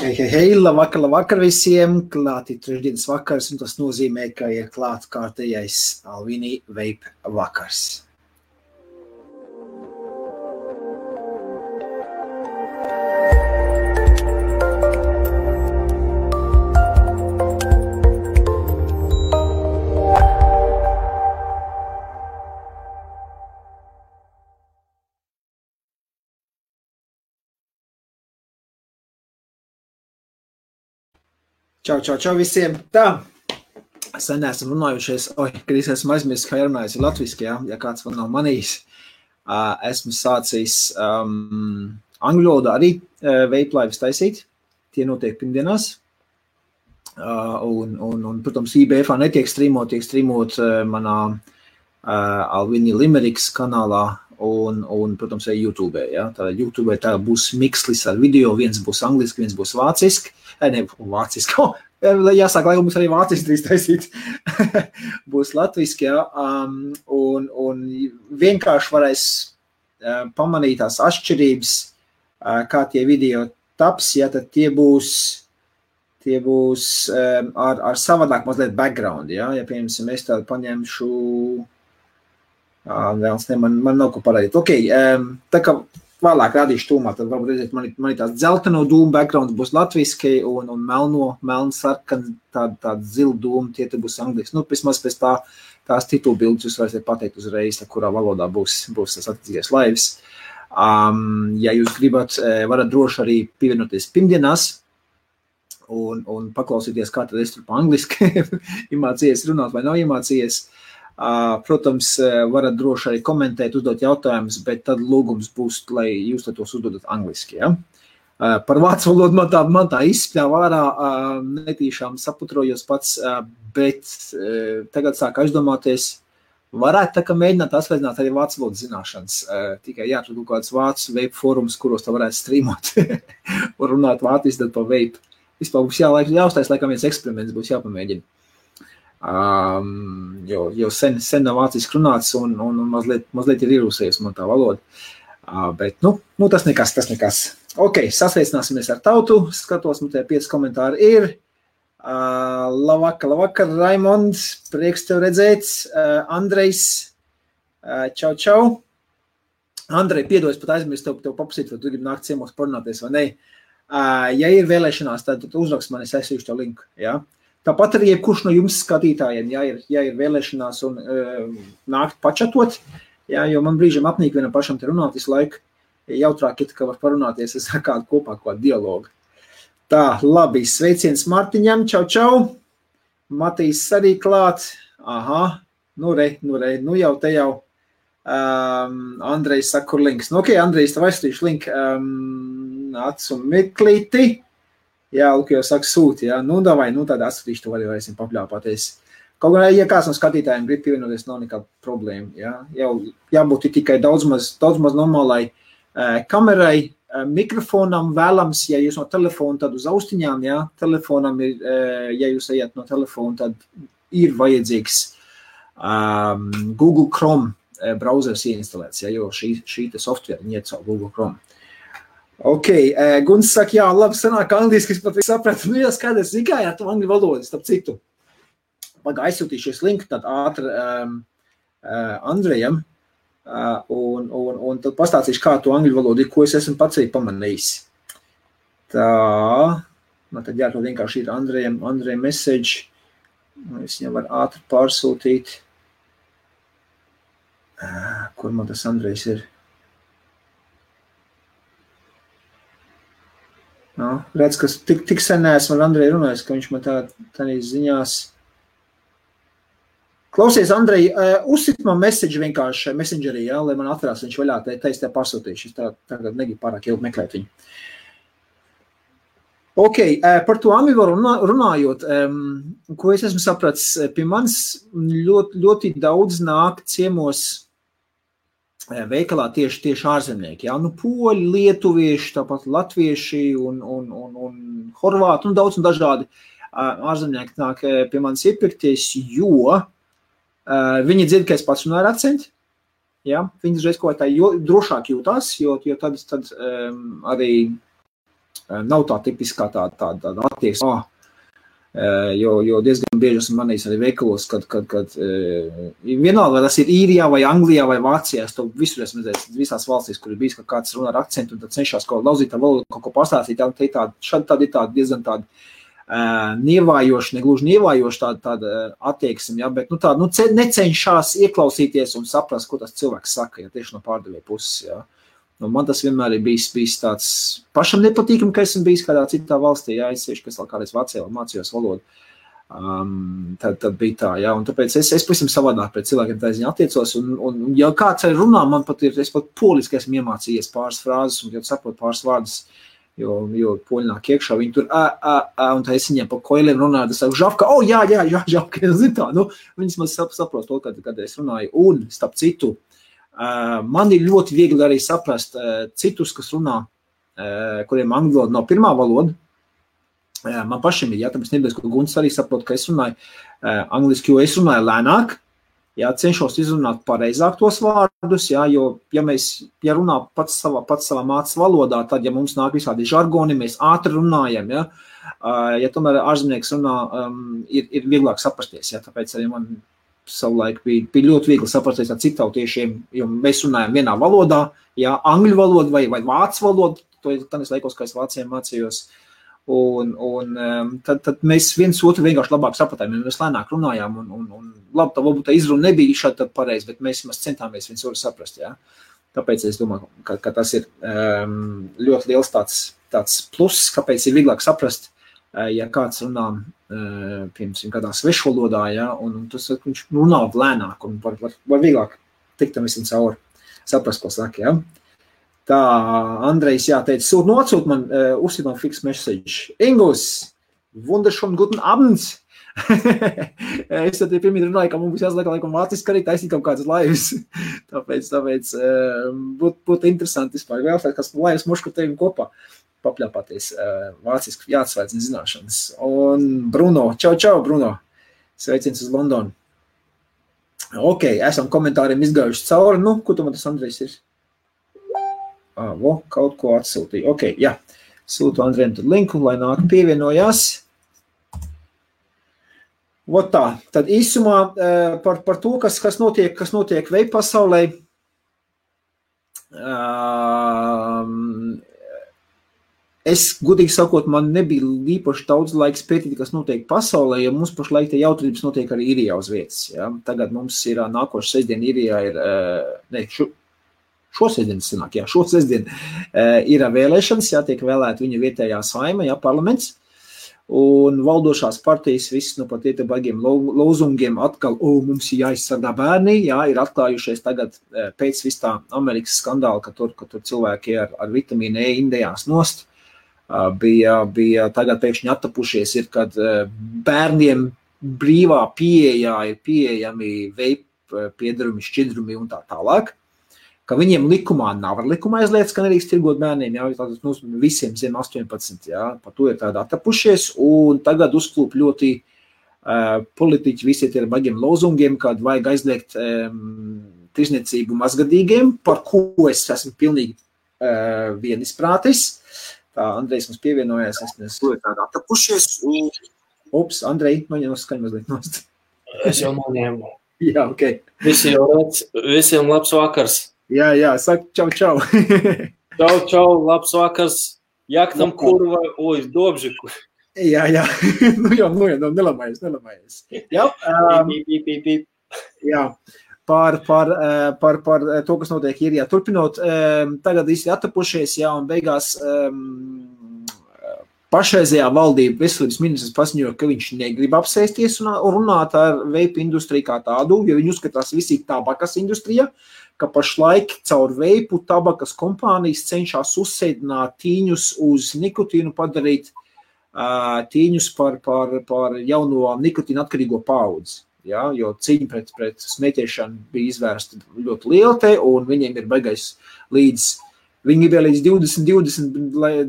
Hei, labvakar visiem, klāti trešdienas vakars, un tas nozīmē, ka ir klāt kārtējais Alvini Vape vakars. Čau visiem. Tā, sen esam runājušies, kad esmu aizmirsis, kā runājusi latviski, ja kāds man nav manījis. Esmu sācis angļu valodā arī vape lives taisīt. Tie notiek pirmdienās. Un protams, IBF-ā netiek streamot, tiek streamot manā Alvini Limericks kanālā un protams, arī YouTube. Ja? Tātad YouTube tā būs mikslis ar video, viens būs angliski, viens būs vāciski. Vāciski. Jāsāk, lai mums arī vāciski drīz taisīt. Būs latviski, ja. Un vienkārši varēs pamanīt tās atšķirības, kā tie video taps, ja tad tie būs ar savādāk mazliet background, ja. Ja, piemēram, es tādu paņemšu, man nav ko parādīt. Ok, tā kā vēlāk rādīšu tūmā, tad varbūt redzēt, man tās dzelteno dūmu backgrounds būs latviski un melnu sarkan, tāda zilu dūmu, tie te būs angliski. Nu, vismaz pēc tās titulu bildes jūs varēsiet pateikt uzreiz, kurā valodā būs tas attiecīgais lives. Ja jūs gribat, varat droši arī pievienoties pirmdienās un paklausīties, kā tad es tur pa angliski iemācījies runāt vai nav iemācījies. Protams, varat droši arī komentēt, uzdot jautājumus, bet tad lūgums būs, lai jūs tos uzdodat angliski. Ja? Par vācu valodu man tā izspļāva ārā, netīšām saputrojos pats, bet tagad sāk aizdomāties, varētu tā kā mēģināt atsveicināt arī vācu valodu zināšanas. Tikai jāatrod kāds vācu vape fórums, kuros tā varētu streamot un runāt vāciski tad pa vape. Vispār būs jāuztais, laikam viens eksperiments būs jāpamēģina. Jo sen nav vāciski runāts un mazliet ir ierūsējies man tā valoda. Bet, tas nekas. Ok, sasveicināsimies ar tautu. Skatos, man te 5 komentāri ir. Labvakar, Raimonds, prieks tev redzēt. Andrejs, čau. Andrej, piedod, pat aizmirst tev papasīt, vai tu gribi nākt ciemos parunāties vai ne. Ja ir vēlēšanās, tad uzrakst man, es aizsīšu tev linku, jā. Tāpat arī jebkurš no jums skatītājiem, ja ir vēlēšanās un nākt pačatot, jo man brīžam apnīk vienam pašam te runāt visu laiku, jautrāk ir, ka var parunāties ar kādu kopā kādu dialogu. Tā, labi, sveiciens Martiņam, čau. Matīs arī klāt. Aha, nu jau te jau. Andrejs saka, kur links. Nu, ok, Andrejs, tev aizstīšu link. Acu meklīti. Jā, Luka jau saka sūti, jā. Nu, davai, tad atsūtīšu, tu varēsim papļāpāties. Kaut gan, ja kāds no skatītājiem grib pievienoties, nav nekāda problēma, jā. Jau jābūt tikai daudz maz normālai kamerai, mikrofonam vēlams, ja jūs no telefona, tad uz austiņām, jā. Telefonam ir, ja jūs ejat no telefona, tad ir vajadzīgs Google Chrome browsers ieinstalēts, jā, jo šī te software iet caur Google Chrome. Ok, Guns saka, jā, labi, sanāk angliski, es pat sapratu, jā, skaidrs, kā jā, tu angļu valodas, starp citu. Aizsūtīšies linku tad ātri Andrejam, un tad pastāstīšu, kā tu angļu valodu ir, ko es esmu pats arī pamanījis. Tā, man tad jāatrod vienkārši ir Andrejam message, es viņam var ātri pārsūtīt. Kur man tas Andrejs ir? No, redz, ka tik sen neesmu ar Andreju runājis, ka viņš man tādā ziņās. Klausies, Andrej, uzsit man message vienkārši messengerī, jā, lai man atverās viņš vaļā, tā es tev pārsūtīšu. Es tagad negribu pārāk ilgi meklēt viņu. Ok, par to amivaru runājot, ko es esmu sapratis, pie manis ļoti daudz nāk ciemos veikalā tieši ārzemnieki, jā, poļi, lietuvieši, tāpat latvieši un horvāti, daudz un dažādi ārzemnieki nāk pie manis iepirkties, jo viņi dzird, ka es pats runāju ar akcentu, jā, viņi dažreiz kaut kā tā drošāk jūtās, jo tad arī nav tā tipiskā tāda attieksme. Jo diezgan bieži esmu manījis arī veikalos, kad vienalga, vai tas ir Īrijā, vai Anglijā, vai Vācijā, es to visur esmu redzējis, visās valstīs, kur ir bijis, ka kāds runā ar akcentu, un tad cenšas kaut lauzīt ar valodu, kaut ko pastāstīt, šādi ir tāda diezgan tāda nievājoša, negluži nievājoša tāda attieksme, ja, bet necenšas ieklausīties un saprast, ko tas cilvēks saka, ja tieši no pārdevēja puses, ja. Nu, man tas vienmēr ir bijis tāds pašam nepatīkam, ka esmu bijis kādā citā valstī, jā, es sevišķi, kas vēl kādreiz Vācijā mācījos valodu. Tad bija tā, jā, un tāpēc es pavisam savādāk pret cilvēkiem tā ziņā attiecos, un ja kāds arī runā, man pat es pat poliski esmu iemācījies pāris frāzes, un, kad saprotu pāris vārdus, jo poļi nāk iekšā, viņi tur, un tā es viņiem pa koiliem runāju, tas saku, žavka, jā, žavka, zin tā, nu, viņas man saprot to, kad es runāju, un, starp citu, man ir ļoti viegli arī saprast citus, kas runā, kuriem angļu valoda nav pirmā valoda. Man pašiem ir, tāpēc nebūs, ka Gunts arī saprot, ka es runāju angliski, jo es runāju lēnāk, cenšos izrunāt pareizāk tos vārdus, jo, ja runā pats savā mācas valodā, tad, ja mums nāk visādi žargoni, mēs ātri runājam, ja tomēr ārzemnieks runā, ir vieglāk saprasties, tāpēc arī man savulaik bija ļoti viegli saprasties ar citautiešiem, jo mēs runājam vienā valodā, angļu valoda vai vācu valoda, to ir tādas laikos, kā es Vācijā mācījos, un tad mēs viens otru vienkārši labāk sapratām, jo mēs lēnāk runājām, un labi, tā varbūt tā izruna nebija šādi tad pareizi, bet mēs centāmies viens otru saprast, Tāpēc es domāju, ka tas ir ļoti liels tāds pluss, kāpēc ir vieglāk saprast, ja kāds runā, piemēram, kādā svešvalodā, un tas viņš runā lēnāk, un var vieglāk tikt tam visam cauri, saprast, ko saka, Tā, Andrejs, teica, atsūt man, uzsīt man fix message. Ingus, wunderschönen guten Abend! Es tad pirmīt runāju, ka mums jāsliek laikam vāciski arī taisīt kaut kādas laivas. Tāpēc būtu interesanti vispār vēlēt, kas laivas mošku tevim kopā papļāpāties vāciski jāatsvērts zināšanas. Un Bruno, čau, Bruno, sveiciens uz Londonu. Ok, esam komentāriem izgājuši cauri, ko tu man tas Andrejs ir? Kaut ko atsūtīju. Ok, sūtu Andrejam tad linku, lai nāk pievienojās. Tā, tad īsumā par to, kas notiek veip pasaulē. Es, godīgi sakot, man nebija īpaši daudz laiks pētīt, kas notiek pasaulē, jo mums pašlaik te jautrības notiek arī Īrijā uz vietas. Tagad mums ir nākošu sestdien Īrijā ir, šo sestdien ir vēlēšanas, tiek vēlēta viņa vietējā saima, parlaments, un valdošās partijas viss pat iet baigiem lozungiem atkal, mums ir jāizsargā bērni, ir atklājušies tagad pēc vis tā Amerikas skandāla, ka tur cilvēki ar vitamīnu E indējās nost, bija tagad pēkšņi attapušies, kad bērniem brīvā pieejā ir pieejami veip piedarumi, šķidrumi un tā tālāk, ka viņiem likumā nav ar likumā aizliegts, ka nedrīkst tirgot bērniem, tātad visiem zem 18, par to ir tādi attapušies, un tagad uzklūp ļoti politiķi visi ir baigiem lozungiem, kad vajag aizliegt tirzniecību mazgadīgiem, par ko es esmu pilnīgi vienisprātis. Tā, Andrejs mums pievienojās, to ir tādi attapušies, un... Ups, Andrej, noņem uz skaņu mazliet nost. Es jau noņēmu. Ok. Visiem labs vakars. Saka čau. Čau, labs vakars. Jaktam kurva, dobžiku. Nu, nelamājies. Par to, kas notiek Īrijā. Turpinot, tagad visi attapušies, un beigās pašreizējā valdība veselības ministrs paziņoja, ka viņš negrib apsēsties un runāt ar veipu industriju kā tādu, jo viņi uzskatās visi tabakas industrija, ka pašlaik caur veipu tabakas kompānijas cenšas uzsēdināt tīņus uz nikotīnu, padarīt tīņus par jauno nikotīnu atkarīgo paudzi. Jo cīņa pret smēķēšanu bija izvērsta ļoti liela un viņiem ir baigais viņi bija līdz 2020, lai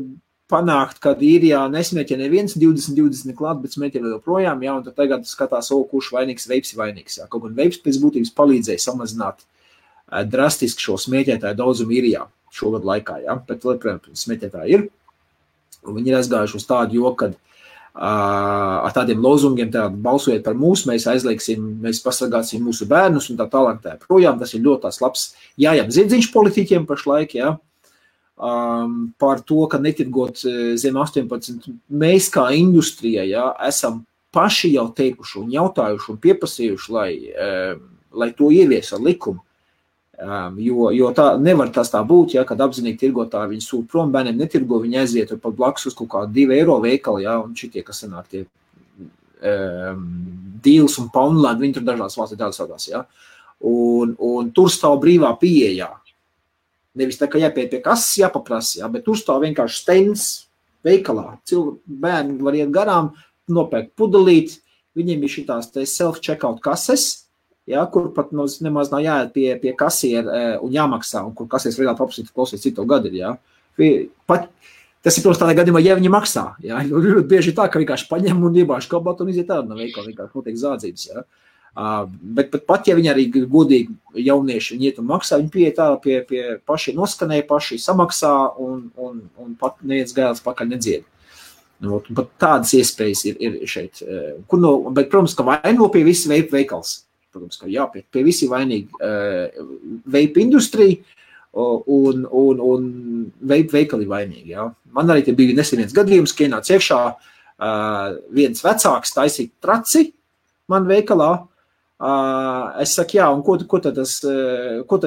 panākt, kad Īrijā nesmēķē neviens 2020 klāt, bet smēķē vēl joprojām, un tad tagad skatās, kurš vainīgs, veips ir vainīgs. Kaut gan veips pēc būtības palīdzēja samazināt drastiski šo smēķētāju daudzumu Īrijā šogad laikā, bet, protams, smēķētāji ir. Un viņi ir aizgājuši uz tādu joku, kad ar tādiem lozungiem balsojiet par mūs, mēs aizlieksim, mēs pasargāsim mūsu bērnus un tā tālāk tā projām. Tas ir ļoti tās labs jājām ziedziņš politiķiem pašlaik, jā. Par to, ka netirgot zem 18. Mēs kā industrija, jā, esam paši jau teikuši un jautājuši un pieprasījuši, lai to ievies ar likumu. Jo tā nevar tas tā būt, ja, kad apzinīgi tirgotāji viņi sūt prom, bērniem netirgo, viņi aiziet pat blakus uz kaut kādu 2 eiro veikalu, ja, un šitie, kas sanāk tie Deals un Poundland, viņi tur dažās valstī tādas vadās, ja, un tur stāv brīvā pieejā. Nevis tā, ka jāpiet pie kases jāpaprasa, ja, bet tur stāv vienkārši stends veikalā. Bērni var iet garām, nopērkt pudelīt, viņiem ir šitās self-checkout kases, ja, kur pat nemaz nav jāiet pie kasiera un jāmaksā, un kur kasieris reāli paprasīt, klausies, cik tev gadi ir, ja. Tas ir, protams, tādā gadījumā, ja viņi maksā, ja. Ļoti bieži tā, ka vienkārši paņem un iebāž kabatu un iziet tādu no veikala, vienkārši notiek zādzības, ja. Bet pat, ja viņi arī godīgi jaunieši viņi iet un maksā, viņi pieiet tā pie paši noskanēja, paši samaksā un pat neviens gailis pakaļ nedzied. Pat tādas iespējas ir šeit. Bet, protams, ka vaino pie visi veipa veikals. Protams, ka jā, pie visi vainīgi veipa industrija un veipa veikali vainīgi. Jā. Man arī te bija nesen viens gadījums, ka ienāca iekšā viens vecāks taisīt traci man veikalā. Es saku, jā, un ko tad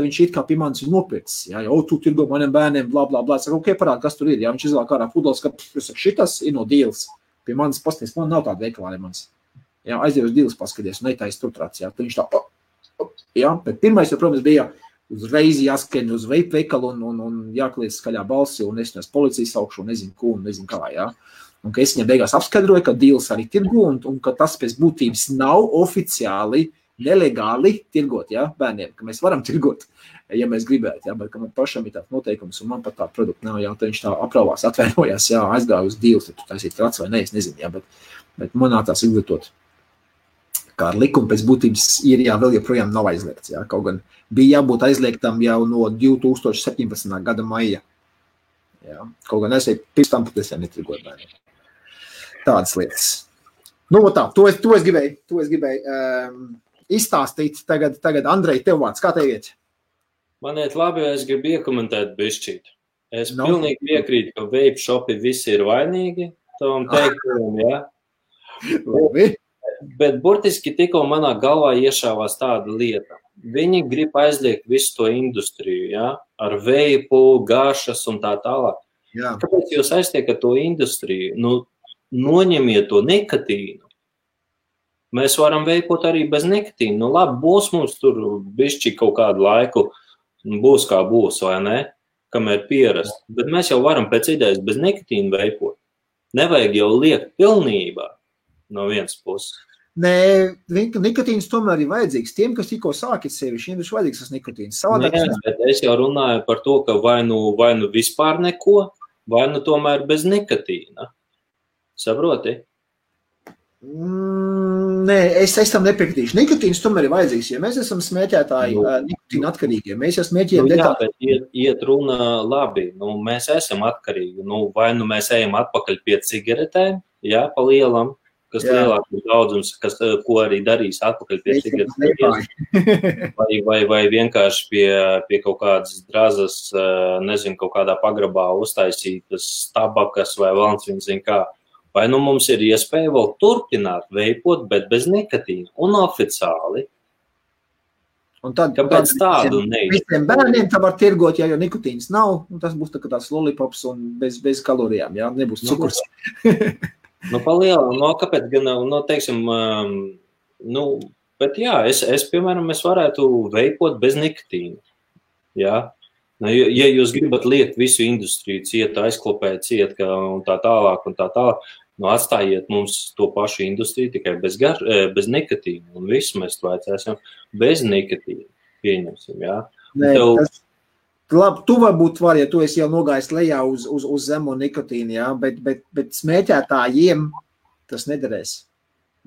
viņš it kā pie manis ir nopircis? Jā, tu tirgo maniem bērniem, blā, blā, blā. Es saku, parādi, kas tur ir. Jā, viņš izvēl ārā pudeles, ka šitas ir no Deals. Pie manis pasties, man nav tāda veikalā, ne mans. Jā, aiziet uz Deals paskaties, un netais tur trāc, jā. Tad viņš tā, jā, bet pirmais, protams, bija uzreiz jāskrien uz veikalu un jākliedz skaļā balsi, un es policijas saukšu, un nezinu ko, un nezinu kā, jā. Un ka es viņam beigās apskaidroju, ka Deals arī tirgo, un ka tas pēc būtības nav oficiāli, nelegāli tirgot, jā, bērniem, ka mēs varam tirgot, ja mēs gribētu, jā, bet ka man pašam ir tāds noteikums, un man pat tā produkta nav, jā, tad viņš tā aprauvās, atvainojās, jā, aizgāja uz Deals, tad tu taisīt trāc vai ne, es nezinu, jā, bet man nācās izglītot. Kā ar likumu pēc būtības ir, jā, vēl joprojām nav aizliegts, jā, kaut gan bija jābūt aizliegtam jau no 2017. Gada maija, jā, kaut gan es pirms tam pat es jau netirgoju bērniem. Tādas lietas. Nu, tā, to es gribēju izstāstīt. Tagad Andrej, tev vārds, kā tev iet? Man iet labi, es gribu iekomentēt bišķīt. Es pilnīgi piekrītu, ka vape shopi visi ir vainīgi, tam teikumu, jā. Labi. Bet burtiski tikko manā galvā iešāvās tāda lieta. Viņi grib aizliegt visu to industriju, ja? Ar veipu, gašas un tā tālāk. Jā. Kāpēc jūs aiztiekat to industriju? Nu, noņemiet to nikotīnu. Mēs varam veipot arī bez nikotīnu. Nu, labi, būs mums tur bišķi kaut kādu laiku, būs kā būs, vai ne? Kamēr pierast. Bet mēs jau varam pēc idejas bez nikotīnu veipot. Nevajag jau liekt pilnībā no vienas puses. Nē, nikotīns tomēr ir vajadzīgs. Tiem, kas tikko sākit sevi, šiem ir vajadzīgs tas nikotīns. Nē, bet es jau runāju par to, ka vai nu vispār neko, vai nu tomēr bez nikotīna. Saproti? Nē, es tam nepiekrītīšu. Nikotīns tomēr ir vajadzīgs, ja mēs esam smēķētāji nikotīna atkarīgie. Mēs jau smēķējam detāli. Jā, bet iet runa labi. Nu, mēs esam atkarīgi. Nu, vai nu mēs ejam atpakaļ pie cigaretēm, jā, pa lielam, kas lielākums daudzums, ko arī darīs atpakaļ pie cigaretes, vai vienkārši pie kaut kādas drazas, nezinu, kaut kādā pagrabā uztaisītas tabakas vai valns, viņi zin kā. Vai nu mums ir iespēja vēl turpināt veipot, bet bez nikotīna un oficiāli. Un tad, kāpēc tādu neizdarīt? Visiem bērniem tā var tirgot, ja jau nikotīns nav, un tas būs tā kā tās lollipops un bez kalorijām, jā, nebūs cukurs. Nu, palielam, no kāpēc gan, no teiksim, nu, bet jā, es piemēram, es varētu veipot bez nikotīna, jā. Ja jūs gribat liekt visu industriju ciet, aizklopēt ciet, un tā tālāk, nu, atstājiet mums to pašu industriju tikai bez nikotīna, un visu mēs to aicēsim bez nikotīna, pieņemsim, jā. Nē, labi, tu varbūt var, ja tu esi jau nogājis lejā uz zemo nikotīnu, jā, bet smēķētājiem tas nederēs.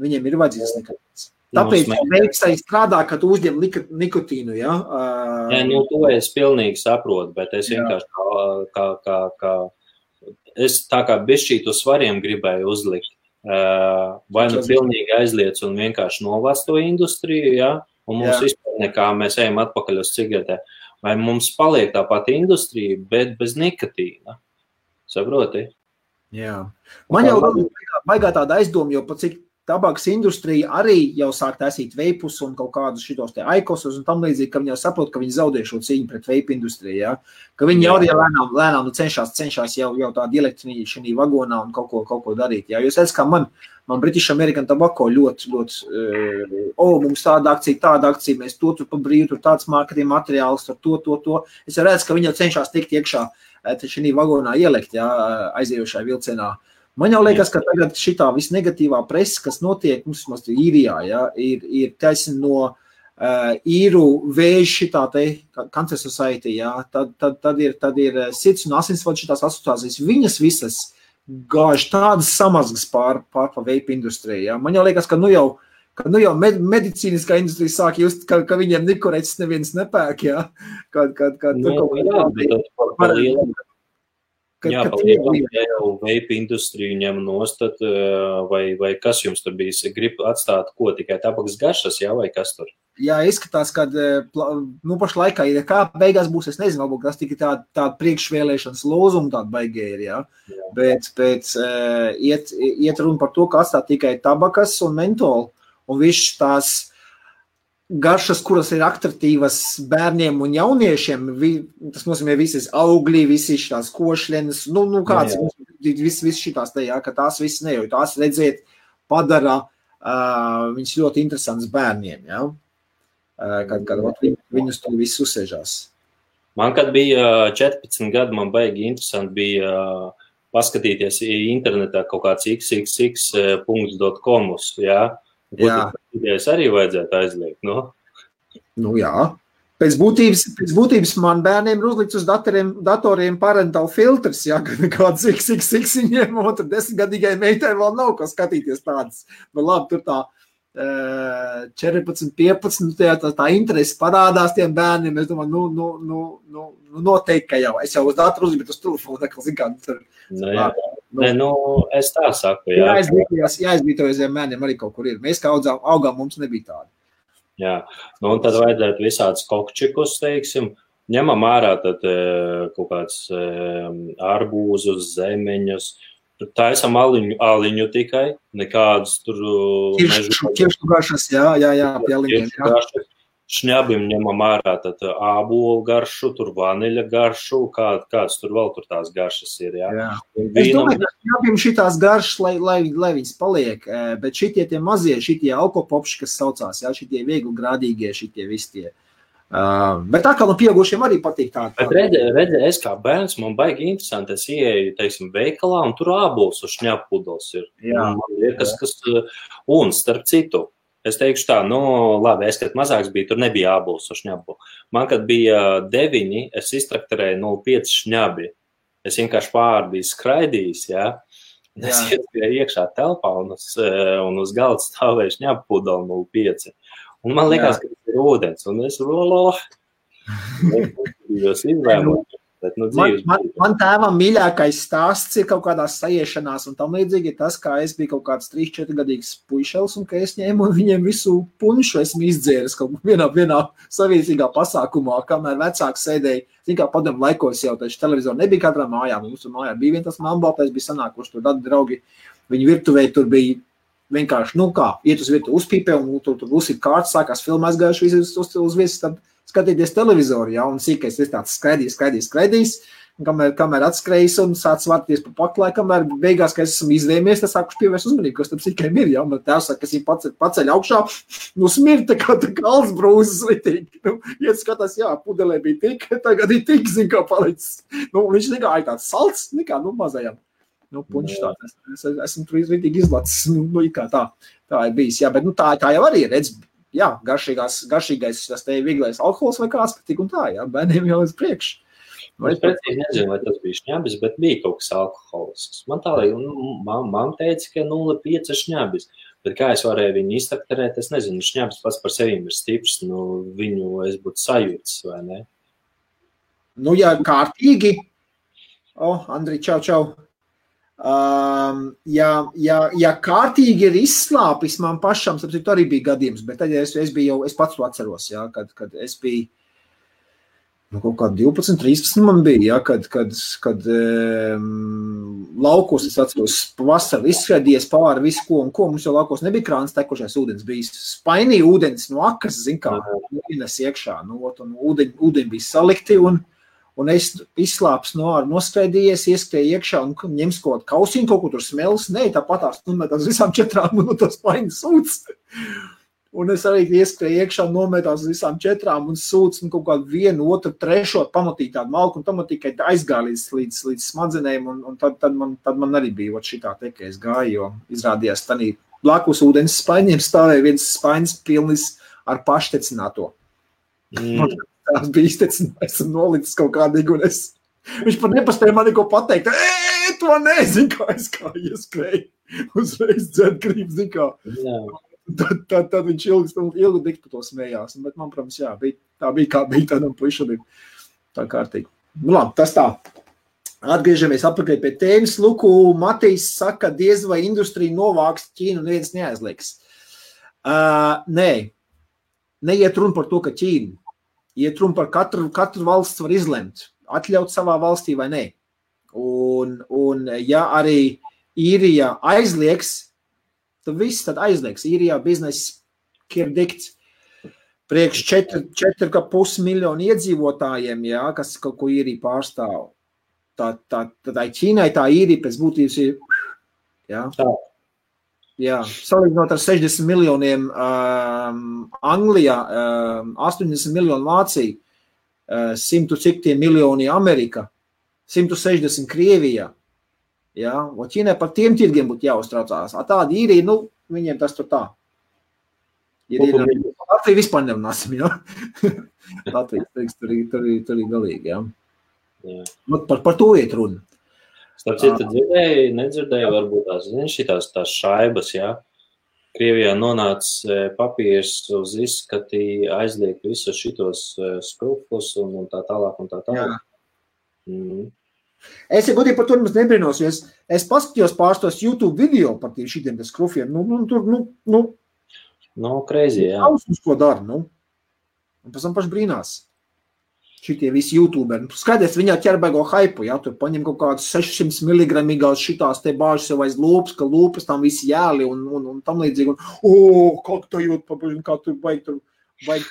Viņiem ir vajadzīgs nikotīns. Tāpēc veiks arī strādā, ka tu uzņem nikotīnu, jā? Jā, nu, to es pilnīgi saprotu, bet es vienkārši kā es tā kā bišķīt uz svariem gribēju uzlikt. Vai nu pilnīgi aizliec un vienkārši novāc to industriju, ja? Un mums vispār nekā mēs ejam atpakaļ uz cigaretē. Vai mums paliek tā pati industrija, bet bez nikotīna? Saproti? Jā. Man jau baigā tāda aizdoma, jo pat cik tabakas industrija arī jau sāk taisīt veipus un kaut kādus šitos te aikosus un tam līdzīgi, ka viņi jau saprot, ka viņi zaudē šo cīņu pret veipu industriju, ja? Ka viņi jau lēnām cenšas jau tādu elektrīņu šī vagonā un kaut ko darīt. Ja? Jo es redzu, ka man British American Tobacco ļoti, mums tāda akcija, mēs to tur pa brīvu, tur tāds marketing materiāls, tur to. Es redzu, ka viņi jau cenšas tikt iekšā šī vagonā ielikt, ja? Aizējošajā vilcienā. Man jau liekas, ka tagad šitā visnegatīvā presa, kas notiek mums īrijā, ja, ir taisni no īru vēža šitā te Cancer Society, ja, tad ir sirds un asinsvadu šitās asociācijas, viņas visas gāž tādas samazgas pār pa veipa industriju. Ja. Man jau liekas, ka nu jau medicīniskā industrija sāk just, ka viņiem nikoreķis neviens nepērk, ja, Jā, palielam, ja jau veipa industriju ņem nostat, vai kas jums tur bijis? Grib atstāt ko, tikai tabakas garšas, jā, vai kas tur? Jā, izskatās, ka pašlaikā ir kā beigās būs, es nezinu, varbūt tas tikai tāda priekšvēlēšanas lozuma tāda baigē ir, jā. Bet iet runa par to, ka atstāt tikai tabakas un mentolu, un viss tās garšas, kuras ir atraktīvas bērniem un jauniešiem, tas nozīmē visas augļi, visi šitās košļenes, kāds, viss šitās te, jā, ka tās viss nejauj, tās redzēt padara viņas ļoti interesants bērniem, jā, kad viņus to visu uzsēžās. Man, kad bija 14 gadi, man baigi interesanti bija paskatīties internetā kaut kāds xxx.com, jā, Es arī vajadzētu aizliegt, no? Nu jā. Pēc būtības man bērniem ir uzlikts uz datoriem parental filtrs, ja, kāds XXX viņiem, un tur 10-gadīgai meitai vēl nav ko skatīties tādas. Bet labi, tur tā 14, 15, tā interesi parādās tiem bērniem, es domāju, noteikti, ka jau, es jau uz datoru uzliku, bet uz telefonu, zin kā, tur. Es tā saku, jā. Jāizglītojas bērniem arī kaut kur ir. Mēs kā augām, mums nebija tāda. Jā, un tad vajadzētu visādus kokčikus, teiksim, ņemam ārā tad kaut kāds arbūzus, zemeņus, taisam aliņu tikai, nekādus tur... Ķiršu garšas, jā, pie aliņiem, jā. Šņabim ņemam ārā tad ābolu garšu, tur vaniļa garšu, kāds tur vēl tur tās garšas ir, jā. Es domāju, ka šņabim šitās garšas, lai viņas paliek, bet šitie tie mazie, šitie alkopopši, kas saucās, jā, šitie viegli grādīgie, šitie visi tie. Bet tā kā pieaugušiem arī patīk tā. Bet redzi, es kā bērns, man baigi interesanti, es ieeju, teiksim, veikalā, un tur ābols uz šņabpudels ir. Jā. Man liekas, un starp citu, es teikšu tā, labi, es, kad mazāks biju, tur nebija ābols uz šņabu. Man, kad bija 9, es iztrakterēju 0,5 šņabi. Es vienkārši pāri biju skraidījis, jā. Es iespēju iekšā telpā un uz galda stāvēju šņabu pudeli 0,5. Un man liekas, ka tas ir ūdens, un es izvēmot. Man tēvam mīļākais stāsts ir kaut kādās sajiešanās un tam līdzīgi ir tas, kā es biju kaut kāds 3-4 gadīgs puišels un ka es ņēmu viņiem visu punšu esmu izdzēris kaut vienā saviesīgā pasākumā, kamēr vecāks sēdēja. Zin kā padomu laikos jau taču televizoru nebija katrā mājā, mums mājā bija vien tas mambaltais, bija sanākuši tur tādi draugi, viņi virtuvē tur bija vienkārši, iet uz virtu uzpīpē un tur uzsit kārtas, sākās filmu aizgājuši uz viesis, tad skatīties televizoru, ja, un sīkais ir tāds skraidījis, un kamēr atskrējis un sāc vārties pa paklāju, kamēr beigās, ka esam izvēmies, tad sākuši pievērst uzmanību, kas tam sīkajiem ir, ja, un tēvs saka, kas viņu paceļ augšā, smirta tā kā alsbrūzes litīgi, iet skatās, jā, pudelē bija tik, tagad ir tik, zin kā palicis, viņš nekā tāds salds, nekā, mazajam. Punš tāds, esmu tur izvītīgi izlacis, kā tā ir bijis, jā, bet tā jau arī redz, jā, garšīgais, tas te vieglais alkohols vai kāds, bet tik un tā, jā, bērniem jau uz priekšu. Es precīzi nezinu, vai tas bija šņabis, bet bija kaut kas alkoholisks. Man tā līdz, man teica, ka 0,5 šņabis, bet kā es varēju viņu iztrakterēt, es nezinu, šņabis pats par sevīm ir stiprs, viņu es būtu sajūts, vai ne? Jā, kārtīgi. Andri, čau. Ja kārtīgi ir izslāpis man pašam, sapcīt, arī bija gadījums, bet tad es pats to atceros, ja, kad es biju, kaut kā 12, 13 man bija, ja, kad laukos, es atceros, pavasarī izskrēdies pāri visu ko un ko, mums jau laukos nebija krāns tekušais ūdens, bija spainīja ūdens no akas, zin kā, ienes iekšā, un ūdeņi bija salikti, un es izslāps noskrēdījies, ieskrēju iekšā un ņems kaut kausiņu, kaut ko tur smelis, tāpatās nometās visām 4 un no tos spaiņas sūds. Un es arī ieskrēju iekšā, nometās visām 4 un sūds, un kaut kādu 1, 2, 3 pamatīgi tādu malku, un tam tikai aizgāja līdz smadzenēm, un tad man arī bija šitā te, ka es gāju, jo izrādījās tanī blakus ūdens spaiņiem stāvēja viens spaiņas pilnis ar paštecināto. Tās bija iztecinājis un nolicis kaut kādīgi, un viņš pat nepaspēja man neko pateikt. To nezinu, kā es kā ieskrēju. Uzreiz dzert grib, zin kā. Tad viņš ilgu diktu to smējās. Bet man, protams, jā, tā bija kā bija tādam puišam. Tā kārtīgi. Nu labi, tas tā. Atgriežamies atpakaļ pie tēmas. Luku, Matīs saka, diez vai industrija novāks Ķīnu, neviens neaizlieks. Nē, neiet runa par to, ka Ķīna. Iet runa par katru valsts var izlemt, atļaut savā valstī vai nē. Un ja arī Īrijā aizliegs, tad viss tad aizliegs. Īrijā bizness ir dikts priekš 4,5 miljonu iedzīvotājiem, jā, kas kaut ko Īrija pārstāv. Tad Ķīnai tā Īrija pēc būtības ir, jā. Jā, salīdzinot ar 60 miljoniem Anglijā, 80 miljonu Vācija, 100 cik tie miljoni Amerika, 160 Krievijā. Jā, un Ķīnai par tiem tirgiem būtu jāuztraucās. Tāda Īrija, nu, viņiem tas tur tā. Latvija vispār nerunāsim, jā. Latvijas teiks, tur ir galīgi, jā. Par to iet runa. Starp citu, nedzirdēju, varbūt šitās šaibas, jā. Krievijā nonāca papīrs uz izskatī, aizliek visus šitos skrupus un tā tālāk un tā tālāk. Es godīgi par to nemaz nebrīnos, jo es paskatījos pārstos YouTube video par šitiem skrufiem. Crazy, jā. Uz ko dara, Un pēc tam paši brīnās. Šitie visi YouTuberi. Skaties, viņā ķerbēgo haipu, jā, tur paņem kaut kādus 600 miligramīgās šitās te bāžas jau aiz lūpas, ka lūpas tam visi jāli un tam līdzīgi. Kā tu jūt, kā tu baigi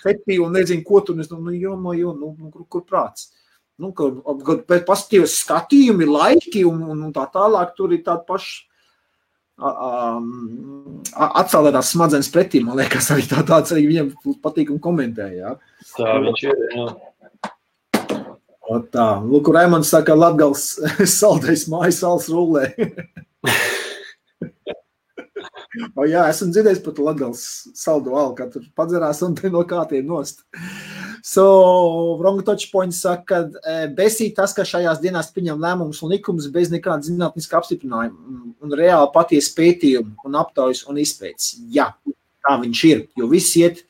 fetī un nezinu, ko tu, kur prāts. Pēc paskatījos skatījumi, laiki un tā tālāk, tur ir tāda paša atcēlētās smadzenes pretī, man liekas, arī tāds arī viņam patīk un komentē, jā. Tā viņš ir, jā. Tā, Luku Raimonds saka, Latgals saldais mājas sals rullē. Jā, esmu dzirdējis par Latgals saldu alu, kā tur padzerās un te no kātiem nost. Wrong touch point saka, besīt tas, ka šajās dienās pieņem lēmumus un likumus bez nekāda zinātniska apstiprinājuma un reāli patiesi pētījumi un aptaujas un izpētes. Jā, tā viņš ir, jo viss iet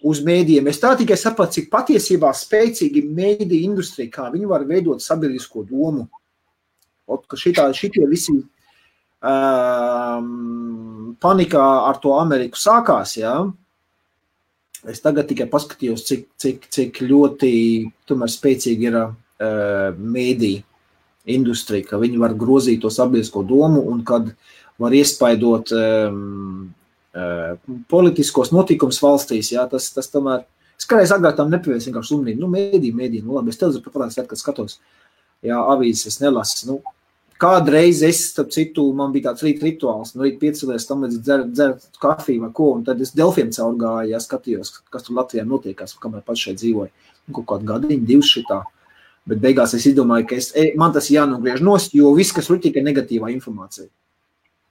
uz mēdījiem. Es tā tikai sapratu, cik patiesībā spēcīgi mēdīja industrija, kā viņi var veidot sabiedrisko domu. Ka šitie visi panikā ar to Ameriku sākās, jā. Es tagad tikai paskatījos, cik ļoti tomēr spēcīgi ir mēdīja industrija, ka viņi var grozīt to sabiedrisko domu un kad var iespaidot politiskos notikums valstīs, jā, tas tomēr, es kādreiz agrāk tam nepievērs vienkārši uzmanību, mēdī, labi, es televizor pat kad skatos, jā, avīzes es nelasu, kādreiz es, starp citu, man bija tāds rīt rituāls, rīt piecelies, tam līdz dzert kafiju vai ko, un tad es Delfiem caurgāju, jā, skatījos, kas tur Latvijā notiekās, kamēr pats šeit dzīvoju, kaut kādu gadiņu, 2 šitā, bet beigās es izdomāju, ka man tas jānogriež nost, jo viss, kas ir tikai negatīvā informācija.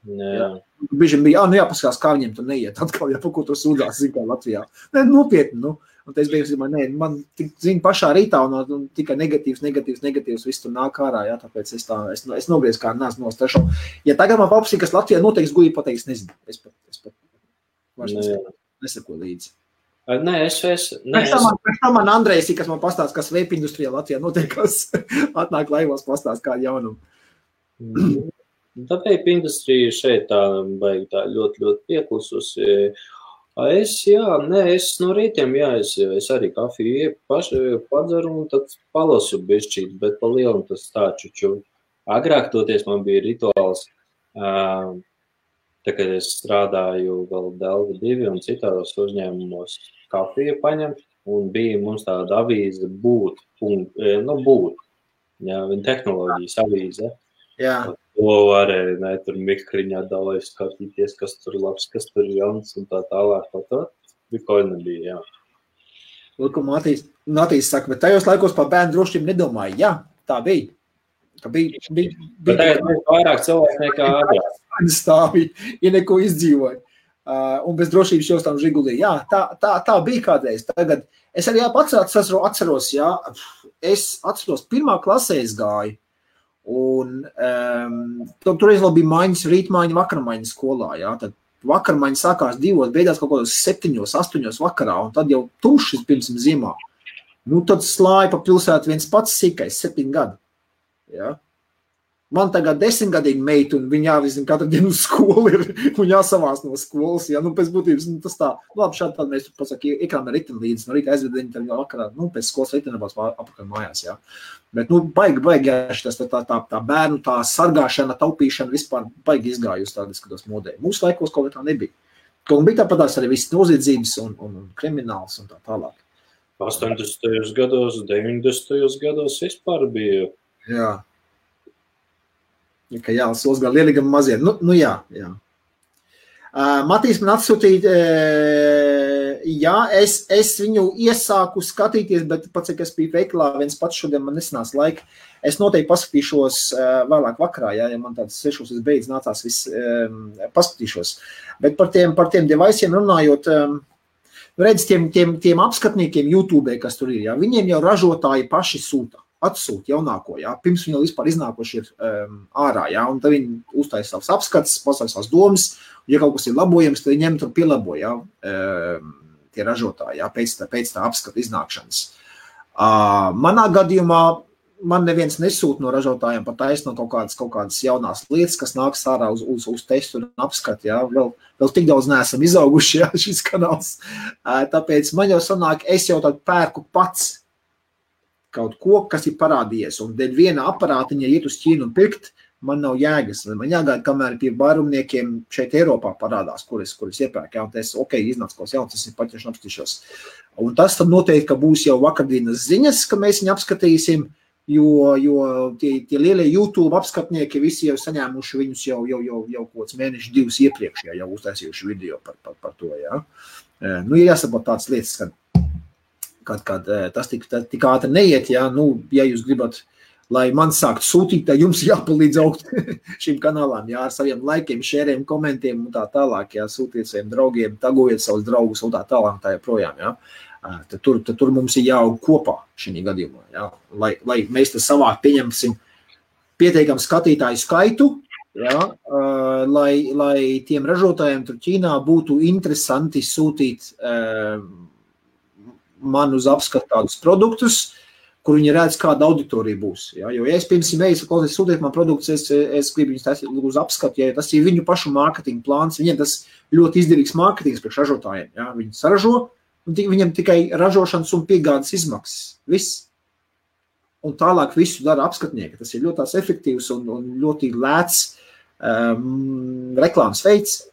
Jā. Bieži bija, jāpaskās, kā viņiem tur neiet, atkal, ja par ko tur sūdzās, zin kā Latvijā. Nopietni, Un es biju, man zinu pašā rītā un tikai negatīvs, viss tur nāk ārā, jā, tāpēc es nogriezu kā neesmu nostašu. Ja tagad man paprasīja, kas Latvijā noteiks, gudīgi pateiks, nezinu. Es pat nesako līdzi. Nē, Pēc tam man Andrejs, kas man pastāst, kas vape industrijā Latvijā notiekās, atnāk laivos pastāst kādu jaunumu. Tā vape industrija šeit tā baigi tā ļoti, ļoti pieklususi. Es no rītiem, es arī kafiju padzeru un tad palasu bišķīt, bet pa lielu tas tā čuču. Agrāk toties man bija rituāls, tā, kad es strādāju vēl Delva 2 un citādos uzņēmumos kafiju paņemt, un bija mums tāda avīze būt, viņa tehnoloģijas avīze. Jā. To varēja, tur mikriņā dalēs skatīties, kas tur labs, kas tur jauns un tā tālāk. Tā bija nebija, jā. Lūk, Matīs saka, bet tajos laikos par bērnu drošību nedomāju. Jā, tā bija. Bet tagad mēs vairāk cilvēku nekā agrāk. Stāvi, ja neko izdzīvoja. Un bez drošības jūs tam žigulī. Jā, tā bija kādreiz. Tagad es arī atceros, jā, es atceros, 1. klasē es gāju. Un toreiz vēl bija maiņas, rītmaiņa, vakarmaiņa skolā, jā, tad vakarmaiņa sākās 2, beidās kaut kādos 7, 8 vakarā, un tad jau tumšs pirms ziemā. Nu, tad slāja pa pilsētu viens pats sīkais, 7 gadi, jā. Man tagad 10-gadīgi meita, un viņa jāvizina katru dienu uz skolu ir, un jāsavās no skolas, jā, nu, pēc būtības, nu, tas tā, labi, šādi tad mēs, pasaka, iekrām ar riteni līdzi, no rīta aizved viņu tad vakarā, nu, pēc skolas ritenabās apakaļ mājās, jā. Bet, nu, baigi, jā, tas tā bērnu, tā sargāšana, taupīšana vispār baigi izgājusi tādi, skatos modē. Mūsu laikos kaut kā tā nebija. Kaut bija tāpatās arī viss noziedzības un krimināls un tā tālāk. 80. gados, 90. gados vispār bija. Jā. Ka jā, sols gan lielīgam mazie. Nu jā. Matīs man atsūtīja, jā, es viņu iesāku skatīties, bet pats, cik es biju veiklā, viens pats šodien man nesanās laika. Es noteikti paskatīšos vēlāk vakarā, jā, ja man tāds 6 es beidz nācās viss paskatīšos. Bet par tiem devaisiem runājot, redz, tiem apskatniekiem YouTube, kas tur ir, jā, viņiem jau ražotāji paši atsūt jaunāko, jā, pirms viņi vispār iznākoši ir ārā, jā, un tad viņi uztaisa savus apskats, pasaka savas domas, un ja kaut kas ir labojams, tad viņi ņem tur pielabo, jā, tie ražotāji, jā, pēc tā apskata iznākšanas. Manā gadījumā man neviens nesūt no ražotājiem pat taisno kaut kādas jaunās lietas, kas nāks ārā uz testu un apskatu, jā, vēl tik daudz neesam izauguši, jā, šis kanāls. Tāpēc man jau sanāk, es jau tad pērku pats kaut ko, kas ir parādījies, un dēļ viena aparātiņa iet uz Ķīnu un pirkt, man nav jēgas. Man jāgaida, kamēr pie vairumniekiem šeit Eiropā parādās, kuras iepērk, jā, un tas, iznāc kaut jauns, tas ir paķerši apskatīšos. Un tas tad noteikti, ka būs jau vakardienas ziņas, ka mēs viņu apskatīsim, jo tie lielie YouTube apskatnieki visi jau saņēmuši viņus jau kāds mēneši 2 iepriekš, jau uztaisījuši video par to, jā. Nu, ir jāsaprot tādas lietas, kad tas tik ātri neiet, jā, nu, ja jūs gribat, lai man sākt sūtīt, tad jums jāpalīdz augt šīm kanālām, jā, ar saviem laikiem, šēriem, komentiem un tā tālāk, jā, sūtiet saviem draugiem, tagojiet savus draugus un tā tālāk, tā joprojām, jā. Tad tur mums ir jāaug kopā šī gadījumā, jā, lai mēs tas savāk pieņemsim pietiekam skatītāju skaitu, jā, lai tiem ražotājiem tur Ķīnā būtu interesanti sūtīt man uz apskatu tādus produktus, kur viņi redz, kāda auditorija būs. Ja? Jo, ja es pirms sūtiet man produktus, es gribu viņus taisīt uz apskatu, ja tas ir viņu pašu mārketinga plāns, viņiem tas ļoti izdevīgs mārketings priekš ražotājiem. Ja? Viņi saražo, un viņam tikai ražošanas un piegādes izmaksas. Viss. Un tālāk visu dara apskatnieki. Tas ir ļoti tās efektīvs un ļoti lēts reklāmas veids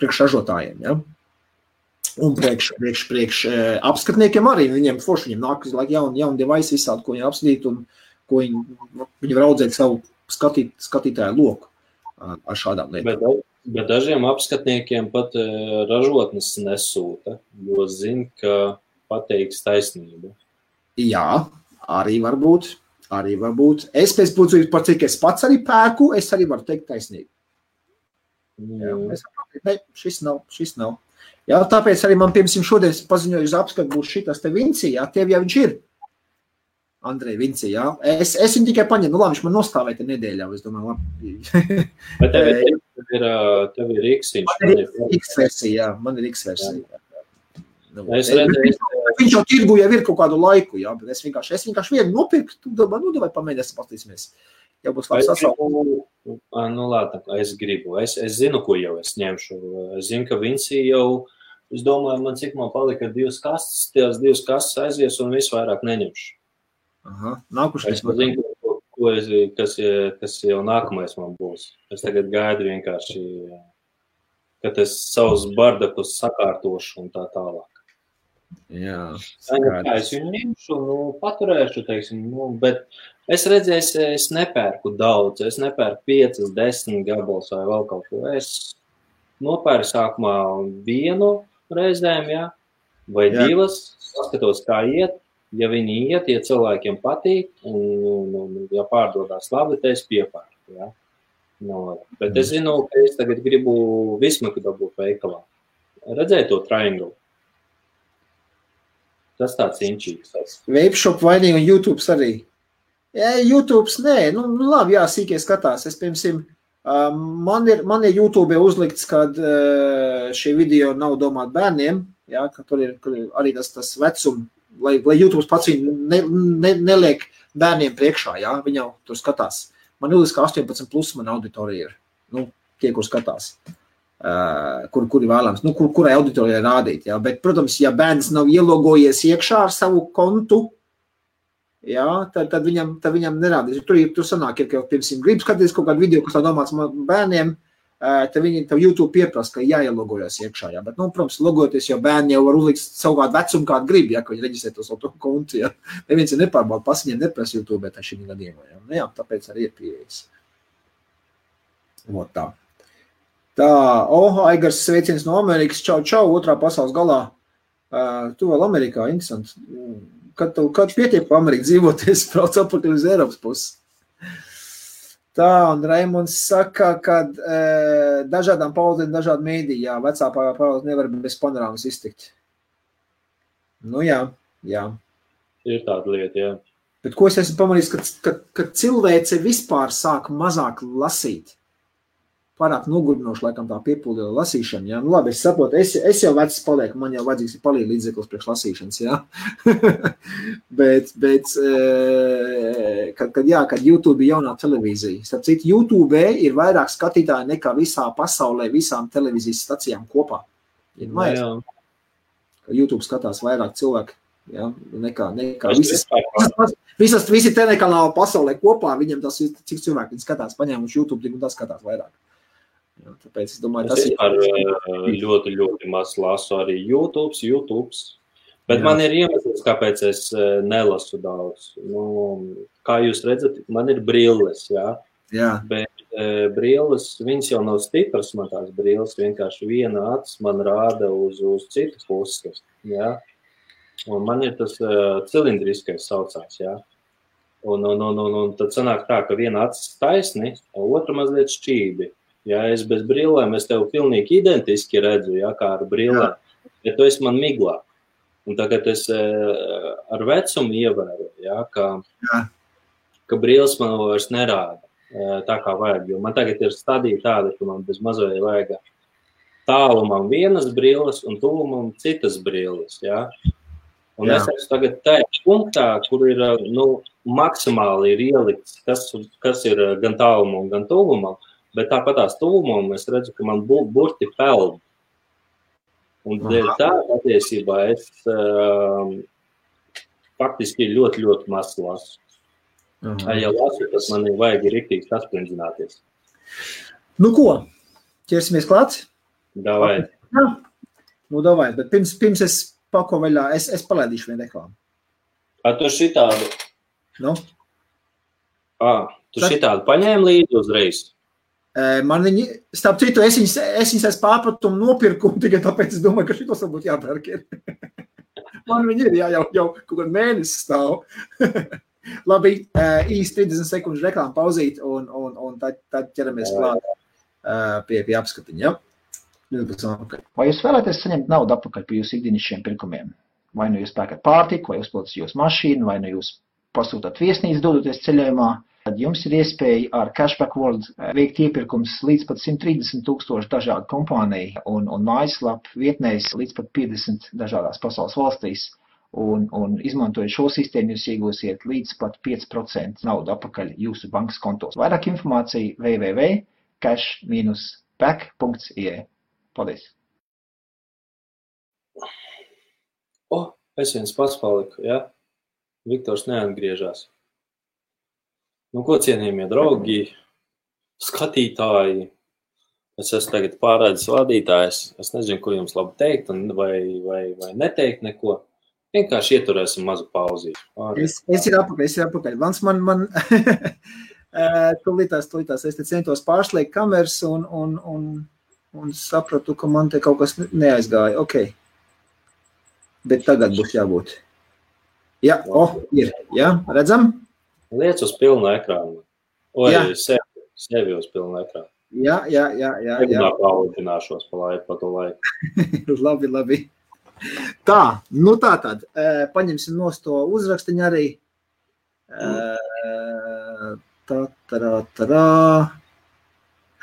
priekš ražotājiem. Ja? Un priekš apskatniekiem arī, viņiem forši, viņiem nāk jauni device visādi, ko viņi apskatīt un ko viņi var audzēt savu skatītāju loku ar šādām lietām. Bet dažiem apskatniekiem pat ražotnes nesūta, jo zina, ka pateiks taisnību. Jā, arī varbūt. Es pēc būtības, par cik es pats arī pērku, es arī varu teikt taisnību. Jā, šis nav. Jā, tāpēc arī man, piemēram, šodien paziņoju uz apskatu būs šitas te Vinci, jā, tev jau viņš ir. Andrej Vinci, jā. Es viņu tikai paņemu, nu labi, viņš man nostāvēja te nedēļā, es domāju, labi. Bet tev ir X-viņš. Man ir X-versija, Viņš jau tirgu jau ir kaut kādu laiku, jā, bet es vienkārši vienu nopirku, tu vai pamēģināsim paskatīsimies. Jau būs labi sasaukums. Nu, labi, es gribu. Es zinu, ko jau es ņemšu. Es zinu, ka Vinci jau, es domāju, cik man palika 2 kastes, tās 2 kastes aizies un visu vairāk neņemšu. Aha, nākušais. Es zinu, kas jau nākamais man būs. Es tagad gaidu vienkārši, kad es savus bardakus sakārtošu un tā tālāk. Jā, es viņu ņemšu, paturēšu, teiksim, bet es redzēju, es nepērku daudz, es nepērku 5, 10 gabalus vai vēl kaut ko. Es nopērku sākumā 1 reizēm, jā, vai 2, paskatos, kā iet. Ja viņi iet, ja cilvēkiem patīk, un ja pārdodās labi, tad es piepērku, jā. Bet es zinu, ka es tagad gribu Vismaku dabūt veikalā. Redzēju to triangle. Tas tāds inčīgs. Vapeshop vainīgi un YouTube arī. Jā, YouTube nē, labi, jā, sīkie skatās. Es, piemēram, man ir YouTube uzlikts, kad šie video nav domāti bērniem, jā, ka tur ir arī tas vecums, lai YouTube pats viņu neliek bērniem priekšā, jā, viņi jau tur skatās. Man uzliks, ka 18+ man auditorija ir, tie, kur skatās. Kuri vēlams, kurai auditorijai rādīt, jā, bet, protams, ja bērns nav ielogojies iekšā ar savu kontu, jā, tad viņam nerādīs. Tur sanāk, ja pirmsim grib skatīties kaut kādu video, kas tā domāts bērniem, tad YouTube pieprasa, ka jāielogojas iekšā, jā, bet, protams, logoties, jo bērni jau var uzlikt savu kādu vecumu, kādu grib, jā, ka viņi reģistrē to savu kontu, jā. Neviens ir nepārbauda, pasiņiem neprasa YouTube, bet šī gadījumā, jā. Jā, tāpēc arī ir pieejas. Tā. Tā, Aigars sveiciens no Amerikas, čau, 2. pasaules galā. Tu vēl Amerikā, interesanti. Kad pietiek pa Ameriku dzīvoties, brauc apakaļ uz Eiropas pusi. Tā, un Raimonds saka, ka dažādām paudzēm, dažādi mēdī, jā, vecā paudze nevar bez panorāmas iztikt. Jā. Ir tāda lieta, jā. Bet ko es esmu pamanījis, ka cilvēce vispār sāk mazāk lasīt. Pārāk nogurdinoši, laikam tā piepildīja lasīšana, jā. Labi, es saprotu, es jau vecs palieku, man jau vajadzīgs ir palīdz līdzeklis priekš lasīšanas, jā. bet kad YouTube ir jaunā televīzija. Starp citu, YouTube ir vairāk skatītāji nekā visā pasaulē, visām televīzijas stacijām kopā. YouTube skatās vairāk cilvēku, jā, nekā visi telekanāli pasaulē kopā, viņam tas ir, cik cilvēki viņi skatās, paņēmuši YouTube, un tas skatās vairāk. Jā, tāpēc es domāju, tas ir ļoti, ļoti maz lasu arī YouTube. Bet jā. Man ir iemesls, kāpēc es nelasu daudz. Kā jūs redzat, man ir brilles, jā. Bet brilles, viņas jau nav stipras, man tās brilles, vienkārši viena acis man rāda uz citu pusi, jā. Un man ir tas cilindriskais saucās, jā. Un tad sanāk tā, ka viena acis taisni, otra mazliet šķībi. Ja es bez brillēm, es tev pilnīgi identiski redzu, ja, kā ar brillēm, bet tu esi man miglā. Un tagad es ar vecumu ievēru, ja, ka brilles man vairs nerāda tā kā vajag, jo man tagad ir stadija tāda, ka man bez mazoja vajag tālumam vienas brilles un tuvumam citas brilles, ja. Un es esmu tagad tajā punktā, kur ir, maksimāli ir ielikts, kas ir gan tālumam, gan tuvumam, bet tāpat tās tuvumam es redzu, ka man burti peld. Un tā patiesībā es faktiski ļoti, ļoti maz lasu. Ja lasu, tas man vajag riktīgi sasprindzināties. Ko? Ķersimies klāt? Davai. Davai, bet pirms es pako vaļā, es palaidīšu vienu reklāmu. Tu šitādu? Tu šitādu paņēmi līdzi uzreiz? Man viņi, starp citu, es viņas es pārpratumu nopirku, tikai tāpēc es domāju, ka šitos varbūt jāpērk ir. Man viņi ir, jau kaut kādu mēnesi stāv. Labi, īsti 30 sekundžu reklāmu pauzīt, un tad ķeramies klāt pie apskatiņa, ja? Vai jūs vēlaties saņemt naudu atpakaļ pie jūsu ikdienišķiem pirkumiem? Vai nu jūs pērkat pārtiku, vai uzpildat jūsu mašīnu, vai nu jūs pasūtat viesnīcu dodoties ceļojumā? Tad jums ir iespēja ar Cashback World veikt iepirkums līdz pat 130,000 dažādu kompāniju un mājaslapu vietnēs līdz pat 50 dažādās pasaules valstīs. un izmantojot šo sistēmu, jūs iegūsiet līdz pat 5% naudu apakaļ jūsu bankas kontos. Vairāk informācija www.cash-back.ie. Paldies! Es viens pats paliku, ja? Viktors neatgriežās. Nu, ko cienījamie draugi, skatītāji, es esmu tagad pārredzes vadītājs, es nezinu, ko jums labi teikt, vai neteikt neko. Vienkārši ieturēsim mazu pauzīšu. Es ir apakaļ. Vans man tūlītās, es te centos pārslēgt kameras un sapratu, ka man te kaut kas neaizgāja. Ok. Bet tagad būs jābūt. Jā, ir. Jā, redzam? Liec uz pilnu ekrānu. Sevi uz pilnu ekrānu. Jā. Paaudzināšos pa to laiku. Labi. Tā, nu tātad, paņemsim nost to uzrakstiņu arī.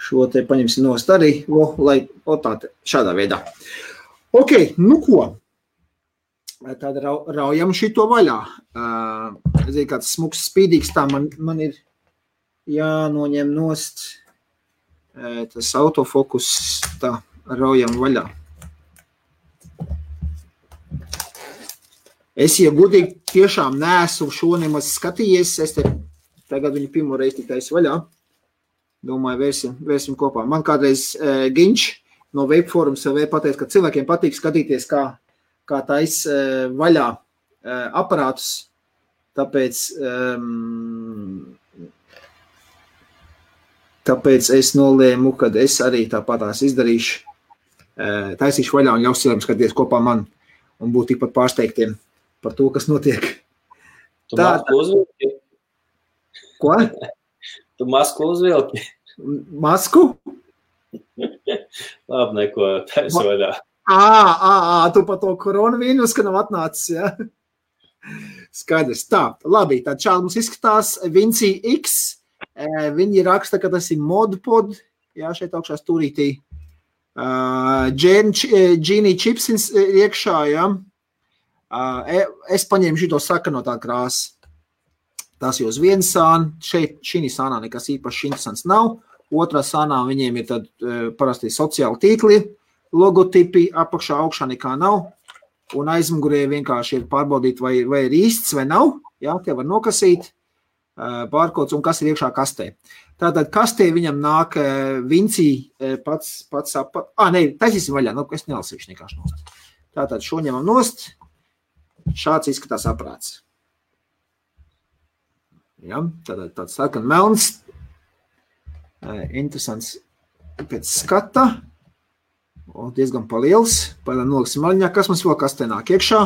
Šo te paņemsim nost arī, šādā veidā. Ok, nu ko? Tad raujam šito vaļā. Zinu, kāds smuks spīdīgs, tā man ir jānoņem nost tas autofokus, tā, raujam vaļā. Es, ja gudīgi, tiešām neesmu šo nemaz skatījies, es te tagad viņu pirmo reizi tik taisi vaļā. Domāju, vērsim kopā. Man kādreiz Ginč no Webforums jau pateica, ka cilvēkiem patīk skatīties, kā tais vaļā aparātus, tāpēc es nolēmu, kad es arī tāpatās izdarīšu, taisīšu vaļā un ļaus cilvēkiem skatīties kopā man un būt tikpat pārsteigtiem par to, kas notiek. Tu masku uzvilki? Ko? Tu masku uzvilki? Masku? Labi, neko taisa vaļā. Tu pa to koronavīrus, ka nav atnācis, ja? Skaidrs. Tā, labi, tad šādi mums izskatās Vinci X. Viņi raksta, ka tas ir modpod, jā, šeit augšā stūrītī. Genie chips iekšā, jā. Es paņēmu šito sakanotā krāsu. Tas jau uz vienu sānu. Šeit šī sānā nekas īpaši interesants nav. Otrā sānā viņiem ir tad parasti sociāli tīkli, logotipi, apakšā augšā nekā nav. Un aizmugurē vienkārši ir pārbaudīt, vai ir īsts vai nav. Jā, tie var nokasīt pārkods un kas ir iekšā kastē. Tātad kastē viņam nāk Vinci pats taisīsim vaļā, es nelasīšu nekāši nost. Tātad šo ņemam nost. Šāds izskatās aprāts. Ja, tāds sarkan melns. Interesants pēc skata. Diezgan paliels. Noliksim maļņā. Kas mums vēl kastē nāk iekšā?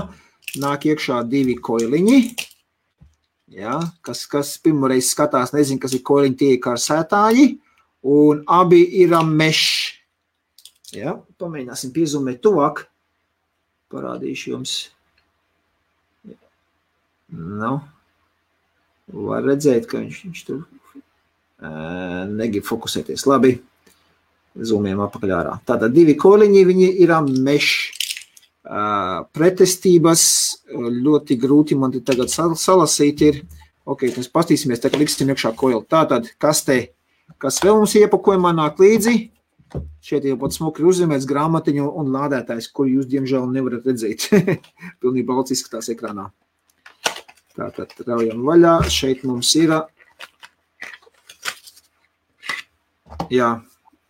Nāk iekšā 2 koiliņi. Ja, kas pirmoreiz skatās, nezinu, kas ir koiliņi, tie ir karsētāji. Un abi ir mešs. Ja, pamēģināsim piezumēt tuvāk. Parādīšu jums. Var redzēt, ka viņš tur negrib fokusēties. Labi, zūmējam apakaļ ārā. Tātad 2 koļiņi, viņi ir mešs. Pretestības ļoti grūti man tagad salasīt ir. Ok, mēs pastīsimies, tā kā liksim iekšā koļi. Tātad, kas vēl mums iepakojumā nāk līdzi? Šeit jau pat smuki ir uzzīmēts grāmatiņu un lādētājs, kur jūs, diemžēl, nevarat redzēt. Pilnīgi balts izskatās ekrānā. Tātad raujam vaļā. Šeit mums ir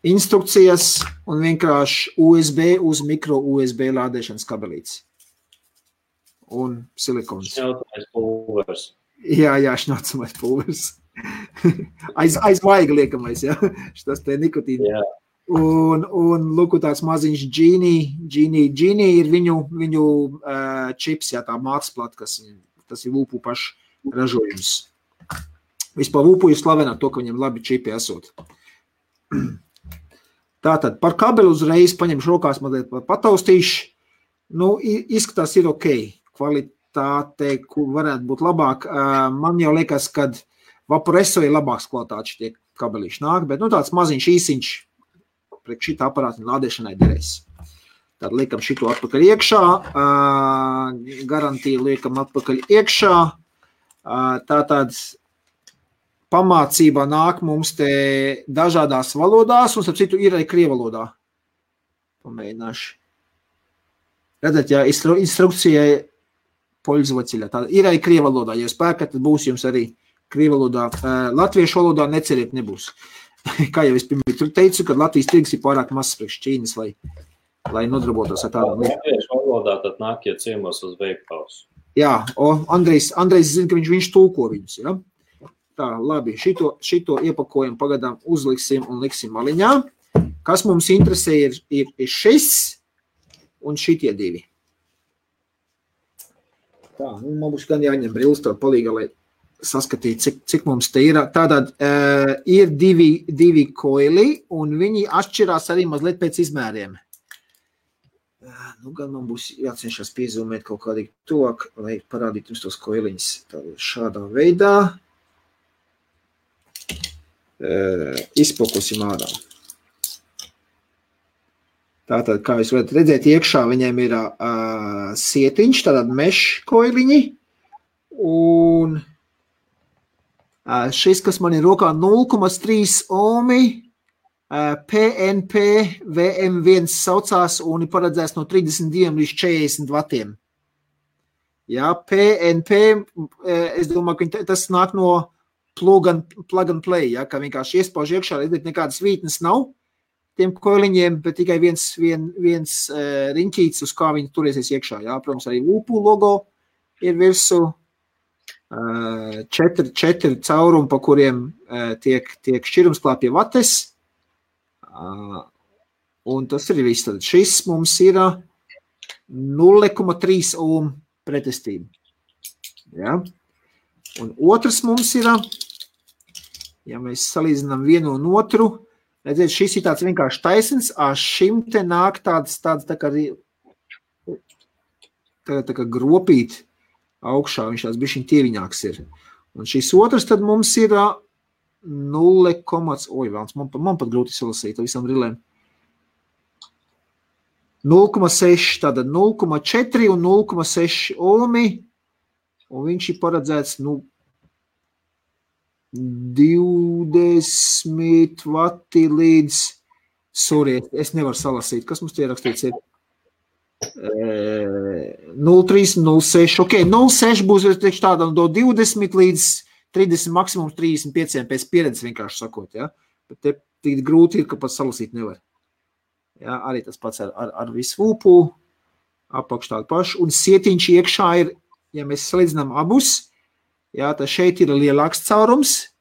instrukcijas un vienkārši USB uz mikro USB lādēšanas kabelītes. Un silikons. Šņaucamais pulvers. Jā, šņaucamais pulvers. Aiz vaiga liekamais, jā. Šitas te nikotīni. Jā. Un lūk, tāds maziņš Genie ir viņu čips, jā, tā māksplata, tas ir Vūpu pašu ražojums. Vispār Vūpu jūs slavenāt to, ka viņam labi čipi esot. Tātad par kabeli uzreiz paņemšu rokās mazliet pataustīšu. Izskatās ir ok. Kvalitāte, kur varētu būt labāk. Man jau liekas, kad Vaporesso ir labāks kvalitātes šitie kabelīši nāk, bet tāds maziņš īsiņš priekš šita aparāta lādēšanai derēs. Tad liekam šito atpakaļ iekšā, garantiju liekam atpakaļ iekšā. Tātad pamācībā nāk mums te dažādās valodās, un starp citu ir arī krievalodā. Pamēģināšu. Redzat, jā, instrukcijai poļzvaciļā. Tā ir arī krievalodā. Ja spēkat, tad būs jums arī krievalodā. Latviešu valodā neceriet nebūs. Kā jau es pirmie teicu, kad Latvijas tirgus ir pārāk mazs priekš Ķīnas, lai nodarbotos ar tādām lietām. Latviešu valodā tad nākiet ciemos uz veikals. Jā, Andrejs zina, ka viņš tulko viņus, ja? Tā, labi, šito iepakojumu pagadām uzliksim un liksim maliņā. Kas mums interesē ir šis un šitie divi. Tā, man būs gan jāņem brilles to palīga, lai saskatītu, cik mums te ir. Tātad ir divi koili, un viņi atšķirās arī mazliet pēc izmēriem. Nu, gan man būs jācenšas piezūmēt kaut kādīgi tuvāk, lai parādītu jums tos koiliņus šādā veidā. Izpokusim ārā. Tātad, kā jūs varat redzēt, iekšā viņiem ir sietiņš, tātad mesh koiliņi, un šis, kas man ir rokā 0,3 ohmi, PNP VM1 saucās un ir paredzēts no 32 līdz 40 vatiem. Jā, PNP, es domāju, ka tas nāk no plug and play, ja, ka vienkārši iespauž iekšā, redzēt, nekādas vītnes nav tiem koiliņiem, bet tikai viens riņķīts, uz kā viņi turēsies iekšā. Jā, protams, arī Lupu logo ir virsū, 4 caurumi, pa kuriem tiek šķirumsklāpie vates, un tas ir viss. Tad šis mums ir 0,3 ohm pretestība. Ja? Un otrs mums ir, ja mēs salīdzinām vienu un otru, redzēt, šis ir tāds vienkārši taisns, šim te nāk tāds tā kā gropīt augšā, viņš tāds bišķiņ tieviņāks ir. Un šis otrs tad mums ir man pat grūti salasīt visam rilēm. 0,6, tātad 0,4 un 0,6 ohmi, un viņš ir paredzēts, 20 vati līdz, es nevaru salasīt, kas mums tie rakstīts ir? 0,3, 0,6, ok, 0,6 būs tāda no 20 līdz 30, maksimums 35 pēc pieredzes vienkārši sakot, ja? Bet te tik grūti ir, ka pat salasīt nevar. Ja, arī tas pats ar visu vūpu, apakš tādu pašu, un sietiņš iekšā ir, ja mēs salīdzinām abus, ja, tad šeit ir lielāks caurums,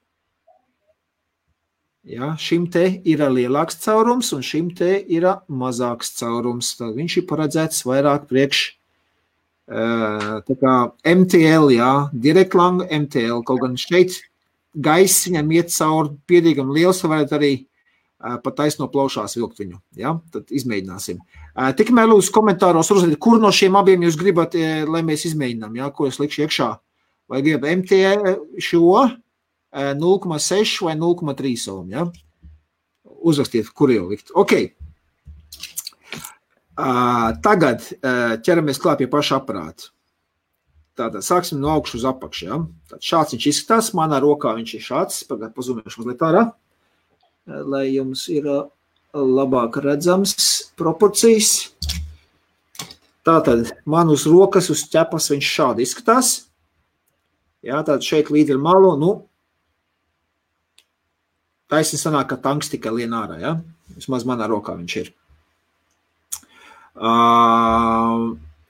ja, šim te ir lielāks caurums, un šim te ir mazāks caurums, tad viņš ir paredzēts vairāk priekš, tā kā MTL, ja, direct lang MTL, kaut gan šeit gaiss viņam iet cauri pietiekami liels, varētu arī pat taisno plaušās vilkt viņu, ja? Tad izmēģināsim. Tikmēr lūdzu komentāros uzrādīt, kur no šiem abiem jūs gribat, lai mēs izmēģinām, ja? Ko es likšu iekšā. Vai gribat MT šo 0,6 vai 0,3 ohm, ja? Uzrakstiet, kur jau likt. Ok. Tagad ķeramies klāt pie paša aparāta. Tātad sāksim no augšu uz apakšu, ja? Tad šāds viņš izskatās, manā rokā viņš ir šāds, pazumēšu mazliet ārā, lai jums ir labāk redzams proporcijas. Tātad man uz rokas, uz ķepas viņš šādi izskatās. Jā, tātad šeit līdz ar malu, taisni sanāk, ka tanks tikai lien ārā, ja? Vismaz manā rokā viņš ir.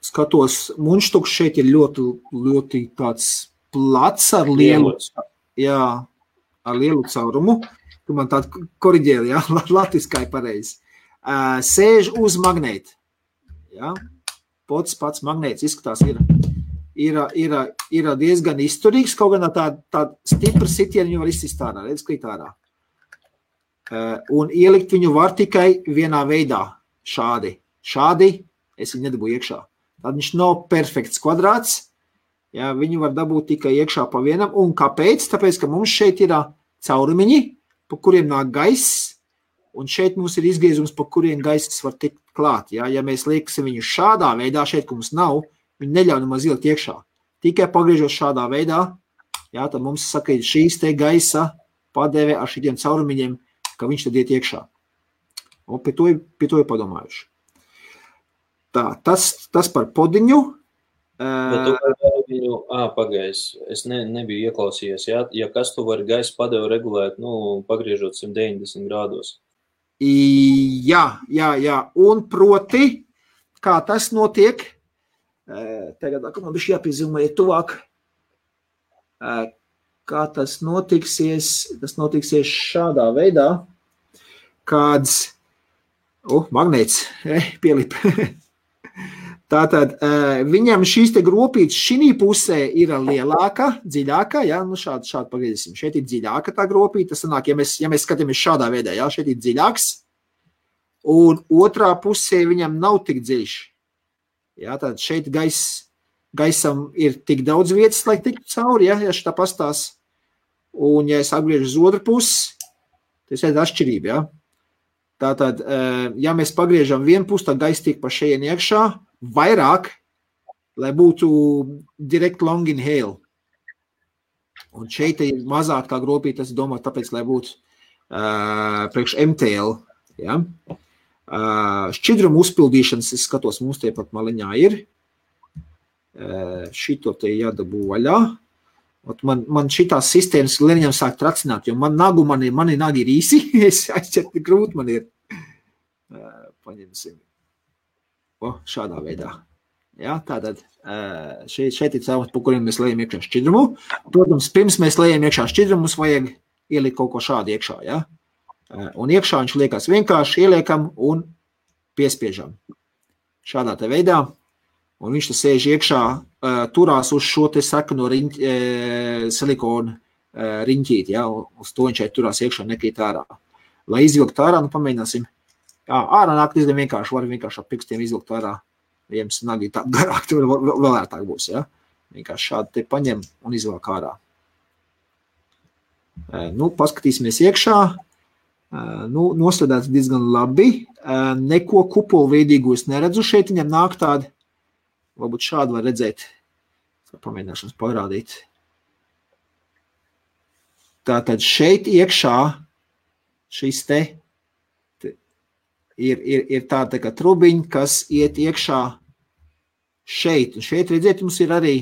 Skatos, muņštuks šeit ir ļoti tāds plats ar lielu, jā, ar lielu caurumu. Tu man tādu koriģēli, ja? Latviskā ir pareizi. Sēž uz magnēti. Ja? Pats magnēts izskatās ir diezgan izturīgs, kaut gan tā stipra sitieni viņu var izsist ārā, redz, krīt ārā. Un ielikt viņu var tikai vienā veidā, šādi. Šādi es viņu nedabūju iekšā. Tad viņš nav perfekts kvadrāts, ja? Viņu var dabūt tikai iekšā pa vienam. Un kāpēc? Tāpēc, ka mums šeit ir caurumiņi, pa kuriem nāk gaiss, un šeit mums ir izgriezums, pa kuriem gaiss var tikt klāt. Ja mēs lieksim viņu šādā veidā, šeit, ka mums nav, viņi neļauj nemaz ielikt iekšā. Tikai pagriežot šādā veidā, jā, tad mums saka, šīs te gaisa padeve ar šitiem caurumiņiem, ka viņš tad iet iekšā. Un pie to ir padomājuši. Tā, tas par podiņu. Bet tu vari viņu, pagājis, es nebiju ieklausījies, ja kas tu vari gaisa padevu regulēt, pagriežot 190 grādos. Jā, un proti, kā tas notiek, tagad man bišķi jāpiezīmē tuvāk, kā tas notiksies šādā veidā, kāds, magnēts, pielip. Tātad viņam šīs te gropītes šī pusē ir lielāka, dziļāka, ja, šādi pagriezīsim. Šeit ir dziļāka tā gropīte, tas sanāk, ja mēs skatāmies šādā veidā, ja, šeit ir dziļāks, un otrā pusē viņam nav tik dziļš. Ja, tātad šeit gaisam ir tik daudz vietas, lai tiktu cauri, ja šitā pastās, un ja es apgriežu uz otru pusi, tas ir atšķirība, ja. Tātad, ja mēs pagriežam vienu pusi, tad gaisa tiek pa šeit iekšā, vairāk, lai būtu direct long inhale. Un šeit ir mazāk tā gropīte, tas domā, tāpēc, lai būtu priekš MTL. Ja? Šķidrumu uzpildīšanas, es skatos, mums tie pat maliņā ir. Šito te jādabū vaļā. Man šitās sistēmas lēniņam sāk tracināt, jo mani nagi ir īsi, es aizķert grūti man ir. Paņemsim. Šādā veidā. Ja, tātad šeit ir caurums, pa kuriem mēs lejam iekšā šķidrumu. Protams, pirms mēs lejam iekšā šķidrumu, mums vajag ielikt kaut ko šādu iekšā. Ja? Un iekšā viņš liekas vienkārši ieliekam un piespiežam. Šādā te veidā. Un viņš te sēž iekšā, turās uz šo te sakano silikonu riņķīt. Ja? Uz to viņš turās iekšā nekrīt ārā. Lai izvilkt ārā, pamēģināsim. Ārā nāk diezgan vienkārši, var vienkārši ar pirkstiem izvilkt ārā. Ja jums nagi tā garāk, tad vēl ērtāk būs, ja? Vienkārši šādi te paņem un izvelk ārā. Paskatīsimies iekšā. Nostādāts diezgan labi. Neko kupolveidīgu es neredzu. Šeit viņam nāk tādi, varbūt šādi var redzēt. Pamēģināšanas parādīt. Tātad šeit iekšā šis te ir tāda kā trubiņa, kas iet iekšā šeit. Un šeit, redziet, mums ir arī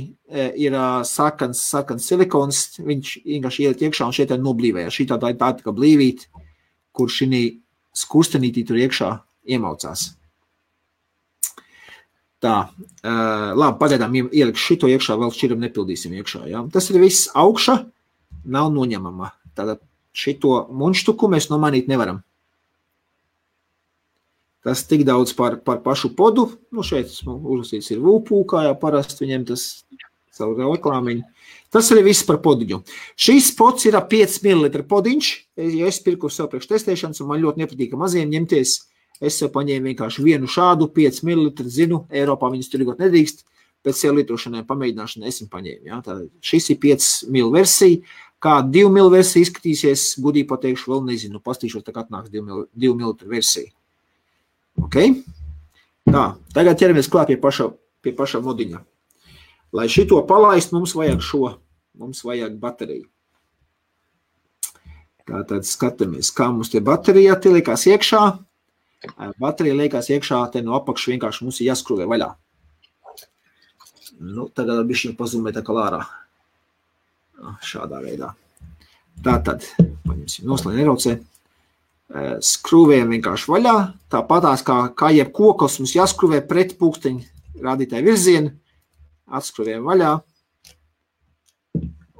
sarkans silikons, viņš vienkārši iet iekšā un šeit ir noblīvēja. Šī tāda kā blīvīt, kur šī skurstenītī tur iekšā iemaucās. Tā, labi, pagaidām ieliks šito iekšā, vēl šķiram nepildīsim iekšā. Ja? Tas ir viss augša, nav noņemama. Tātad šito munštuku mēs nomainīt nevaram. Tas tik daudz par pašu podu. Šeit uzlasīts ir VUPU, kā jau parasti viņiem tas savu reklāmiņu. Tas arī viss par podiņu. Šīs pods ir 5 ml podiņš. Ja es pirku sev priekš testēšanas, un man ļoti nepatīk maziem ņemties, es sev paņēmu vienkārši vienu šādu 5 ml, zinu, Eiropā viņas tirgot nedrīkst, pēc sev lietošanai pamēģināšanai es viņu paņēmu. Ja? Tātad šis ir 5 ml versija. Kā 2 ml versija izskatīsies, gudīgi pateikšu, vēl nezinu, pastīšos, tā kā atnāks 2 ml versija. Okay. Tā, tagad ķeramies klāt pie paša modiņa. Lai šito palaist, mums vajag bateriju. Tātad skatāmies, kā mums tie baterija te liekās iekšā. Baterija liekās iekšā, te no apakšu vienkārši mums ir jāskruvē vaļā. Tagad bišķiņ pazumē tā kā lārā. Šādā veidā. Tātad, paņemsim noslēn neraucē. Skrūvējam vienkārši vaļā, tāpatās kā jebkokas mums jāskrūvē pret pulksteņu rādītāju virzienu, atskrūvējam vaļā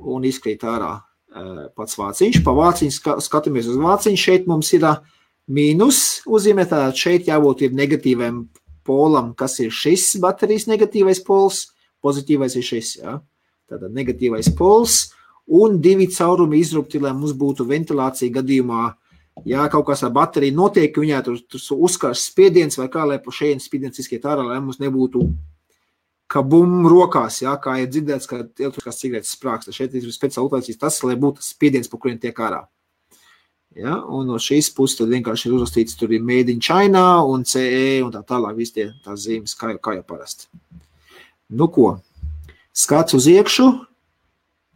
un izkrīt ārā pats vāciņš. Pa vāciņu skatāmies uz vāciņu, šeit mums ir mīnus uzzīmē, tātad šeit jābūt ir negatīviem polam, kas ir šis baterijas negatīvais pols, pozitīvais ir šis, jā. Tātad negatīvais pols un 2 caurumi izrupti, lai mums būtu ventilācija gadījumā. Ja kaut kas ar bateriju notiek, viņā tur uzkars spiediens vai kā, lai pa šeit spiediens izskiet ārā, lai mums nebūtu kabum rokās, ja, kā ir dzirdēts, ka elektriskās cigaretes sprāksta. Šeit ir speciāli utācīs tas, lai būtu spiediens, pa kuriem tiek ārā. Ja, un no šīs puses tad vienkārši ir uzrakstīts, tur ir Made in China un CE un tā tālāk, visi tās zīmes, kā jau parasti. Nu ko, skats uz iekšu,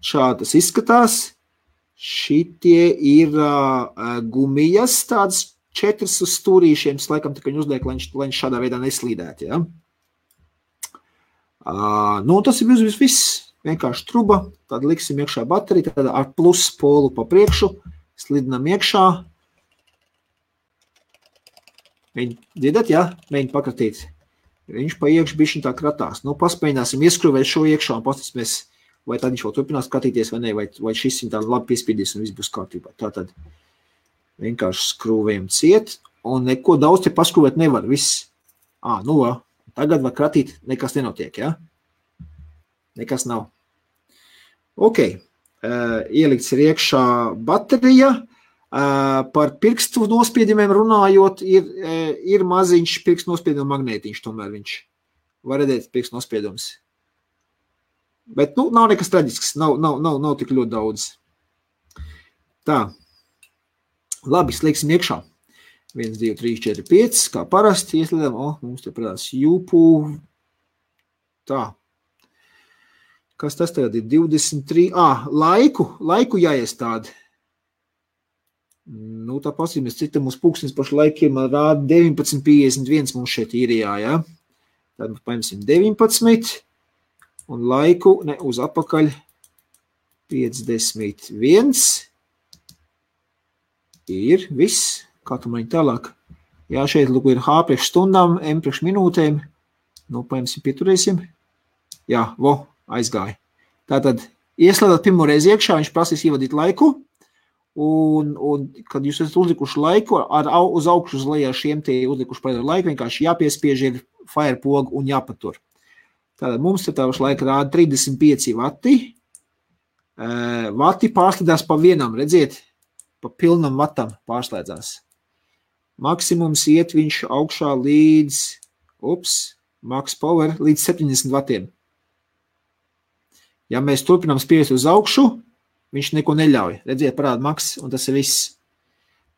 šādi tas izskatās. Šitie ir gumijas, tādas 4 uz stūrīšiem, tas laikam tikai uzliek, lai viņš šādā veidā neslīdētu. Ja? Nu, tas ir viss, vienkārši truba, tad liksim iekšā bateriju, tad ar plus polu pa priekšu, slidinam iekšā. Mēģi dzirdat, jā? Mēģi pakratīt. Viņš pa iekšu bišķiņ tā kratās. Nu, paspēļināsim ieskrūvēt šo iekšā un pastatīsimies, vai tad viņš vēl turpinās skatīties vai ne, vai šis viņ tā labi piespiedīs un viss būs kārtībā. Tātad vienkārši skrūvējam ciet un neko daudz te paskrūvēt nevar. Viss. Nu, tagad var kratīt, nekas nenotiek, jā? Nekas nav. Ok, ielikts ir iekšā baterija, par pirkstu nospiedumiem runājot, ir maziņš pirkstu nospieduma magnētiņš, tomēr viņš var redzēt pirkstu nospiedums. Bet, nu, nav nekas traģisks, nav tik ļoti daudz. Tā, labi, slēgsim iekšā. 1, 2, 3, 4, 5, kā parasti ieslēdam, mums te parādās jūpū, tā. Kas tas tagad ir? 23. Laiku jāiestāda. Nu, tā pasīmies, cita mums pulkstens pašu laikiem rāda 19.51 mums šeit īrijā, ja? Tad mums paņemsim 19 un laiku, uz apakaļ 51. Ir viss. Kā tu mani tālāk? Jā, šeit lūk ir H priekš stundām, M priekš minūtēm. Nu, paņemsim, pieturēsim. Jā, aizgāja. Tātad, ieslēdāt pirmo reizi iekšā, viņš prasīs ievadīt laiku, un kad jūs esat uzlikuši laiku, uz augšu uz lejā šiem te uzlikuši pareizo laiku, vienkārši jāpiespiež ir fire pogu un jāpatur. Tātad, mums te tāvaši laika rāda 35 vati. Vati pārslēdzās pa vienam, redziet, pa pilnam vatam pārslēdzās. Maksimums iet viņš augšā līdz, max power, līdz 70 vatiem. Ja mēs turpinām spiest uz augšu, viņš neko neļauj. Redziet, parāda max, un tas ir viss.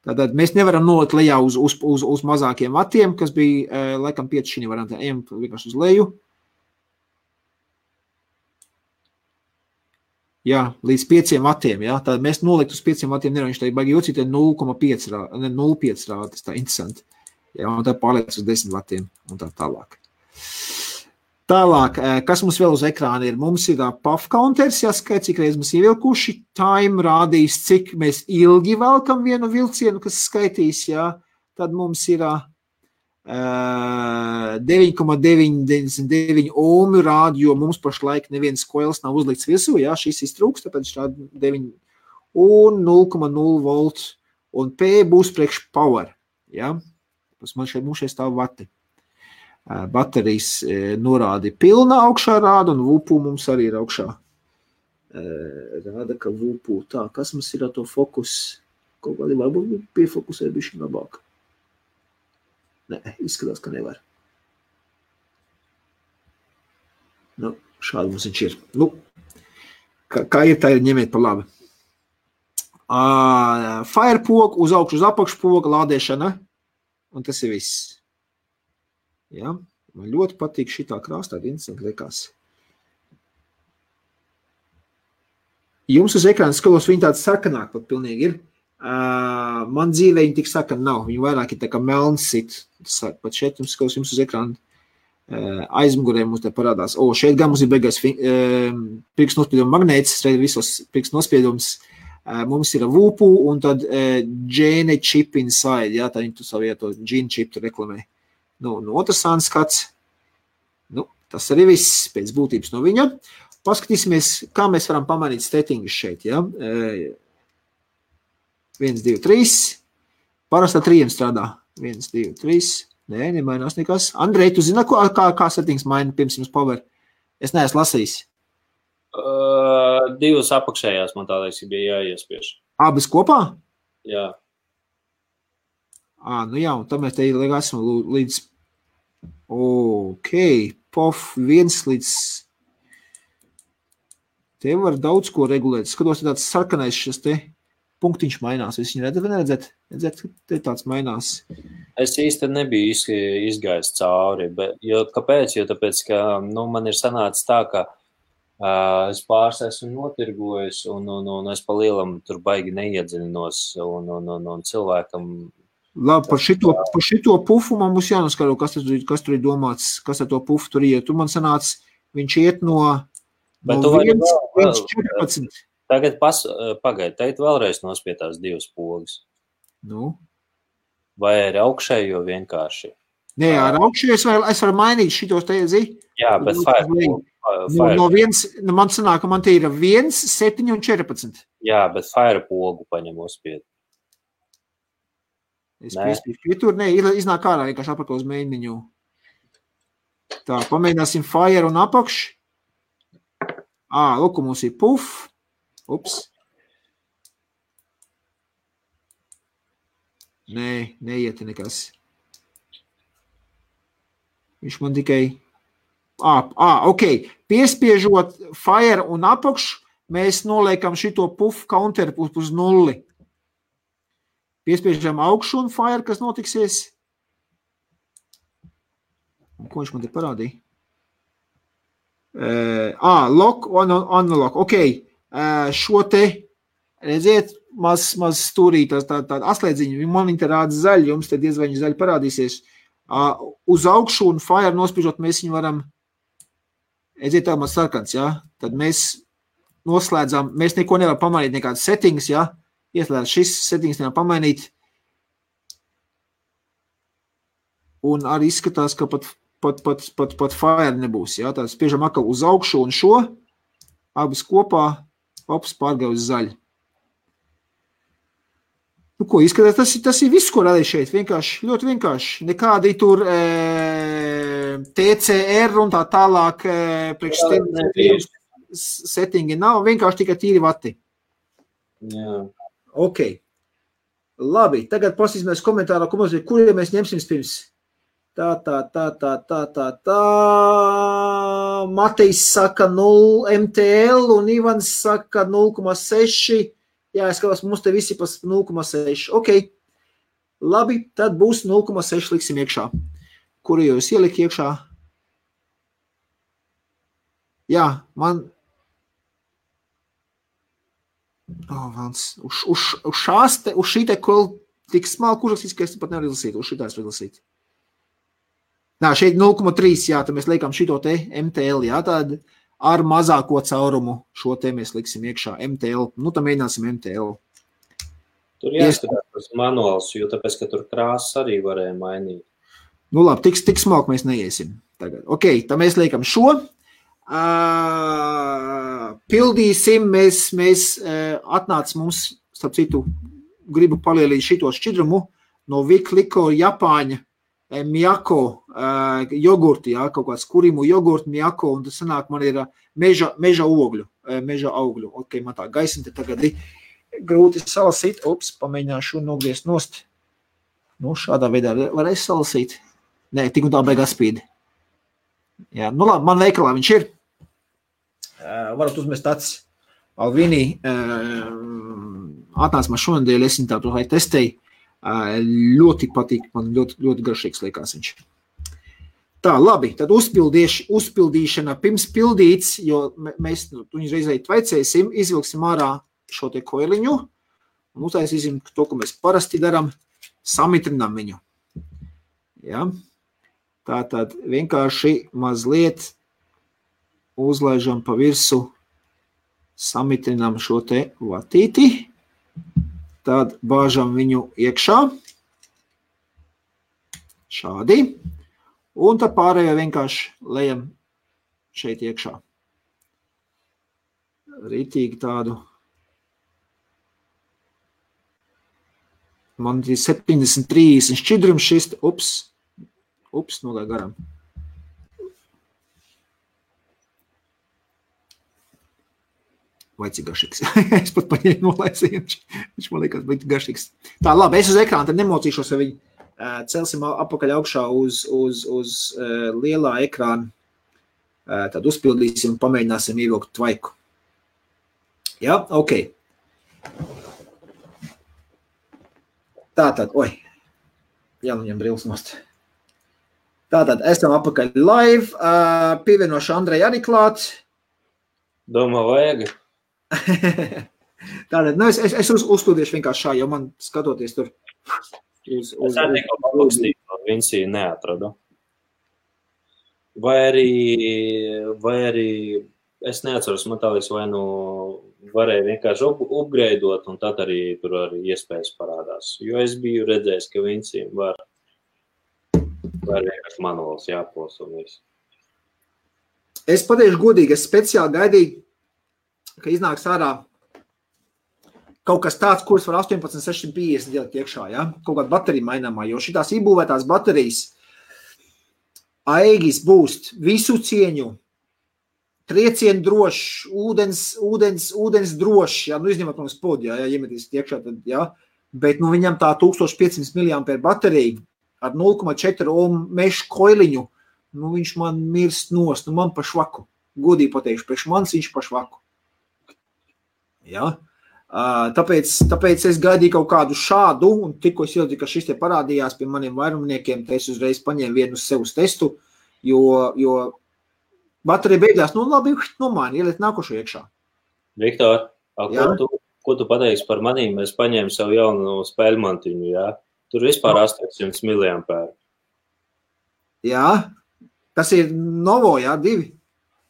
Tātad mēs nevaram nolikt lejā uz mazākiem vatiem, kas bija, laikam, 5 šī variantā. Ejam vienkārši uz leju. Jā, līdz 5 vatiem, jā. Tātad mēs nolikt uz 5 vatiem nevaram, viņš tā ir baigi jūcīt, 0,5 rāda, tas tā interesanti. Jā, un tā pārliec uz 10 vatiem, un tā tālāk. Tālāk, kas mums vēl uz ekrāna ir? Mums ir puff counters, jāskait, cik reiz mēs ievilkuši. Time rādīs, cik mēs ilgi velkam vienu vilcienu, kas skaitīs, jā. Tad mums ir 9,99 ohmi rāda, jo mums pašlaik neviens koils nav uzlikts virsū, jā, šis iztrūks, tāpēc šādi 9 un 0,0 volt. Un P būs priekš power, jā. Mums šeit stāv vati. Baterijas norādi pilna augšā rāda, un VUPU mums arī ir augšā. Rāda, ka VUPU tā, kas mums ir ar to fokus? Kaut kādi varbūt piefokusē bišķi labāk. Nē, izskatās, ka nevar. Nu, šādi mums viņš ir. Nu, kā ir, tā ir ņemiet par labi. Fire poga, uz augšu, uz apakšu poga, lādēšana, un tas ir viss. Ja? Man ļoti patīk šitā krāstā, interesanti liekas. Jums uz ekrāna skalos viņi tāds sarkanāk pat pilnīgi ir. Man dzīvē viņi tik sarkani nav. Viņi vairāk ir tā kā melns sit. Pat šeit jums skalos jums uz ekrāna aizmugurē mums te parādās. Šeit gan mums ir beigais pirkstu nospieduma magnēts, visos pirkstu nospiedums. Mums ir VUPU un tad Gene chip inside. Ja? Tā viņi tu savu to Gene chip tu reklamē. Nu, otrs skats. Nu, tas arī viss pēc būtības no viņa. Paskatīsimies, kā mēs varam pamainīt settingus šeit. Ja? 1, 2, 3. Parasti ar 3 strādā. 1, 2, 3. Nē, nemainās nekas. Andrej, tu zini, kā settings maina pirms jums power? Es neesmu lasījis. 2 apakšējās man tādēļ bija jāiespiež. Abas kopā? Jā. Nu jā, un tad mēs te esam līdz POF 1 līdz te var daudz ko regulēt. Skatos, tāds sarkanais šis te punktiņš mainās. Jūs viņu redzat vai neredzat? Redzat, te tāds mainās. Es īsti nebiju izgājis cauri, bet, kāpēc? Jo tāpēc, ka man ir sanācis tā, ka es pāris esmu notirgojis un es pa lielam tur baigi neiedziļinos un cilvēkam. Labi, par šito pufu man būs jānoskaro, kas tur ir domāts, kas ar to pufu tur iet. Tu man sanāc, viņš iet no 1,14. Tagad pagaid, teikt vēlreiz nospietās 2 pogas. Nu? Vai ar augšējo vienkārši? Nē, ar augšējo es varu mainīt šitos te, zi? Jā, bet fire. No man sanāk, ka man te ir 1, 7 un 14. Jā, bet fire pogu paņem uzspiet. Es piespīšu pietur, iznāk ārā vienkārši apakā uz mēģiņu. Tā, pamēģināsim fire un apakš. Lūk, mums ir puff. Ups. Nē, neiet nekas. Viņš man tikai... ok. Piespiežot fire un apakš, mēs noliekam šito puff counter uz 0. Piespiežam augšu un fire, kas notiksies. Un ko viņš man te parādīja? Lock, unlock. Ok, šo te, redziet, maz stūrīt, tāda atslēdziņa, man te rāda zaļi, jums te diezvaņi zaļi parādīsies. Uz augšu un fire nospiežot, mēs viņu varam, redziet, tā maz sarkans, ja? Tad mēs noslēdzām, mēs neko nevaram pamainīt, nekādas settings, ja? Ieslēdz šis settings nevar pamainīt. Un arī izskatās, ka pat fire nebūs. Ja? Tātad spiežam atkal uz augšu un šo. Abas kopā. Ops, pārgāja uz zaļu. Nu, ko izskatās? Tas ir viss, ko radīja šeit. Vienkārši, ļoti vienkārši. Nekādi tur TCR un tā tālāk settingi nav. Vienkārši tikai tīri vati. Jā. Ok. Labi, tagad pasīsimies komentārā, kuriem mēs ņemsim pirms. Tā. Matejs saka 0 MTL un Ivans saka 0,6. Jā, es skatos, mums te visi pas 0,6. Ok. Labi, tad būs 0,6 liksim iekšā. Kuru jūs ielikt iekšā? Jā, man... Uz šī te tik smalku uzrakstīts, ka es pat nevaru izlasīt. Uz šitās var izlasīt. Nā, šeit 0,3, jā, tad mēs liekam šito te MTL, jā, tad ar mazāko caurumu šo te mēs liksim iekšā MTL. Nu, tad mēģināsim MTL. Tur jāskatās manuāls, jo tāpēc, ka tur krāsas arī varēja mainīt. Nu, labi, tik smalku mēs neiesim tagad. Ok, tad mēs liekam šo. Pildīsim, mēs atnāc mums, starp citu, gribu palielīt šito šķidrumu no Vikliko Japāņa Miyako jogurti, jā, kaut kāds kurimu jogurti Miyako, un tas sanāk, man ir meža augļu. Ok, man tā gaisma te tagad ir grūti salasīt. Ups, pamēģināšu nogriezt nost. Nu, šādā veidā varēs salasīt. Nē, tik un tā beigās spīd. Jā, nu labi, man veikalā viņš ir. Varat uzmest tāds Alvini atnāc man šonadēļ, es viņu tādu testēju. Ļoti patīk, man ļoti garšīgs liekas viņš. Tā, labi, tad uzpildīšana pirms pildīts, jo mēs viņu reizēji tvaicēsim, izvilksim ārā šo te koiliņu un uztaisīsim to, ko mēs parasti daram, samitrinām viņu. Ja? Tātad vienkārši mazliet uzlaižam pa virsu, samitrinām šo te vatīti, tad bāžam viņu iekšā, šādi, un tad pārējo vienkārši lejam šeit iekšā. Ritīgi tādu. Man ir 70-30 šķidrums šis, ups, nogāja garām. Vai cik garšīgs. Es pat paņēmu nolaisīju, viņš man liekas bija garšīgs. Tā, labi, es uz ekrāna, tad nemocīšos, ja viņi celsim apakaļ augšā uz lielā ekrāna. Tad uzpildīsim un pamēģināsim ievilkt tvaiku. Jā, ok. Tātad, jāņem brīlis nost. Tātad, esam apakaļ live, pievienošu Andrei arī klāt. Domā, vajag. Tātad, es uzstudiešu vienkārši šā, jo man skatoties tur. Es arī tikko paklaustīju, Vinsiju neatradu. Vai arī, es neatceros, man tā liekas, vai nu varēja vienkārši upgraidot, un tad arī tur arī iespējas parādās. Jo es biju redzējis, ka Vinsijam var vienkārši manuāls jāpos un viss. Es pateikšu godīgi, es speciāli gaidīju, ka iznāks ārā kaut kas tāds, kuras var 18650 ielikt iekšā, ja? Kaut kāda baterija maināmā, jo šitās iebūvētās baterijas Aegis būs visu cieņu, triecienu drošs, ūdens drošs, ja? Nu izņemot mums podu, ja iemetīs iekšā, tad, ja? Bet nu viņam tā 1500 mAh baterija ar 0,4 ohm mešu koiliņu, nu viņš man mirst nost, nu man pa švaku. Godīgi pateikšu, priekš manis viņš pa švaku. Ja? Tāpēc es gaidīju kaut kādu šādu, un tikko es ieliku, ka šis te parādījās pie maniem vairumniekiem, te es uzreiz paņēmu vienu uz sev uz testu, jo baterija beigās, nu labi, nomaini, ielikt nākošo iekšā. Viktor, ko tu pateiksi par manīm? Es paņēmu savu jaunu spēļmantiņu, jā? Tur vispār 800 mAh. Jā, tas ir Novo, jā, 2.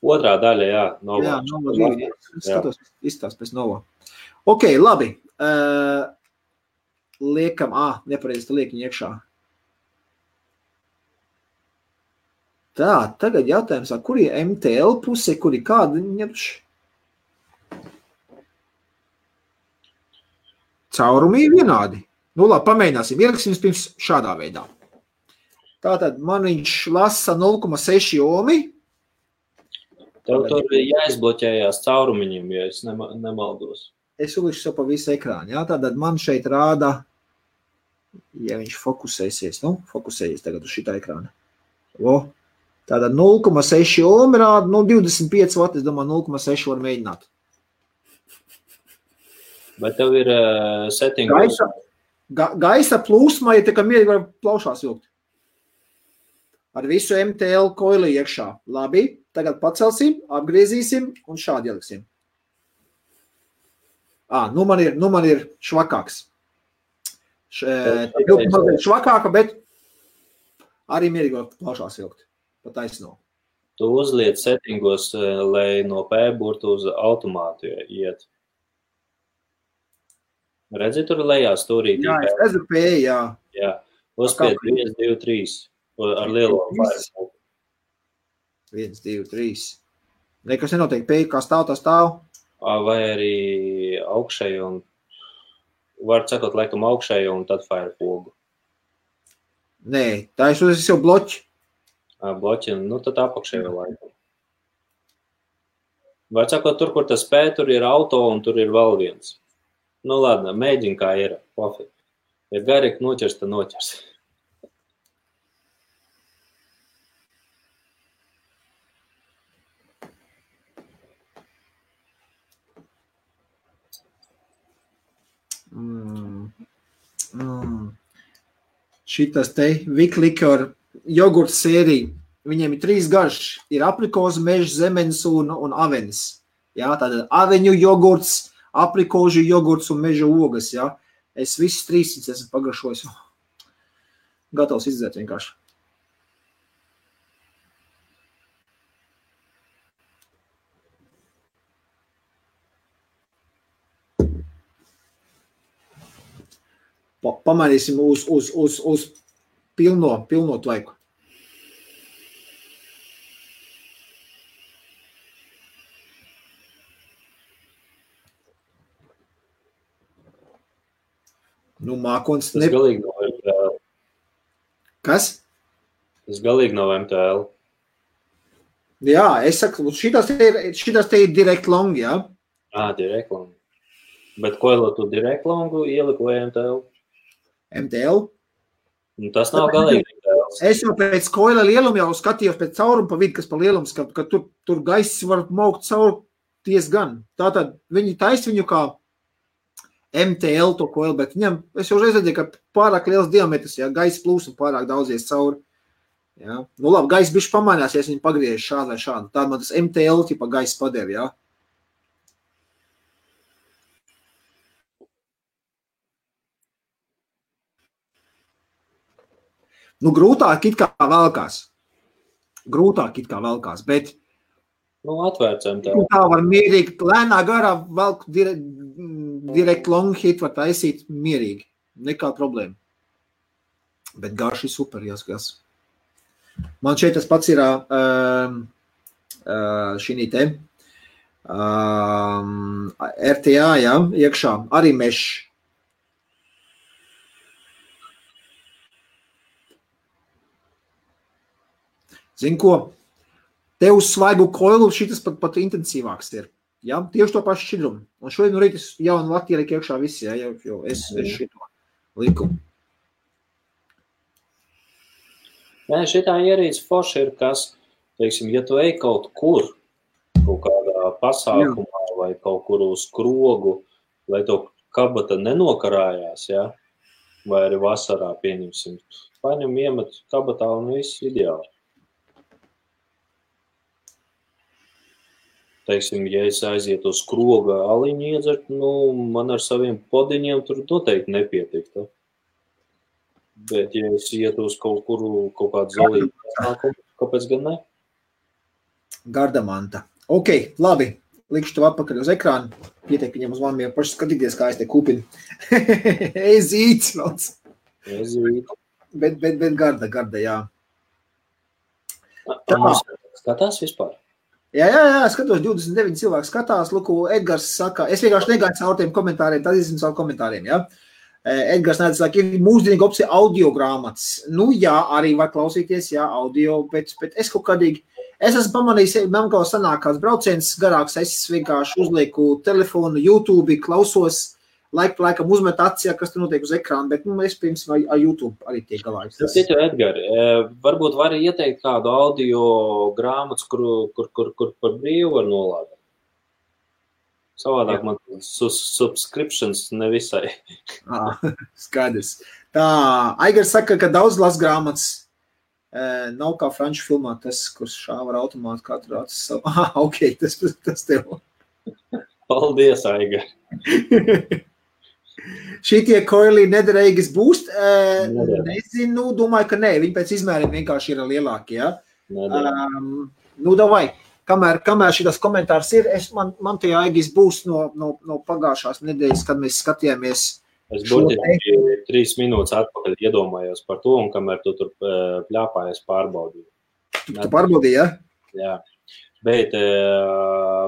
Otrā daļa, jā, Novo. Jā, Novo 2, skatos, izstās pēc Novo. Ok, labi. Liekam, nepareizi, tā liek viņu iekšā. Tā, tagad jautājums, kur ir MTL puse, kur ir kāda ņemš? Caurumi ir vienādi. Nu labi, pamēģināsim. Ieliksim pirms šādā veidā. Tātad man viņš lasa 0,6 ohmi. Tev tur jāizbloķējās caurumiņiem, ja es nemaldos. Es ulikšu sev pa visu ekrānu. Jā? Tātad man šeit rāda, ja viņš fokusēsies, fokusējies tagad uz šitā ekrāna. Tātad 0,6 ohmi rāda, 25 vati, es domāju, 0,6 var mēģināt. Bet tev ir settingos? Gaisa plūsma, ja tā kā mierīgi var plaušās vilkt. Ar visu MTL koili iekšā. Labi, tagad pacelsim, apgriezīsim un šādi ieliksim. Nu man ir švakāks. Švakāka, bet arī mierīgi var plaušās vilkt. Pa taisno. Tu uzliec settingos, lai no P burtu uz automātu iet. Redzi, tur lejā stūrītī? Jā, es redzu P, jā. Jā, uzspied 1, 2, 3 ar lielo vairs. 1, 2, 3. Nekas nenotiek, P, kā stāv, tā stāv. Vai arī augšēju un, var sakot, laikam augšēju un tad fire pogu. Nē, tā es uzreiz jau bloķi. Bloķi, nu tad apakšēju laikam. Var sakot, tur, kur tas P, tur ir auto un tur ir vēl viens. Nu, ladna, mēģini kā ir, pofik. Ja garīgi noķers, tad noķers. Šitas te Viklikor jogurts sērija, viņiem ir 3 garš, ir aprikozu, mežs, zemenes un avenes. Jā, tātad aveņu jogurts, aprikožu jogurts un meža ogas, jā. Es visus 300 esmu pagaršojis. Gatavs izdzēt vienkārši. Pamainīsim uz pilno tvaiku. Nu, mākons... Tas galīgi nav MTL. Kas? Tas galīgi nav MTL. Jā, es saku, šitas te ir direct long, jā? Direct long. Bet koilo tu direct longu ieliku vai MTL? MTL? Nu, tas nav galīgi MTL. Es jau pēc koila lieluma jau skatījos pēc caurumu pa vidu, kas pa lielums, ka tur gaiss var maukt caur diezgan. Tātad viņi taisa viņu kā MTL to koili, bet viņam, es jau redzēju, ka pārāk liels diametrs, ja gaisa plūsma pārāk daudzies cauri. Ja. Nu labi, gaisa bišķi pamainās, ja viņi pagriež šādu vai šādu. Tāda man tas MTL tipa gaisa padeva, ja. Nu, grūtāk it kā velkās, bet Atvērcam tā. Tā var mierīgi, lēnā garā velk direkt long hit var taisīt mierīgi. Nekā problēma. Bet garš ir super, jāskatās. Man šeit tas pats ir šī te RTA, ja, iekšā, arī mešs. Zini ko? Te uz svaigu koilu šitas pat intensīvāks ir. Ja? Tieši to pašu šķidrumu. Un šodien no rīta jaunu Latviju liek iekšā visi, ja? Jo es šito liku. Nē, šitā ierīce forši ir, kas, teiksim, ja tu ej kaut kur, kaut kādā pasākumā vai kaut kur uz krogu, lai to kabata nenokarājās, ja? Vai arī vasarā pieņemsim. Paņem iemet kabatā un viss ideāli. Teiksim, ja es aizietu uz kroga aliņu iedzert, man ar saviem podiņiem tur noteikti nepietiktu. Bet, ja es ietu uz kaut kādu zolītu pasākumu, kāpēc gan ne? Gardamanta. Ok, labi. Likšu tev atpakaļ uz ekrānu. Pietiek viņam uz maniem paši skatīties, kā es te kupinu. Ezīts valds. Ezīts. Bet garda, jā. Skatās vispār? Jā, skatos, 29 cilvēki skatās, Luku, Edgars saka, es vienkārši negāju caur tiem komentāriem, tad izsinu savu komentāriem, jā. Edgars nēdz saka, ir mūsdienīga opcija audio grāmatas. Nu jā, arī var klausīties, jā, audio, bet es kaut kādīgi, es esmu pamanījis, man kaut sanāk kāds brauciens garāks, es vienkārši uzlieku telefonu, YouTube, klausos, laikam uzmet acis, kas tur notiek uz ekrāna, bet es pirms ar YouTube arī tiek galā. Citu, Edgari, varbūt vari ieteikt kādu audio grāmatas, kur par brīvu var nolādēt. Savādāk man subscriptions nevisai. Skaidrs. Tā, Aigars saka, ka daudz las grāmatas nav kā franču filmā, tas, kurš šāva ar automātu katru acis savu. Ok, tas tev. Paldies, Aigar. Šitie koili nederīgas būst? Nezinu, domāju, ka nē. Viņi pēc izmēriem vienkārši ir lielāki, ja? Davai, kamēr šitas komentārs ir, man tie aigis būs no pagājušās nedēļas, kad mēs skatījāmies. Es burtiski 3 minūtes atpakaļ iedomājos par to, un kamēr tu tur pļāpājies pārbaudīju. Tu pārbaudīji, ja? Jā. Bet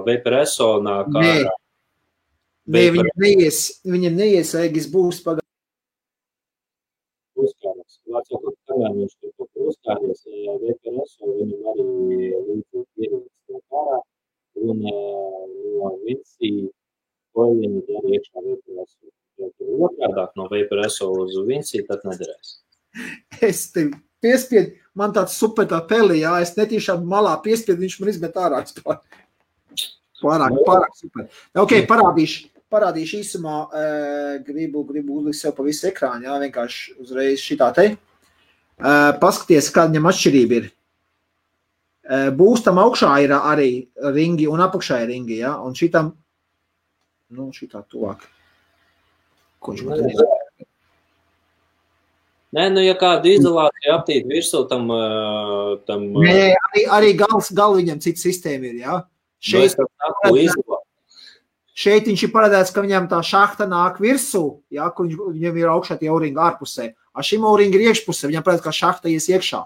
Vaporesso nāk ārā. Nē, viņam neies aigis būs pagājušās. Uzkāries. Vācot, kamēr viņš tur uzkāries, Vaporesso viņam arī līdzīgi ierīces nāk ārā, un no Vinci koiliņi dara iekšā Vaporesso. Ja tur otrādāk no Vaporesso uz Vinci, tad nederēs. Es tev piespiedu, man tāds super tā peli, jā, es netīšām malā piespiedu, viņš man izmet ārā. Pārāk super. Ok, parādīšu īsumā, gribu uzlikt sev pa visu ekrānu, jā, vienkārši uzreiz šitā te. Paskaties, kāda viņam atšķirība ir. Būstam augšā ir arī ringi un apakšā ir ringi, jā, un šitam, šitā tuvāk. Ko viņš man te Nē, ja kāda izolācija aptīt virsū tam... Nē, arī gal viņam cita sistēma ir, jā. Šeit viņš ir paredzēts, ka viņam tā šahta nāk virsū, jā, kur viņam ir augšā tie auringi ārpusē. A šim auringi ir iekšpusē, viņam paredzēts, ka šahta ies iekšā.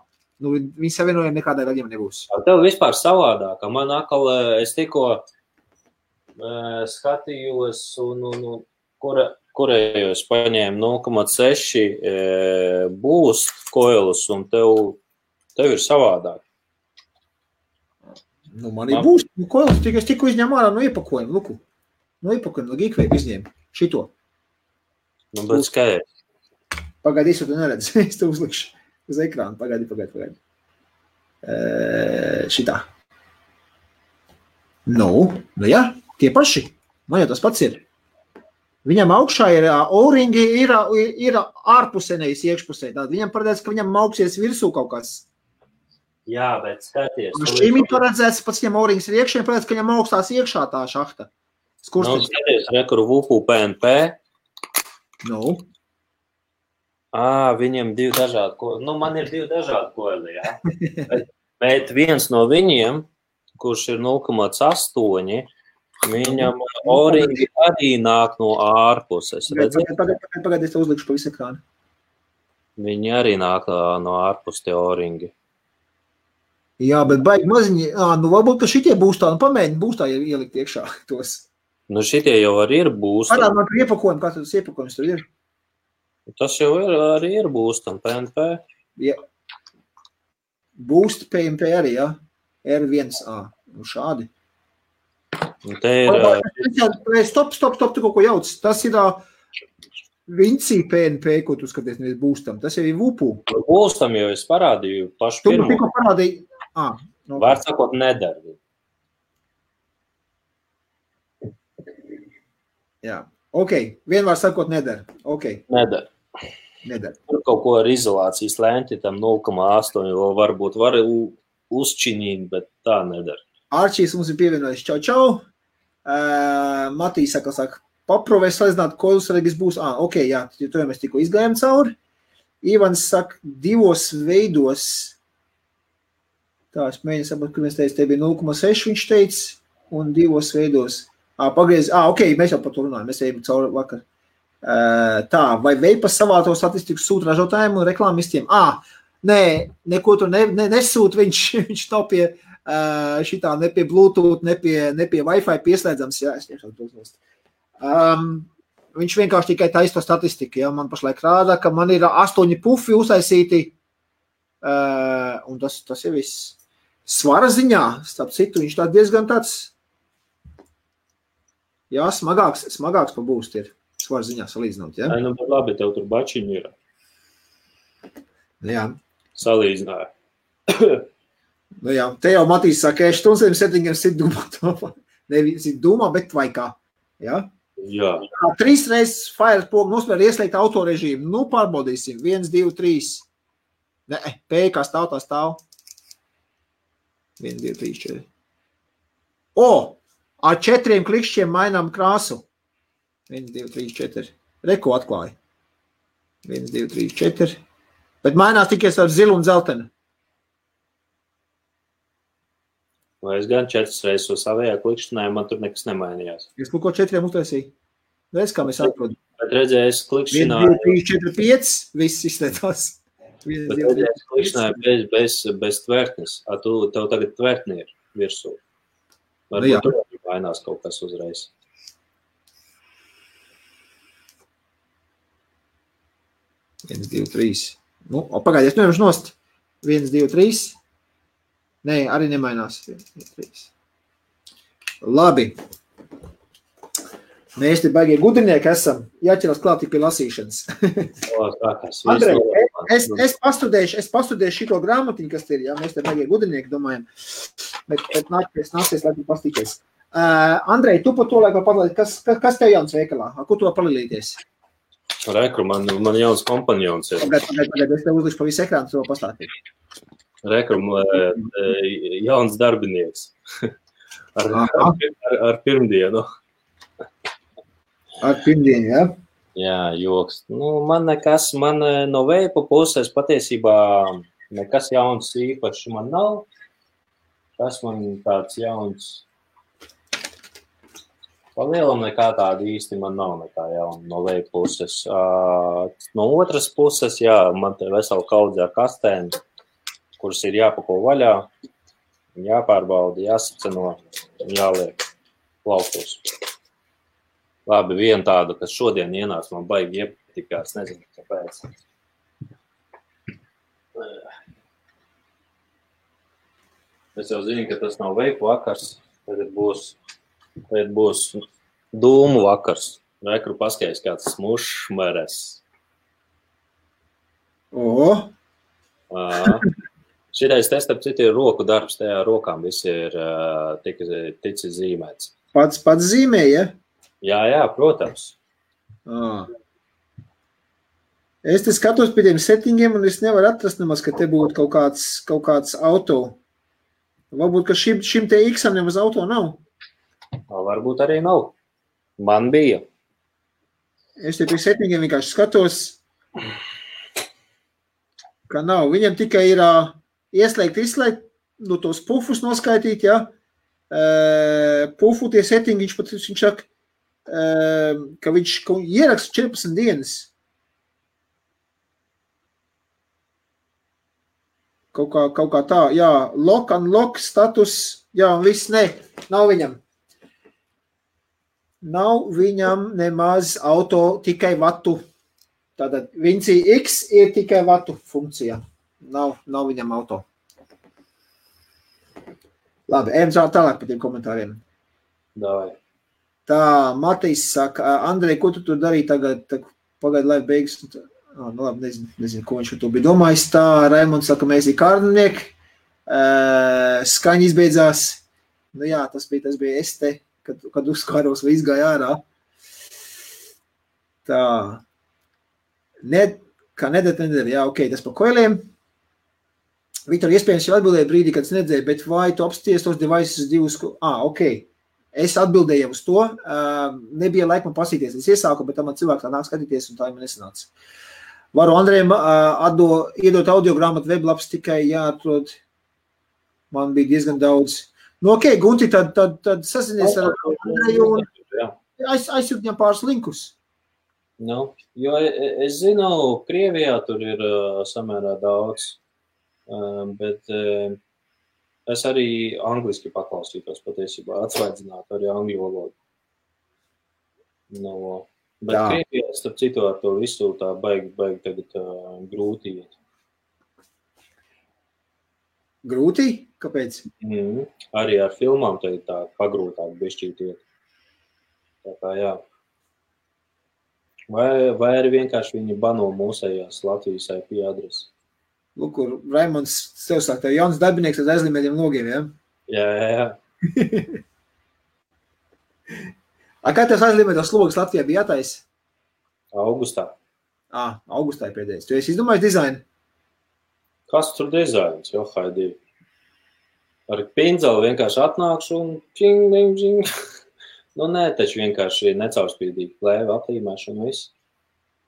Viņi savienojumi nekādai gadījumam nebūs. Tev vispār savādāk, man atkal, es tikko skatījos un kurējos paņēmu 0,6 boost koilus, un tev ir savādāk. Man ir boost koilus, es tikko izņēmu ārā no iepakojuma, Luku. No iepakojuma, no Geekvape izņēmu. Šito. Bet skaidrs. Pagaidi, es to neredzu. Es to uzlikšu uz ekrānu. Pagaidi. Šitā. Jā, tie paši. Man jau tas pats ir. Viņam augšā ir O-ringi, ir ārpusē, nevis iekšpusē. Tātad viņam paredzēts, ka viņam augsies virsū kaut kas. Jā, bet skaties. Šim ir paredzēts, pats viņam O-rings ir iekšē, paredzēts, ka viņam augstās iekšā tā šahta. Skurstenis. Skaties, rekuru VUPU PNP. Nu. Viņam divi dažādi koļi. Man ir divi dažādi koļi, jā. Bet viens no viņiem, kurš ir 0,8, viņam O-ringi arī nāk no ārpuses. Pagad, es uzlikšu pa visu ekrānu. Viņi arī nāk no ārpus tie O-ringi. Jā, bet baigi maziņi. Varbūt, ka šitie būs tā, pamēģini būs tā ielikt iekšā tos. Šitie jau arī ir būstami. Parād man iepakojumu, kā tas iepakojums tur ir. Tas jau arī ir būstam, PNP. Jā. Boost PNP arī, jā? R1A. Šādi. Te ir... Stop, tu kaut ko jauc. Tas ir Vinci PNP, ko tu skaties, nevis būstam. Tas jau ir VUPU. Būstam jau es parādīju pašu pirmo. Tu tikko parādīji. Var sakot, nedara. Jā. Ok. Vienmēr sakot, nedara. Ok. Nedara. Tur kaut ko ar izolācijas lēnti, tam 0,8, varbūt var uzčinīt, bet tā nedara. Arčīs mums ir pievienojis. Čau. Matīs saka, paprovēs salīdzināt, ko jūs redz būs. Ok, jā, to jau mēs tikko izgājām cauri. Ivans saka, divos veidos. Tā, es mēģinu sapratu, kur mēs teicu, te bija 0,6 viņš teica, un divos veidos. Pagriez, ok, mēs jau par to runājam, mēs ejam cauri vakar. Tā, vai Veipas savāto statistiku sūta ražotājiem un reklāmistiem? Nē, neko tur nesūt, viņš nav pie šitā, ne pie Bluetooth, ne pie Wi-Fi pieslēdzams, jā, es tiešām to uznost. Viņš vienkārši tikai taisa to statistiku, jā, man pašlaik rāda, ka man ir 8 pufi uztaisīti, un tas ir viss. Svara ziņā, starp citu, viņš tā diezgan tāds, jā, smagāks pa būst ir. Svara ziņā salīdzinot, jā? Bet labi, tev tur bačiņi ir. Jā. Salīdzināja. Jā, te jau Matīs saka, 7 sit dūmā. Nevis sit dūmā, bet vai kā. Jā? Jā. 3 reizes Fire pogu nospēr ieslēgt autorežīmu. Pārbaudīsim. 1, 2, 3. Nē, P kā stāv, tā stāv. 1, 2, 3, 4. Ar 4 klikšķiem mainām krāsu. 1, 2, 3, 4. Reko atklāja. 1, 2, 3, 4. Bet mainās tikai ar zilu un zeltenu. Vai es gan 4 reizes uz savējā klikšķināju, man tur nekas nemainījās. Es ko 4 uztaisīju. Redz, kā mēs atrodam. Bet redzēju, es klikšķināju. 1, 2, 3, 4, 5. Viss izslēdzās. Bet redzēju, es klikšķināju bez tvertnes. Tev tagad tvertni ir virsū. Varbūt tur mainās kaut kas uzreiz. Viens, 2, 3. Pagaidies, nevaru nost. 1, 2, 3. Nē, arī nemainās. 1, 2, 3. Labi. Mēs te baigie gudrinieki esam. Jāķeras klāt tik pie lasīšanas. Andrej, es pastudēšu šito grāmatiņu, kas ir, jā, mēs te baigie gudrinieki domājam. Bet nācies, lai tu pastīties. Andrej, tu par to laikā padalīt, kas tev jauns veikalā? Ko tu var palīdīties? Rekru, man jauns kompanjons ir. Pagad, es tev uzlikšu pa visu ekrānu, to pastāstīt. Rekru, jauns darbinieks. Ar pirmdienu. Ar pirmdienu, jā? Jā, joks. Man no veipa puses patiesībā nekas jauns īpaši man nav. Tas man tāds jauns. Palielam nekā tāda īsti man nav nekā jauna no veipa puses. No otras puses, jā, man te vesela kaudze ar kastēm, kuras ir jāpako vaļā, jāpārbauda, jāsaceno, jāliek plauktos. Labi, viena tāda, kas šodien ienāca, man baigi iepatikās, nezinu, kāpēc. Es jau zinu, ka tas nav veipu vakars, tagad būs dūmu vakars. Rekru paskaidrs kāds smušmeres. Šitais te, starp citu, ir roku darbs, tajā rokām visi ir ticis zīmēts. Pats zīmē, ja? Jā, protams. Es te skatos pie tiem settingiem, un es nevaru atrast nemaz, ka te būtu kaut kāds auto. Varbūt, ka šim te X-am nemaz auto nav. Varbūt arī nav. Man bija. Es te pie settingiem vienkārši skatos, ka nav. Viņam tikai ir ieslēgt, tos pufus noskaitīt, ja. Pufu tie settingi, viņš saka, ka viņš ieraksta 14 dienas. Kaut kā tā, jā, lock, unlock, status, jā, un viss, nav viņam. Nav viņam nemaz auto tikai vatu. Tātad Vinci X ir tikai vatu funkcija. Nav viņam auto. Labi, ejam tālāk par tiem komentāriem. Davai. Tā, Matīs saka, Andrej, ko tu tur darīji tagad, pagaid live beigas? Nu labi, nezinu, ko viņš par to bija domājis. Tā, Raimonds saka, mēs ir kārdinieki, skaņa izbeidzās. Nu jā, tas bija es te, kad uzkāros vai izgāja ārā. Tā. Kā nedēļ, jā, ok, tas par koiliem. Viktor, iespējams jau atbildēja brīdī, kad es nedzēju, bet vai tu apsties tos devices divus? Ok. Es atbildēju uz to. Nebija laika man pasīties. Es iesāku, bet man cilvēki tā nāk skatīties, un tā man nesanāca. Varu Andrejam iedot audiogrāmatu weblapus tikai jāatrod. Man bija diezgan daudz. Nu, ok, Gunti, tad sasinies ar Andreju un aizsūt viņam pāris linkus. Nu, jo es zinu, Krievijā tur ir samērā daudz, bet es arī angliski paklausītos patiesībā, atsvaidzināt arī angļu valodu. No, bet Krievijā, starp citu, ar to visu tā baigi tagad grūti iet. Grūti? Kāpēc? Arī ar filmām tagad tā pagrūtāk bišķīt iet. Tā kā jā. Vai arī vienkārši viņi bano mūsējās Latvijas IP adresi. Lūk, Raimonds sev sāk, tev jauns darbinieks ar aizlīmētiem logiem, ja? Jā. Kā tev aizlīmētos logas Latvijā bija jātais? Augustā. Augustā ir pēdējais. Tu esi izdomājis dizainu? Kas tur dizains? Jo, haidī. Ar pindzeli vienkārši atnākšu un čing. Nu, nē, taču vienkārši necaurspīdīgi plēva atlīmēšana viss.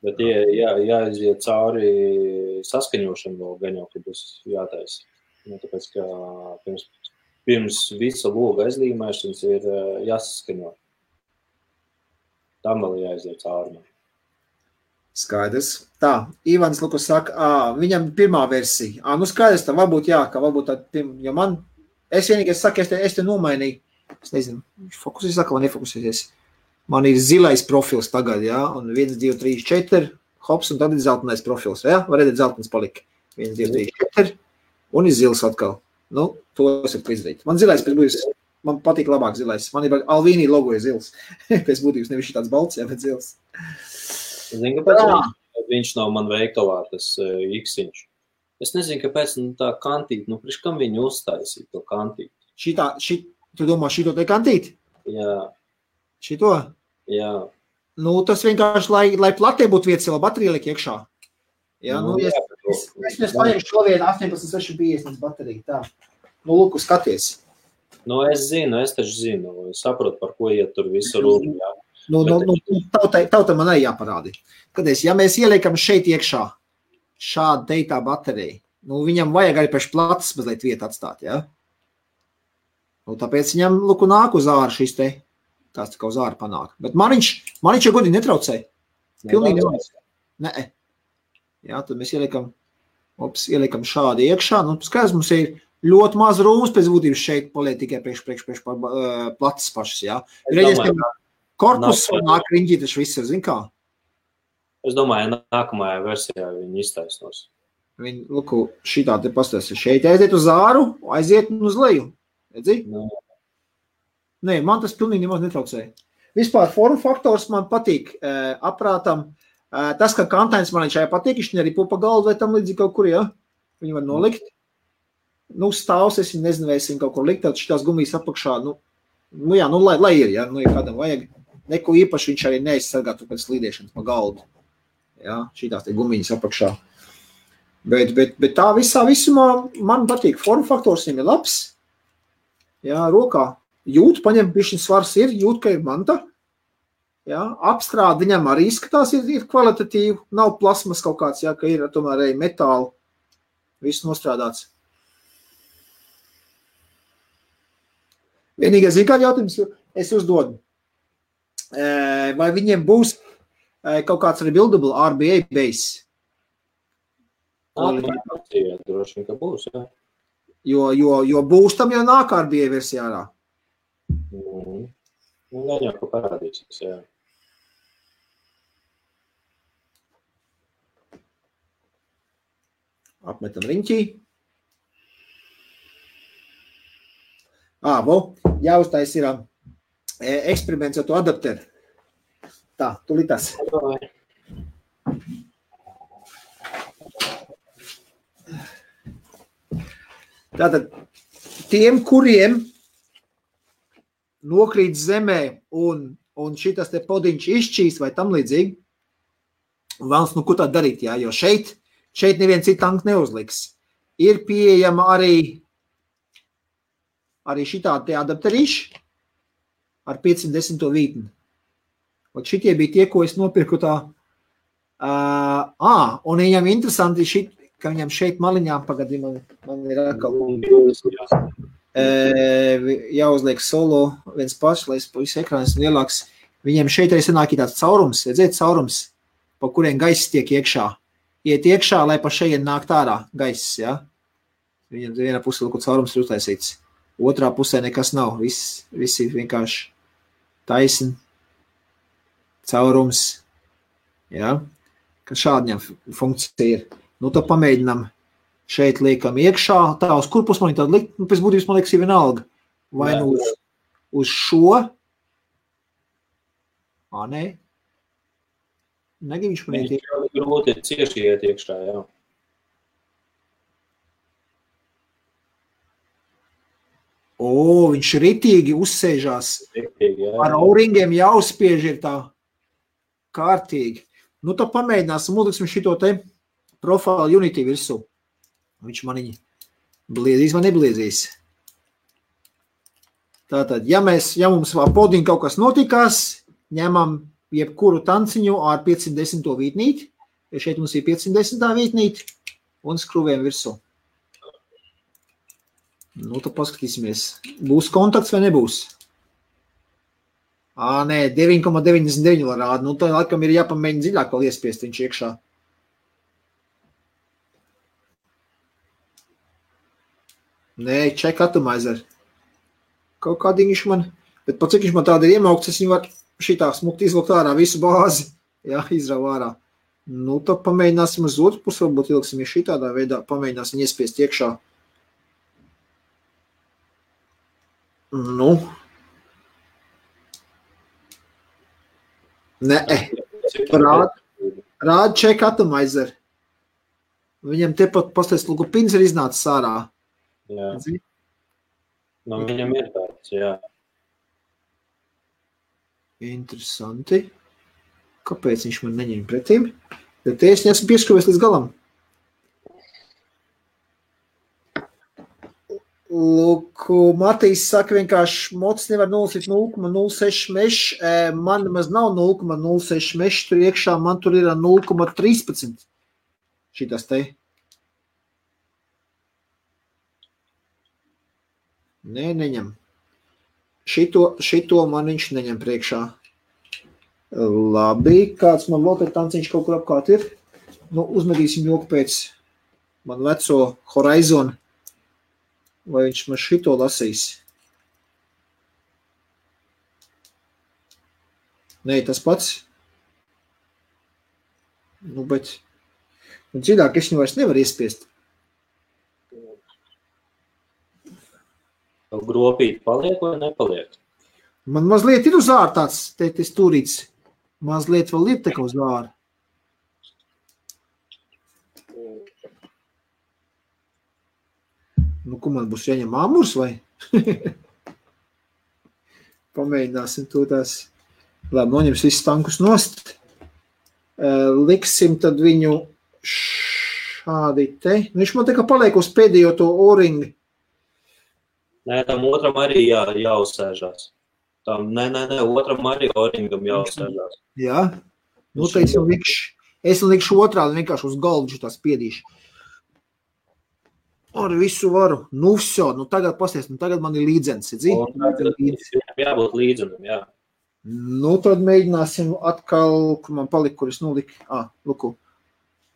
Bet jāiziet cauri saskaņošanu vēl gan jau, kad būs jātaisa. Nu, tāpēc, ka pirms visa loga aizlīmēšanas ir jāsaskaņo. Tam vēl jāiziet cauri. Skaidrs. Tā, Ivans Lukas saka, viņam pirmā versija. Nu, skaidrs, tā varbūt jā, ka varbūt tā, jo man, es vienīgais saku, es te nomainīju. Es nezinu, fokusēs saka, vai nefokusēsies. Man ir zilais profils tagad, jā, un 1, 2, 3, 4, hops, un tad ir zeltenais profils, jā, var redzēt, zeltens palika. 1, 2, 3, 4, un ir zils atkal. Nu, to es varu izdarīt. Man zilais pēc būs, man patīk labāk zilais. Man ir Alvīnī logo ir zils. Pēc būtības nevis tāds balts, jā, bet zils. Zinu, kāpēc viņš nav man veikalā, tas X-iņš. Es nezinu, kāpēc tā kantīt, priekš kam viņi uztaisīja to kantīt. Tu domā, šito te kantīt? Jā. Šito? Jā. Nu, tas vienkārši, lai platē būtu vietas, vēl baterija liek iekšā. Jā, es paņemšu šo vietu 18,650 bateriju, tā. Nu, lūk, skaties. Nu, es taču zinu, es saprotu, par ko iet tur visu runu, jā. Tauta man arī jāparādi. Skaties, ja mēs ieliekam šeit iekšā šādu teitā bateriju, viņam vajag arī pēc platas mazliet vietu atstāt, jā? Tāpēc viņam, nāk uz āru šis te, tās tā kā uz āru panāk. Bet man viņš jau godīgi netraucēja. Pilnīgi nevajag. Nē. Jā, tad mēs ieliekam šādi iekšā. Skaidrs, mums ir ļoti maz rūmas pēc būtības šeit paliek tikai priekš platas pašas, jā. Reidies, ka korpus nāk riņģī, taču viss ir, zin kā? Es domāju, nākamajā versijā viņi iztaisnos. Viņi, šitā te pastās, šeit aiziet uz āru, aiziet uz leju. Redzi? Nē, man tas pilnīgi nemaz netraucēja. Vispār formu faktors man patīk aprātam. Tas, ka kantains man šajā patīk, viņš arī pupa galdu vai tam līdzīgi kaut kur, ja? Viņu var nolikt. Stāvs, es nezinu, vai es viņu kaut kur likt, tad šitās gumijas apakšā, lai ir, ja? Ja kādam vajag. neko īpaši viņš arī neizsargātu pēc slīdēšanas pa galdu. Jā, šitās te gumiņas apakšā. Bet tā visumā man patīk. Forma faktors viņam ir labs. Jā, rokā jūt, paņem bišķiņ svars ir, jūt, ka ir manta. Jā, apstrādi viņam arī izskatās ir kvalitatīvi. Nav plasmas kaut kāds, jā, ka ir tomēr arī metāli. Viss nostrādāts. Vienīgais ir kāds jautājums, es uzdodu. Vai viņiem būs kaut kāds rebuildable RBA base? Jā, droši vien, ka būs, jā. Jo būs tam jau nāk RBA versijā ārā. Gan jau, ka parādīsies, jā. Apmetam riņķī. Jāuztais ir eksperiments ar to adapteru. Tā, tulītās. Tātad, tiem, kuriem nokrīt zemē un šitas te podiņš izšķīst vai tam līdzīgi, vēlas, ko tā darīt, jā, jo šeit neviens citu tanku neuzliks. Ir pieejama arī šitā te adapterīši ar 510 vītni. Šitie bija tie, ko es nopirku tā. Un viņam interesanti ka viņam šeit maliņā, pagadi, man ir atkal jāuzliek solo viens pašs, lai es pa visu ekrānu esmu lielāks. Viņam šeit arī sanāk tāds caurums, redzēt caurums, pa kuriem gaiss tiek iekšā. Iet iekšā, lai pa šeit nākt ārā gaiss, ja? Viņam vienā pusē kaut caurums ir uztaisīts. Otrā pusē nekas nav, viss ir vienkārši taisni, caurums, ja? Ka šādi viņam funkcija ir. Nu, tad pamēģinām šeit liekam iekšā, tā uz kur pus man ir tāda likt, pēc būtības man liekas ir vienalga. Vai nu uz šo? Nē. Negib viņš man iet iekšā. Grūti cieši iet iekšā, jā. Viņš ritīgi uzsēžās. Ritīgi, jā. Ar auringiem jāuzspiež ir tā kārtīgi. Nu, tad pamēģināsim, uzliksim šito te Profile Unity virsū. Viņš maniņi bliezīs vai nebliezīs. Tātad, ja mums podiņ kaut kas notikās, ņemam jebkuru tanciņu ar 510 vītnīti, ja šeit mums ir 510 vītnīti, un skrūvējam virsū. Nu, tad paskatīsimies. Būs kontakts vai nebūs? Nē, 9,99 rāda. Nu, tad laikam ir jāpamēģina dziļāk vēl iespiest viņš iekšā. Nē, check atomizer. Kaut kādiņš man, bet pat cik viņš man tāda ir iemaukts, es viņu var šitā smukti izvilkt ārā visu bāzi. Jā, izrauj ārā. Nu, tad pamēģināsim uz otru pusi, varbūt ilgsim šitādā veidā, pamēģināsim iespiest iekšā. Nu. Nē. Rāda check atomizer. Viņam tepat pastāst, lūgu pins ir iznācis ārā. Jā. Nu, viņam ir tāds, jā. Interesanti. Kāpēc viņš man neņem pretīm? Bet te es neesmu pieskruvies līdz galam. Lūk, Matīs saka vienkārši, mocs nevar nolasīt 0,06 mešs. Man nemaz nav 0,06 mešs tur iekšā, man tur ir 0,13. Šitas te. Nē, neņem. Šito man viņš neņem priekšā. Labi, kāds man vēl te tanciņš kaut kur apkārt ir. Nu, uzmedīsim joku pēc man veco Horizon. Vai viņš man šito lasīs? Nē, tas pats. Nu, bet dziļāk es viņu vairs nevaru iespiest. Gropīt paliek vai nepaliek? Man mazliet ir uz āru tāds te stūrīts. Mazliet vēl ir teka uz āru. Nu, ko man būs jāņem āmurs vai? Pamēģināsim to tās Labi, noņems visus tankus nost. Liksim tad viņu šādi te. Viņš man tā kā paliek uz pēdējo to O-ringu. Nē, tam otram arī jāuzsēžās. Otram arī O-ringam jāuzsēžās. Jā. Nu, te es likšu otrādi, vienkārši uz galdu tās spiedīšu. Ar visu varu. Nu, vso, tagad pasties, tagad man ir līdzens. Jābūt līdzenam, jā. Nu, tad mēģināsim atkal, kur man palika, kur es noliku. Luku,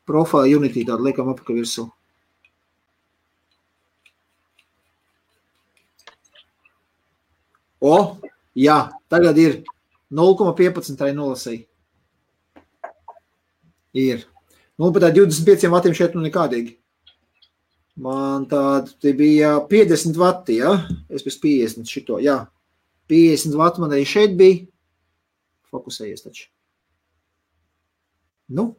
Profile Unity tādu liekam apaka virsū. Jā, tagad ir 0,15 tai nolasīja. Ir. Nu, bet tā 25 vatiem šeit nekādīgi. Man tāda bija 50 vati, ja? Es pēc 50 šito, jā. 50 vati man arī šeit bija. Fokusējies taču. Nu?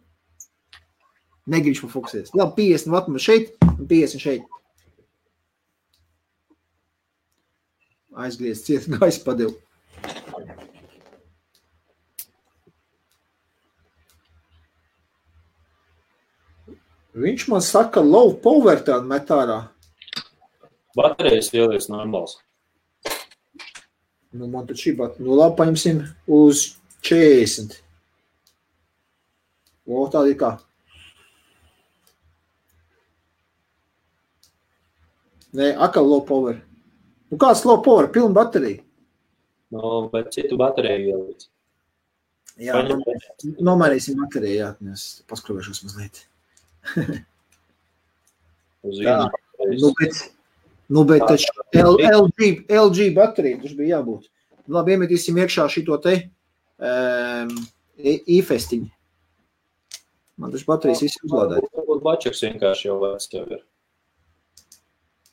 Negribš man fokusējies. Labi, 50 vati man šeit un 50 šeit. Aizgriez ciet, gaisa padevu. Viņš man saka, low power tādu met ārā. Baterijas ielies normāls. Nu, man tad šī baterija. Nu, labi, paņemsim uz 40. Tāda ir kā. Nē, akal low power. Nu, kāds low power? Pilna baterija. Nu, bet citu bateriju ielies. Jā, nomainīsim bateriju, jā. Es paskrovēšos mazliet. bet taču LG baterija taču bija jābūt. Labi, iemetīsim iekšā šito te e-festiņu. Man taču baterijas visi uzlādēt. Varbūt bačeks vienkārši jau vēc tev ir.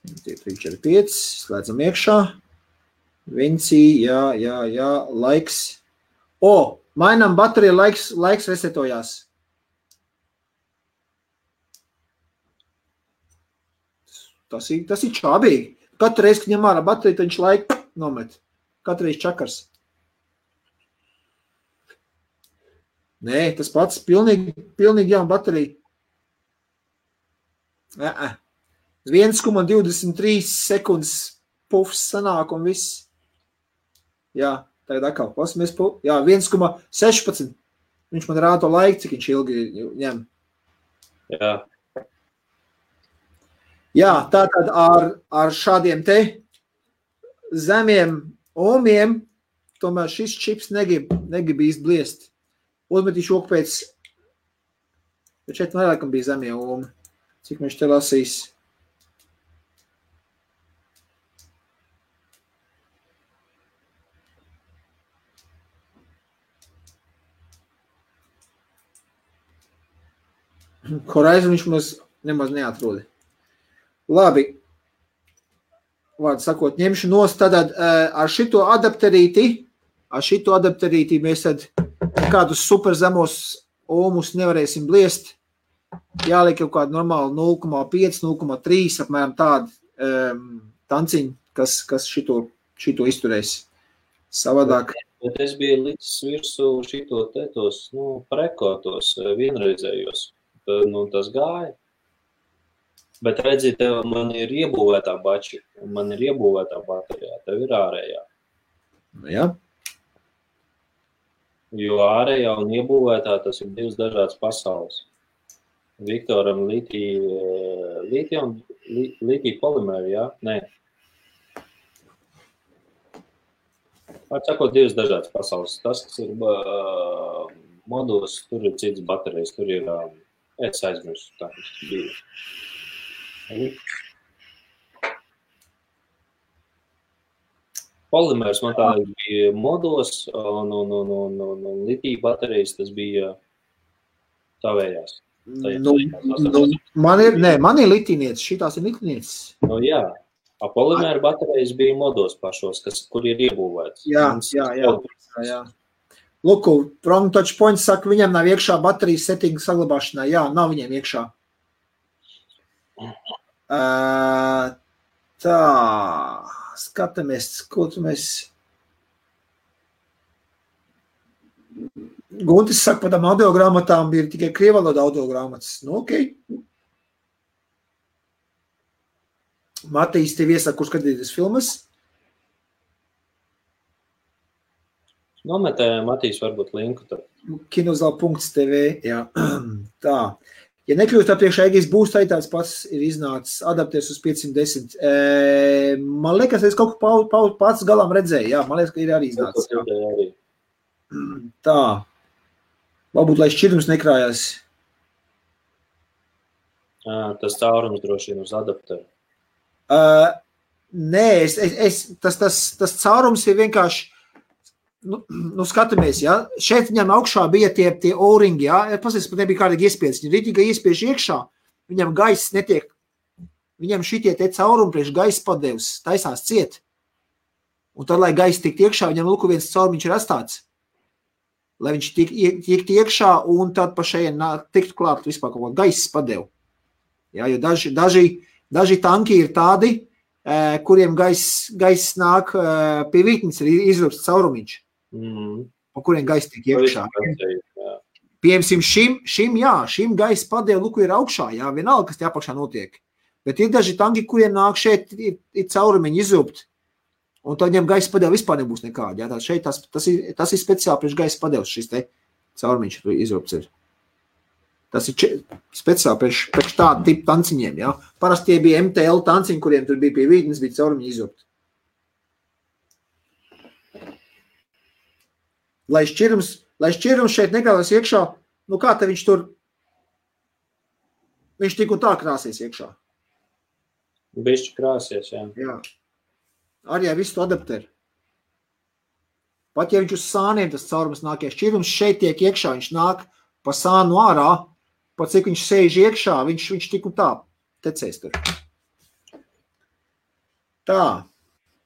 3, 4, 5, slēdzam iekšā. Vinci, jā, laiks. Mainām bateriju, laiks resetojās. Tas ir čābīgi. Katru reizi, kad ņem ārā bateriju, tad viņš laiku nomet. Katru reizi čakars. Nē, tas pats pilnīgi jauna baterija. 1,23 sekundes pufs sanāk un viss. Jā, tagad atkal pasimies. Jā, 1,16. Viņš man rāda to laiku, cik viņš ilgi ņem. Jā. Jā, tātad ar šādiem te zemiem ohmiem, tomēr šis čips negrib īsti bliest. Uzmetīšu oku pēc, bet šeit vairākam bija zemie ohmi. Cik viņš te lasīs? Horizon viņš nemaz neatrodi. Labi, vārdu sakot, ņemšu nost tātad ar šito adapterīti mēs tad kādus super zemos ohmus nevarēsim bliest. Jāliek kaut kādu normālu 0,5, 0,3 apmēram tādu tanciņu, kas šito izturēs. Savādāk. Bet es biju licis virsū šito tos, prekotos vienreizējos. Tas gāja. Bet redzi, tev man ir iebūvētā bači, man ir iebūvētā baterijā, tev ir ārējā. Jā. Jo ārējā un iebūvētā tas ir divas dažādas pasaules. Viktoram litija polimēri, jā? Nē. Atsakot, divas dažādas pasaules. Tas, kas ir modos, tur ir cits baterijas, tur ir, es aizmirstu, tā kas bija. Polimērs man tā bija modos, un litija baterijas tas bija tavējās. Man ir litīniecis, šitās ir litīniecis. Nu jā, polimēra baterijas bija modos pašos, kur ir iebūvēts. Jā. Luku, From Touch Point saka, viņam nav iekšā baterijas settinga saglabāšanā. Jā, nav viņiem iekšā. Tā, skatāmies, ko tu mēs... Guntis saka, par tām audiogrāmatām ir tikai krievaloda audiogrāmatas. Nu, ok. Matīs, tev iesaka, kur skatīties filmas? Nometē Matīs varbūt linku tur. Kinozal.tv, jā. Tā. Ja nekļūst priekšā Egijas būs, tā tāds pats ir iznācis adaptēs uz 510. Man liekas, es kaut ko pats galām redzēju, jā. Man liekas, ka ir arī iznācis. Jā. Tā. Varbūt, lai šķirums nekrājās. Tas caurums droši vien uz adapteru. Nē, tas caurums ir vienkārši, nu skatamies, ja, šeit viņam augšā bija tie O-ringi, ja, pasies, pat nebija kādīgi iespiedz, viņi rītīgi iespiež iekšā, viņam gaiss netiek, viņam šitie te caurumi priekš gaisa padevs, taisās ciet, un tad, lai gaiss tikt iekšā, viņam lūku viens caurumiņš ir atstāts, lai viņš tikt iekšā, un tad pa šeit tiktu klāt vispār kaut ko gaiss padev, ja, jo daži tanki ir tādi, kuriem gaiss nāk pie vītnes, ir izrūpts caurumiņš, pa kuriem gaiss tiek iekšā. Piemēram, šim gaiss padēv, luku ir augšā, jā, vienalga, kas te apakšā notiek. Bet ir daži tanki, kuriem nāk šeit, ir caurumiņi izrūpt, un tad viņam gaiss padēv vispār nebūs nekādi. Jā, šeit tas ir speciāli priekš gaiss padevs, šis te caurumiņš izrūpts ir. Tas ir speciāli priekš tādu tipu tanciņiem, jā. Parasti tie bija MTL tanciņi, kuriem tur bija pie vītnes, bija caurumiņi izrūpt. Lai šķirums šeit nekrāsies iekšā, nu kā te viņš tur, viņš tik un tā krāsies iekšā. Bišķi krāsies, jā. Jā. Arī visu to adapteru. Pat ja viņš uz sāniem tas caurums nāk, ja šķirums šeit tiek iekšā, viņš nāk pa sānu ārā, pat cik viņš sēž iekšā, viņš tik un tā tecēs tur. Tā.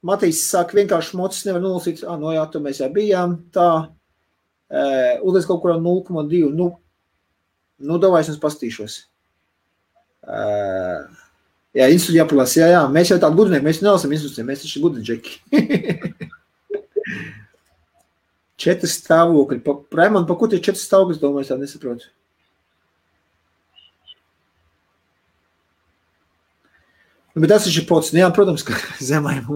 Matīs saka, vienkārši mocis nevar nolasīt. No jā, tur mēs jau bijām. Tā. Ulies kaut kurā 0,2. Nu, davai es mums pastīšos. Jā, institūti jāpalās. Jā. Mēs jau tādu gudrinieki, mēs nelasam institūtiem, mēs taču gudri džeki. 4 stāvokļi. Raimond, pa ko tie 4 stāvokļi, domāju, es tā nesaprotu. Bet tas ir pots. Jā, protams, ka zemājiem.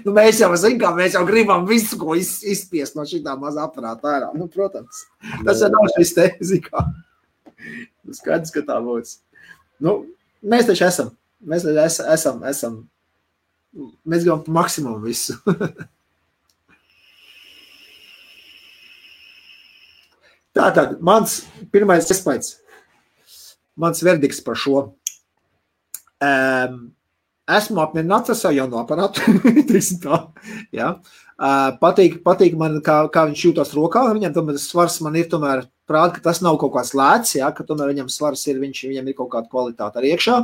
Nu, mēs jau gribam visu, ko izspiest no šitā mazā aparāta ārā. Nu, protams. Tas jau nav šis te, zikā. Nu, skaidrs, ka tā būs. Nu, mēs taču esam. Mēs gribam pa maksimumu visu. Tātad, mans pirmais iespējas, mans verdikts par šo. Esmu apmierināts ar savu jauno aparātu, ja. Patīk man, kā viņš jūtas rokā, viņam tomēr svars man ir tomēr prāt, ka tas nav kaut kāds lēts, ja, ka tomēr viņam svars ir, viņam ir kaut kāda kvalitāte arī iekšā.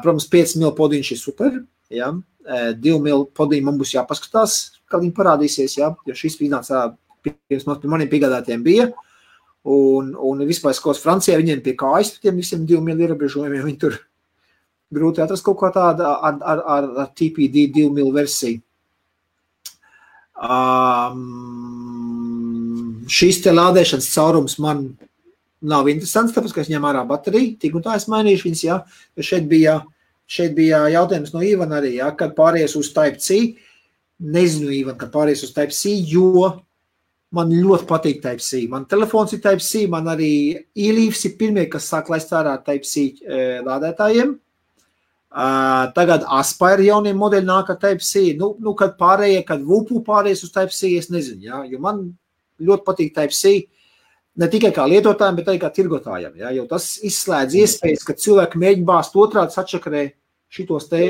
Protams, 5 mil podiņš ir super, ja. 2 mil podiņi man būs jāpaskatās, kā viņi parādīsies, ja, jo šis iznāca pirms maniem piegādātiem bija, un vispār skos Francijā viņiem pie kājas, tiem visiem 2 mil ierobežojumiem, viņi tur grūti atrast kaut kā tāda ar TPD 2 mil versiju. Šīs te lādēšanas caurums man nav interesants, tāpēc, ka es ņem ārā bateriju, tik un tā es mainīšu viņas, jā, jo šeit bija jautājums no Ivana arī, jā, kad pāries uz Type-C, nezinu, Ivan, kad pāries uz Type-C, jo man ļoti patīk Type-C. Man telefons ir Type-C, man arī e-leaves ir pirmie, kas sāk laist ārā Type-C lādētājiem. Tagad Aspire jaunie modeļi nāk ar Type-C. Nu, kad pārējie, kad VUPU pārējais uz Type-C, es nezinu, jā, jo man ļoti patīk Type-C, ne tikai kā lietotājiem, bet arī kā tirgotājiem, jā, jo tas izslēdz iespējas, ka cilvēki mēģina bāzt otrādi sačakarē šitos te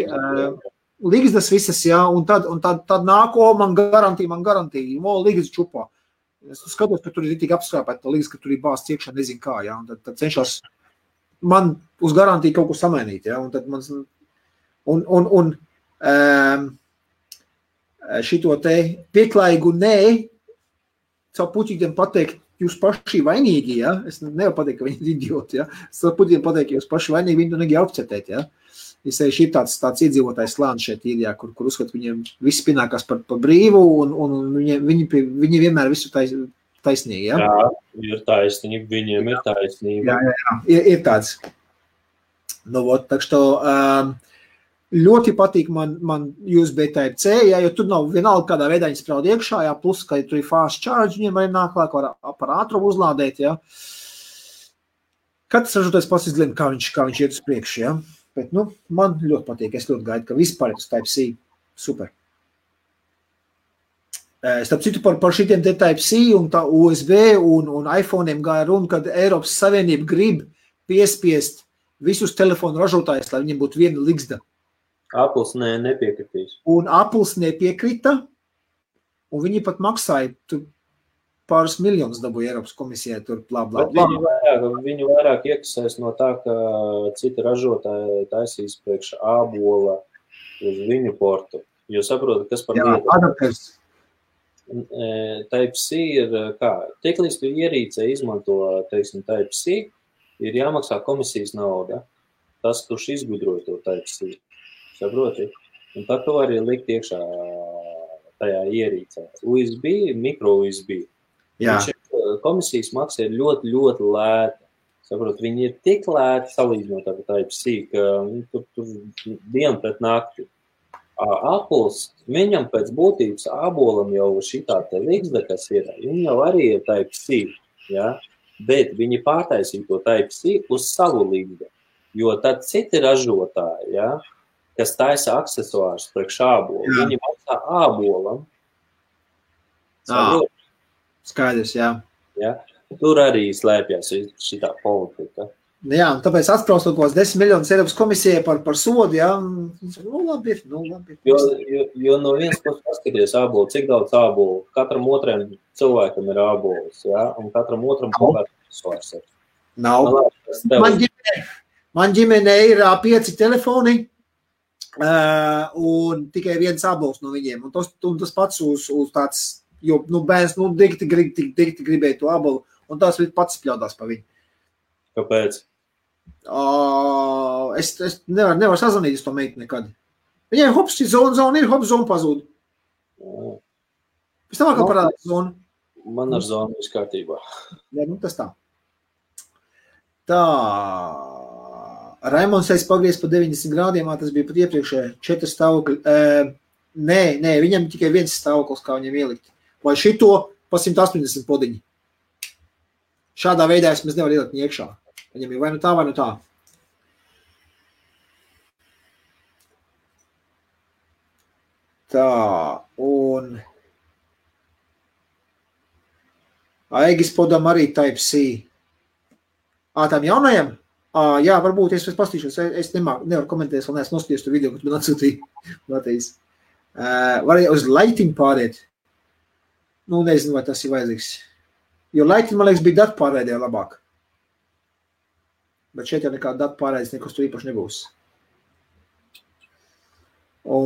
ligzdas visas, jā, un tad nāk, man garantija, ligzdas čupā. Es skatos, ka tur ir tik apskrāpēt, liekas, ka tur ir bāsts iekšā, nezinu kā, jā, un tad cenšas man uz garantiju kaut ko samainīt, jā, un tad man, šito te pieklājīgu nē, caur puķītiem pateikt, jūs paši vainīgi, jā, es nevaru pateikt, ka viņi ir idioti, jā, es caur puķītiem pateikt, ka jūs paši vainīgi, viņi to negi apcetēt, jā, Es ir tāds iedzīvotājs slānis šeit īrijā, kur uzskat viņiem viss pienākās par brīvu, un viņi vienmēr visu taisnīgi, ja? Jā, ir taisnība, viņiem ir taisnība. Jā, ir tāds. Nu, tak što ļoti patīk man USB Type-C, ja, jo tur nav vienalga kādā veidā viņi spraud iekšā, ja, plus, ka tur ir fast charge, viņiem arī nāk lāk, var par ātrumu uzlādēt, ja. Katrs ražotājs pats izlēma, kā viņš iet uz priekšu, ja. Bet, nu, man ļoti patīk, es ļoti gaidu, ka vispār ir uz Type-C. Super. Starp citu par šitiem te Type-C un tā USB un iPhone'iem gāja runa, kad Eiropas Savienība grib piespiest visus telefonu ražotājus, lai viņiem būtu viena ligzda. Apples nepiekritīs. Un Apples nepiekrita, un viņi pat maksāja tur pāris miljonus dabūja Eiropas komisijai tur blā. Viņu vairāk iekasēs no tā, ka citi ražotāji taisīs priekš ābola uz viņu portu. Jo saprotu, kas par lietu. Adapters. Type-C ir kā? Tiklīdz tu ierīcē izmanto, teiksim, Type-C, ir jāmaksā komisijas nauda. Tas, kurš izgudroja to Type-C. Saproti? Un tad to arī likt iekšā tajā ierīcē. USB, micro USB. Komisijas maksa ir ļoti, ļoti lēta. Saprot, viņi ir tik lēti salīdzinot ar Type-C, ka tur dienu pret nakti. Apples, viņam pēc būtības ābolam jau šitā te ligzda, kas ir, viņi jau arī ir Type-C, ja? Bet viņi pārtaisīja to Type-C uz savu ligzdu, jo tad citi ražotāji, ja, kas taisa aksesuārus priekš ābolu, viņi maksā ābolam. Saprot? Skaidrs, jā. Ja? Tur arī slēpjas šitā politika. Jā, un tāpēc atspraust kaut kos 10 miljonus Eiropas komisijai par sodu, jā. Nu, labi. Jo no viens puses paskaties ābolu, cik daudz ābolu. Katram otriem cilvēkam ir ābols, jā, un katram otram kaut kāds svars ir. Nav. Man ģimenē ir 5 telefoni, un tikai viens ābols no viņiem. Un tas pats uz tāds, jo, bērns, dikti gribēja to ābolu, un tās pats pļaudās pa viņu. Kāpēc? Es nevaru sazvanīt uz to meitu nekad. Viņai hops, zona ir, hops, zona pazūd. Pēc tam kā parādās zona. Man ar zonu viss kārtībā. Jā, tas tā. Tā. Raimonds pagriez pa 90 grādiem, tas bija pat iepriekšē 4 stāvokļi. Nē, viņam tikai viens stāvoklis, kā viņam ielikt. Vai šito pa 180 podiņi. Šādā veidā es mēs nevar ielikt iekšā. Viņam ir vai nu tā, vai nu tā. Tā, un Aigis podam arī Type-C. Tām jaunajam? Jā, varbūt es pastīšos. Es nevaru komentēt, vēl neesmu noskaties to video, ko tu man atsūtīji. Var uz lighting pāriet. Nu, nezinu, vai tas ir vajadzīgs. Jo lighting, man liekas, bija datu pārraidē labāk. Bet šeit jau nekāda datu pārraides nekas tur īpaši nebūs.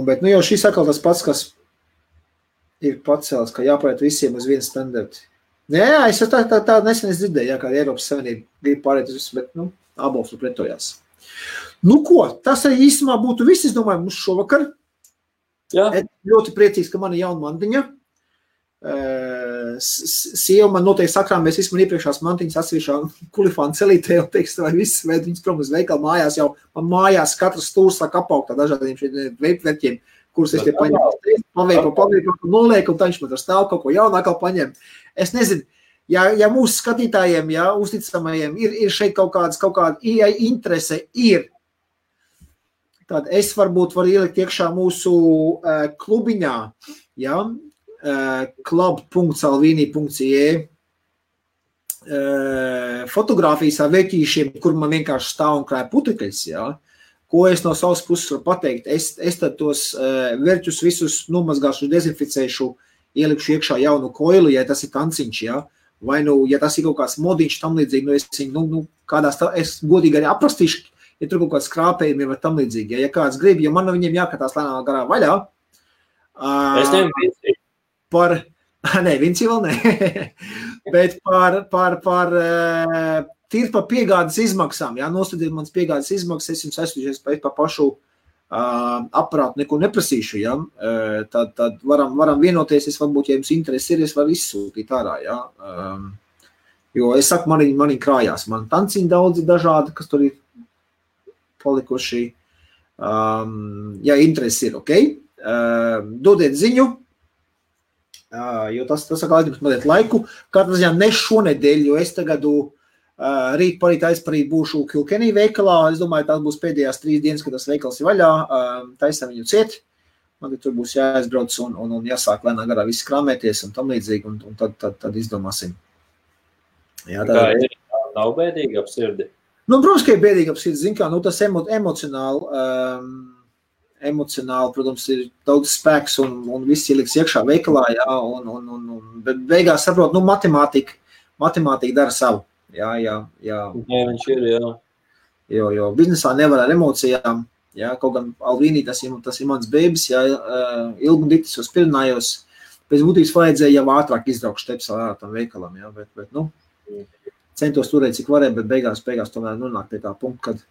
Bet, jau šis atkal tas pats, kas ir pacēlis, ka jāpāriet visiem uz vienu standartu. Jā, es tā nesen dzirdēju, kā Eiropas Savienība grib pārēt uz visu, bet, ābols tur pretojās. Nu ko, tas arī īstumā būtu viss, es domāju, mums šovakar. Jā. Ļoti priecīgs, ka man ir jauna mantiņa. Sieva man noteikti sakrāmēs visu man iepriekšās mantiņas atsevišķā kulifāna celītē, un teiks, vai viss vēd viņas prom uz veikalu mājās jau, man mājās katrs stūrs sāk apaugt tā dažādiem šeit veipverķiem, kurus es te paņemu, paveipu, nolieku, un tā viņš man ar stāv kaut ko jaunākā paņem. Es nezinu, ja mūsu skatītājiem, ja uzticamajiem ir šeit kaut kāda interese ir, tad es varbūt varu ielikt iekšā mūsu klubiņā, ja, club.salvini.ie fotogrāfijas ar veķīšiem, kur man vienkārši stāv un krāja putekļus, ja? Ko es no savas puses varu pateikt. Es tad tos verķus visus nomazgāšu, dezinficēšu, ielikšu iekšā jaunu koilu, ja tas ir tanciņš, ja? Vai ja tas ir kaut kāds modiņš tam līdzīgi, es godīgi arī aprastīšu, ja tur kaut kāds krāpējumi vai tam līdzīgi, ja kāds grib, jo man no viņiem jākatās lēnā garā vaļā. Es nevienu Nē, Vinci vēl ne, bet par tīri par piegādes izmaksām, jā, nostadiet mans piegādes izmaksas, es jums aizsūtīšu pa pašu aparātu, neko neprasīšu, jā, tad varam vienoties, es varbūt, ja jums interesi ir, es varu izsūtīt ārā, jā, jo es saku, mani krājās, man tanciņi daudzi dažādi, kas tur ir palikuši, ja interesi ir, ok, dodiet ziņu, jo tas saka, aizņemt mazliet laiku, katrā ziņā ne šonedēļ, jo es tagadu rīt parīt aizparīt būšu Kilkenny veikalā, es domāju, tās būs pēdējās 3 dienas, kad tas veikals ir vaļā, taisam viņu ciet, man tur būs jāaizbrauc un jāsāk lēnā garā viss krāmēties un tam līdzīgi, un tad izdomāsim. Jā, kā ir, nav bēdīgi ap sirdi? Nu, protams, ka ir bēdīgi ap sirdi, zin kā, nu tas emocionāli, protams, ir daudz spēks un viss ieliks iekšā veikalā, jā, bet beigās saprot, nu, matemātika dara savu. Jā. Jā, viņš ir, jā. Jo biznesā nevar ar emocijām, jā, kaut gan Alvīnī tas ir mans bēbis, jā, ilgi un diktis uz Pirinājos, pēc būtības vajadzēja jau ātrāk izbraukt šteps ārā tam veikalam, jā, bet, nu, centos turēt, cik varēja, bet beigās tomēr nonāk pie tā punkta, kad,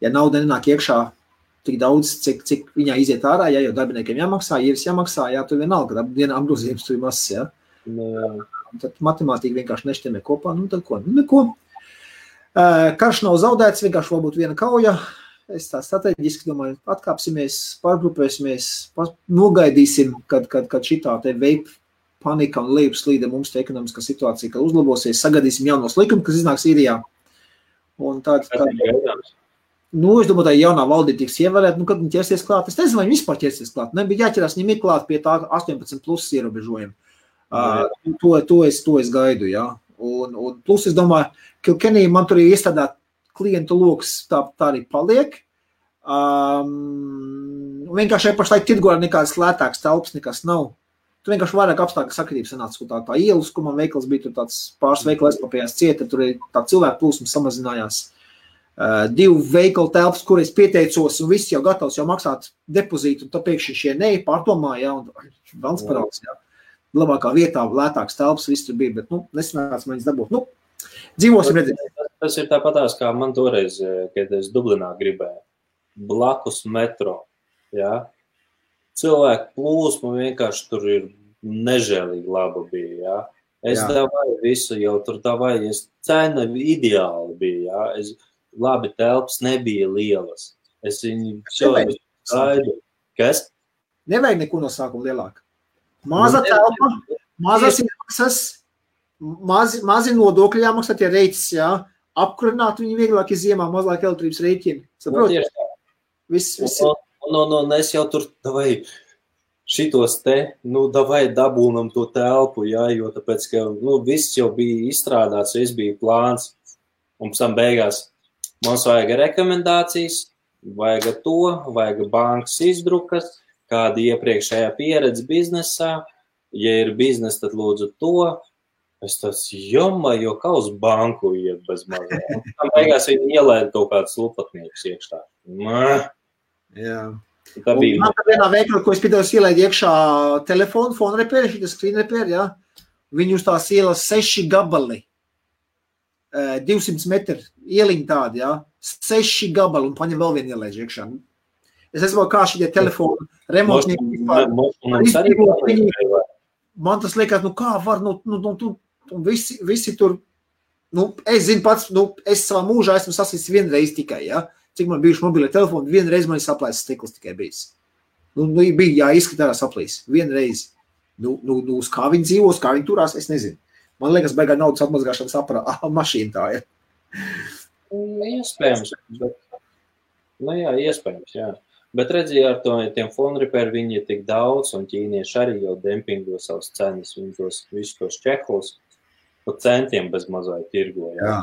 ja nauda nenāk iekšā tik daudz, cik viņā iziet ārā, jā, jo darbiniekiem jāmaksā, īres jāmaksā, jā, tur vienalga, dienā apgrozījums tur ir mazs, jā. Tad matemātika vienkārši nešķiemē kopā, nu tad ko, nu neko. Karš nav zaudēts, vienkārši varbūt viena kauja. Es tā strateģiski domāju, atkāpsimies, pārgrupēsimies, nogaidīsim, kad šitā te vape panika un lejupslīde mums te ekonomiskā situācija, kad uzlabosies, sagadīsim jaunos likumus, kas iznāks īrijā. Un tad nu, es domāju, tā jaunā valdība tiks ievēlēt, nu, kad viņi ķersies klāt. Es nezinu, vai viņi vispār ķersies klāt. Nebija jāķerās, viņiem ir klāt pie tā 18 plus ierobežojumu. To es gaidu, jā. Un plus, es domāju, Kilkenny man tur ir iestādāt klientu loks, tā arī paliek. Vienkārši pašlaik tirgorā nekādas lētākas telpas nekas nav. Tur vienkārši vairāk apstākļu sakritības sanāca, tā ielas, kur man veikals bija, tur tāds pāris veikali aizklapējās cieta, tur ir tā cilvēku plūsma samazinājās. 2 veikalu telpas, kur es pieteicos, un viss jau gatavs jau maksāt depozītu, un tā pēkšņi šie pārdomā, jā, un valsts paraugs, jā. Labākā vietā, lētāks telpas, viss tur bija, bet, nu, nesanāca man viņas dabūt. Nu, dzīvosim redzēt. Tas ir tāpatās, kā man toreiz, kad es Dublinā gribēju, blakus metro, jā. Cilvēku plūsma vienkārši tur ir nežēlīgi laba bija, jā. Es davāju visu, jau tur davāju, cena ideāli bija, jā. Labi, telpas nebija lielas. Es viņu gaidu. Kas? Nevajag neko no sākuma lielāk. Maza telpa, mazas izmaksas, mazi nodokļi jāmaksā tie reiķis, jā. Apkurināt viņu vieglāk ziemā, mazāk elektrības rēķini. Saproti? Viss. Un es jau tur davai šitos te, nu, davai dabūnam to telpu, jā, jo tāpēc, ka, nu, viss jau bija izstrādāts, viss bija plāns. Un pēc tam beigās mums vajag rekomendācijas, vajag to, vajag bankas izdrukas, kāda iepriekšējā pieredze biznesā. Ja ir biznes, tad lūdzu to. Es tas jo kā uz banku iet bez mazā. Un tam beigās viņi ielēda kaut kādus lupatniekus iekšā. Jā. Tā bija. Man tā vienā veikalā, ko es piedāvāju ielēd iekšā telefonu, phone repair, šitas screen repair, jā. Viņi uz tās ielas 6 gabali. 200 metri ieliņi tādi, jā. 6 gabali un paņem vēl vienu ielēdži iekšā. Es esmu kā šitie telefonu remontnieki vispār. Man tas liekas, nu kā var, visi tur, nu, es zinu pats, nu, es savā mūžā esmu sasīts vienreiz tikai, ja? Cik man bijuši mobilie telefoni, vienreiz man ir saplēsis stikls tikai bijis. Nu, bija jāizskatās saplīs, vienreiz. Nu, uz kā viņi dzīvos, kā viņi turās, es nezinu. Man liekas, beigā naudas atmazgāšanas mašīna tā ir. Iespējams, bet, nu jā, iespējams, jā. Bet redziet, ar tiem phone repair viņi ir tik daudz, un ķīnieši arī jau dempingo savas cenas, viņi visus tos čeklus pa centiem bez mazai tirgo. Jā.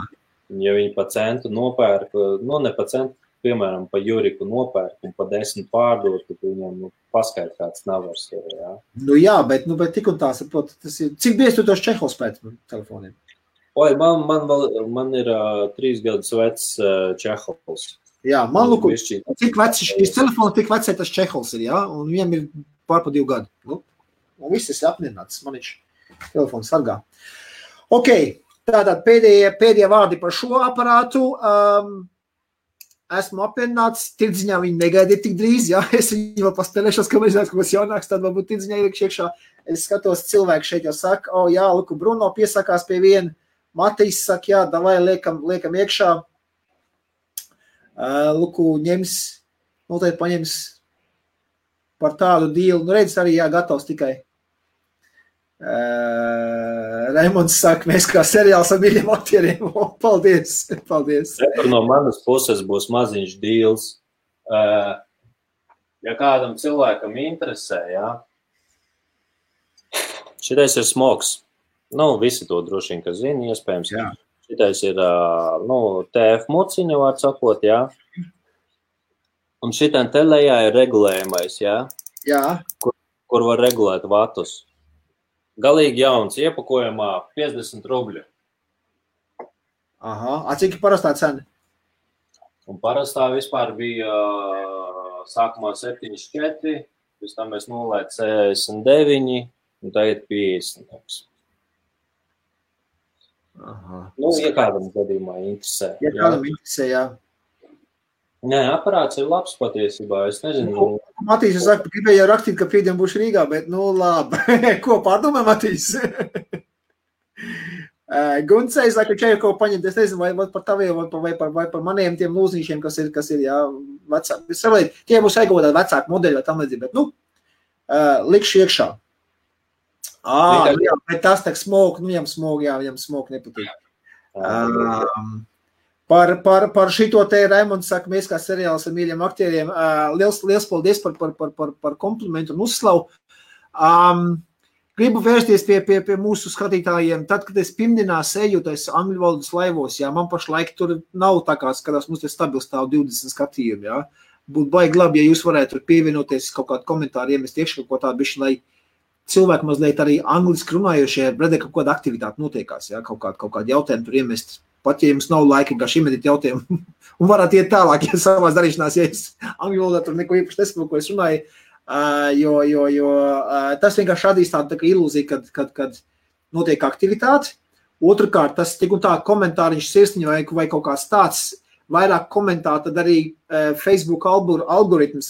Ja viņi pa centu nopērk, nu ne pa centu, piemēram, pa Juriku nopērk un pa 10 pārdot, tad viņam paskait kāds navars. Jā. Nu jā, bet tik un tā, saprot, tas ir, cik bieži tu tos čehos pēc telefoniem? Oi, man ir 3 gadus vecs čehols. Jā, man lūk, cik vecs šis telefons, tik vecai tas čehols ir, jā, un viņam ir pārpa 2 gadu. Nu, un viss ir apmierināts, man viņš telefons sargā. Ok, Tātad pēdējie vārdi par šo aparātu. Esmu apvienāts, tirdziņā viņi negaidiet tik drīz, jā, es viņu vēl paspēlēšos, ka mēs zinās, ka būs jaunāks, tad varbūt tirdziņā iekš iekšā. Es skatos, cilvēki šeit jau saka, jā, Luku Bruno piesakās pie viena, Matīs saka, jā, davai liekam iekšā. Luku noteikti paņems par tādu dīlu, redz arī, jā, gatavs tikai. Raimonds saka, mēs kā seriāls ar mīļiem aktieriem. Paldies. No manas puses būs maziņš dīls. Ja kādam cilvēkam interesē, jā. Šitais ir smogs. Visi to droši vien, ka zina, iespējams. Jā. Šitais ir, TF muciņa, var sakot, jā. Un šitam te lejā ir regulējumais, jā. Jā. Kur var regulēt vatus. Galīgi jauns, iepakojumā 50 rubļu. Aha, cik parastā cena? Un parastā vispār bija sākumā 74, pēc tam mēs nolēt 69, un tagad 50. Aha. Ja kādam gadījumā interesē. Ja kādam interesē, jā. Nē, aparāts ir labs patiesībā, es nezinu. Matīs, es saku, gribēju rakstīt, ka pīdien būšu Rīgā, bet, labi. Ko pārdomā, Matīs? Guncei, saka, čai kaut paņemt, es nezinu, vai par taviem, vai par maniem tiem lūznīšiem, kas ir, jā, vecāki. Es saprotu, tie būs aigotāt vecāku modeļu vai tam līdzīgi, bet, likšu iekšā. Jā, bet tas tak smog, viņam smog nepatīk. Par šito te Raimonds saka, mēs kā seriāls ar mīļiem aktieriem, liels paldies par komplimentu un uzslavu. Gribu vērsties pie mūsu skatītājiem. Tad, kad es pirmdienās eju tais angļu valodas laivos, jā, man pašlaik tur nav tā kā skatās, mums te stabils stāv 20 skatījumi, jā. Būtu baigi labi, ja jūs varētu pievienoties kaut kādu komentāru, iemest iekšā kaut tādu bišķi, lai cilvēki mazliet arī angliski runājošie, redē, kaut kāda aktivitāte notiekās, jā, kaut kādu jautājumu tur iemest. Pat, ja jums nav laika, kā šim edit jautājumu, un varat iet tālāk, ja savās darīšanās, ja es angļu valodā tur neko īpaši nesaprotu, ko es runāju, jo tas vienkārši radīs tādu ilūziju, kad notiek aktivitāte. Otrkārt, tas tik un tā komentāriņš sirsniņa vai kaut kāds tāds vairāk komentāri, tad arī Facebook algoritms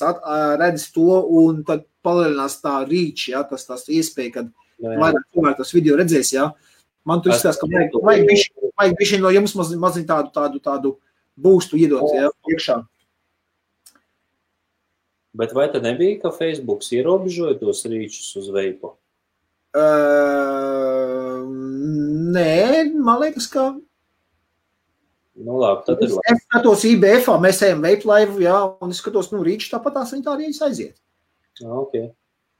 redz to un tad palielinās tā reach, jā, tas iespēja, kad vairāk cilvēki tos video redzēs, jā. Man tur izskatās, ka vajag bišķi no jums maziņ tādu boostu iedot, jā, iekšā. Bet vai tad nebija, ka Facebooks ierobežoja tos rīčus uz veipu? Nē, man liekas, ka... Labi, tad ir labi. Es skatos IBF-ā, mēs ejam veipu laivu, jā, un es skatos, rīčus tāpat tās viņi tā arī aiziet. Ok.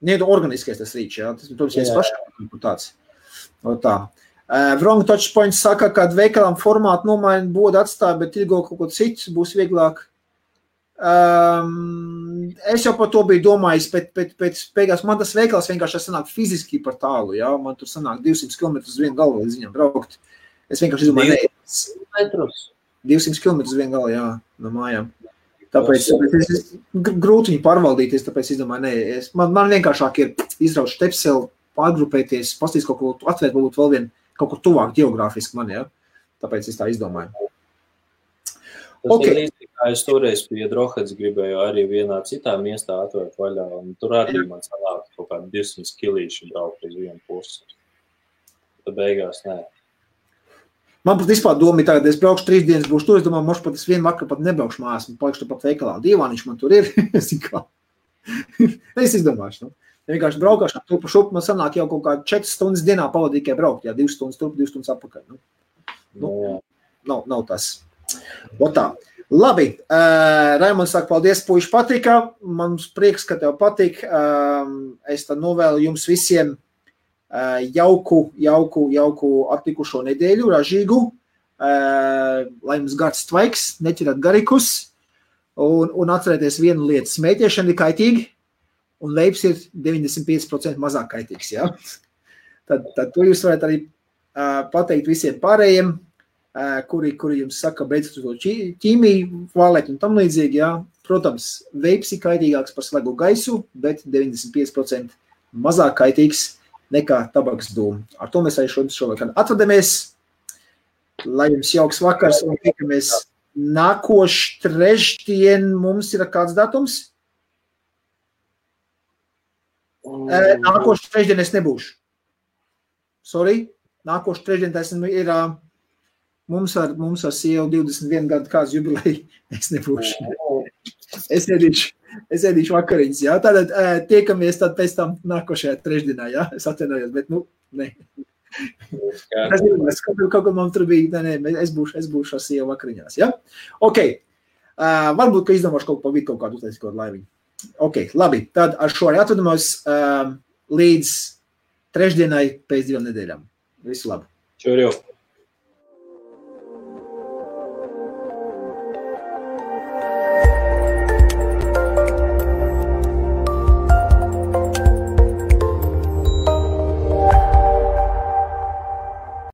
Nē, organiskais tas rīčs, jā, tas, protams, viens pašām tāds. Tā. Wrong Touchpoint saka, kad veikalam formātu nomaina bodu atstāja, bet ilgo kaut ko citu būs vieglāk. Es jau par to biju domājis, bet beigās man tas veikals vienkārši sanāk fiziski par tālu, jā, man tur sanāk 200 km uz vienu galu līdz viņam braukt. Es vienkārši izdomāju, 200 km uz vienu galu, jā, no mājām. Tāpēc es grūti viņu pārvaldīties, tāpēc izdomāju, man vienkāršāk ir izraut štepseli, pārgrupēties, pastīs kaut ko atvērt, varbūt vēl vien kaut kur tuvāk geogrāfiski man, jā. Tāpēc es tā izdomāju. Tas ir līdzīgi, kā es toreiz pie Droheds gribēju arī vienā citā miestā atvērt vaļā, un tur arī man sanāk kaut kādi 200 kilīši braukt uz vienu pusi. Tad beigās nē. Man pat vispār doma ir tagad, es braukšu 3 dienas, būšu tur, es domāju, mošu pat es vienu vakaru pat nebraukšu mājās, un palikšu pat veikalā. Dīvāniņš man tur ir, es izdomāšu, vienkārši braukāšu, tur pa šupu man sanāk jau kaut kā 4 stundas dienā pavadīt, tikai braukt, jā, 2 stundas turp, 2 stundas apakaļ. Nav tas. Tā. Labi, Raimonds saka, paldies, puiši patika, man prieks, ka tev patik, es tad novēlu jums visiem jauku atlikušo nedēļu, ražīgu, lai jums gards tvaiks, neķerat garikus, un atcerēties vienu lietu, smēķēšana ir kaitīgi, un veips ir 95% mazāk kaitīgs, jā. Tad to jūs varat arī pateikt visiem pārējiem, kuri jums saka, beidzot to ķīmiju, vālēt un tam līdzīgi, jā. Protams, veips ir kaitīgāks par slegu gaisu, bet 95% mazāk kaitīgs nekā tabaks dūmu. Ar to mēs arī šovakar atvadamies. Lai jums jauks vakars un tikamies nākošu trešdien. Mums ir kāds datums? Nākošu trešdien es nebūšu. Sorry. Nākošu trešdien tas ir mums ar sievu 21 gadu kāds jubileja. Es nebūšu. Es ēdīšu vakariņas, jā. Tātad tiekamies tad pēc tam nākošajā trešdienā, jā. Es atvainojos, bet ne. Es kaut kur man tur bija, es būšu ar sievu vakariņās, jā. Ok. Varbūt, ka izdomāšu kaut kādu uztaisīt kaut laiviņu. Ok, labi. Tad ar šo arī atvadamos līdz trešdienai pēc 2 nedēļām. Visu labu. Čau, jau.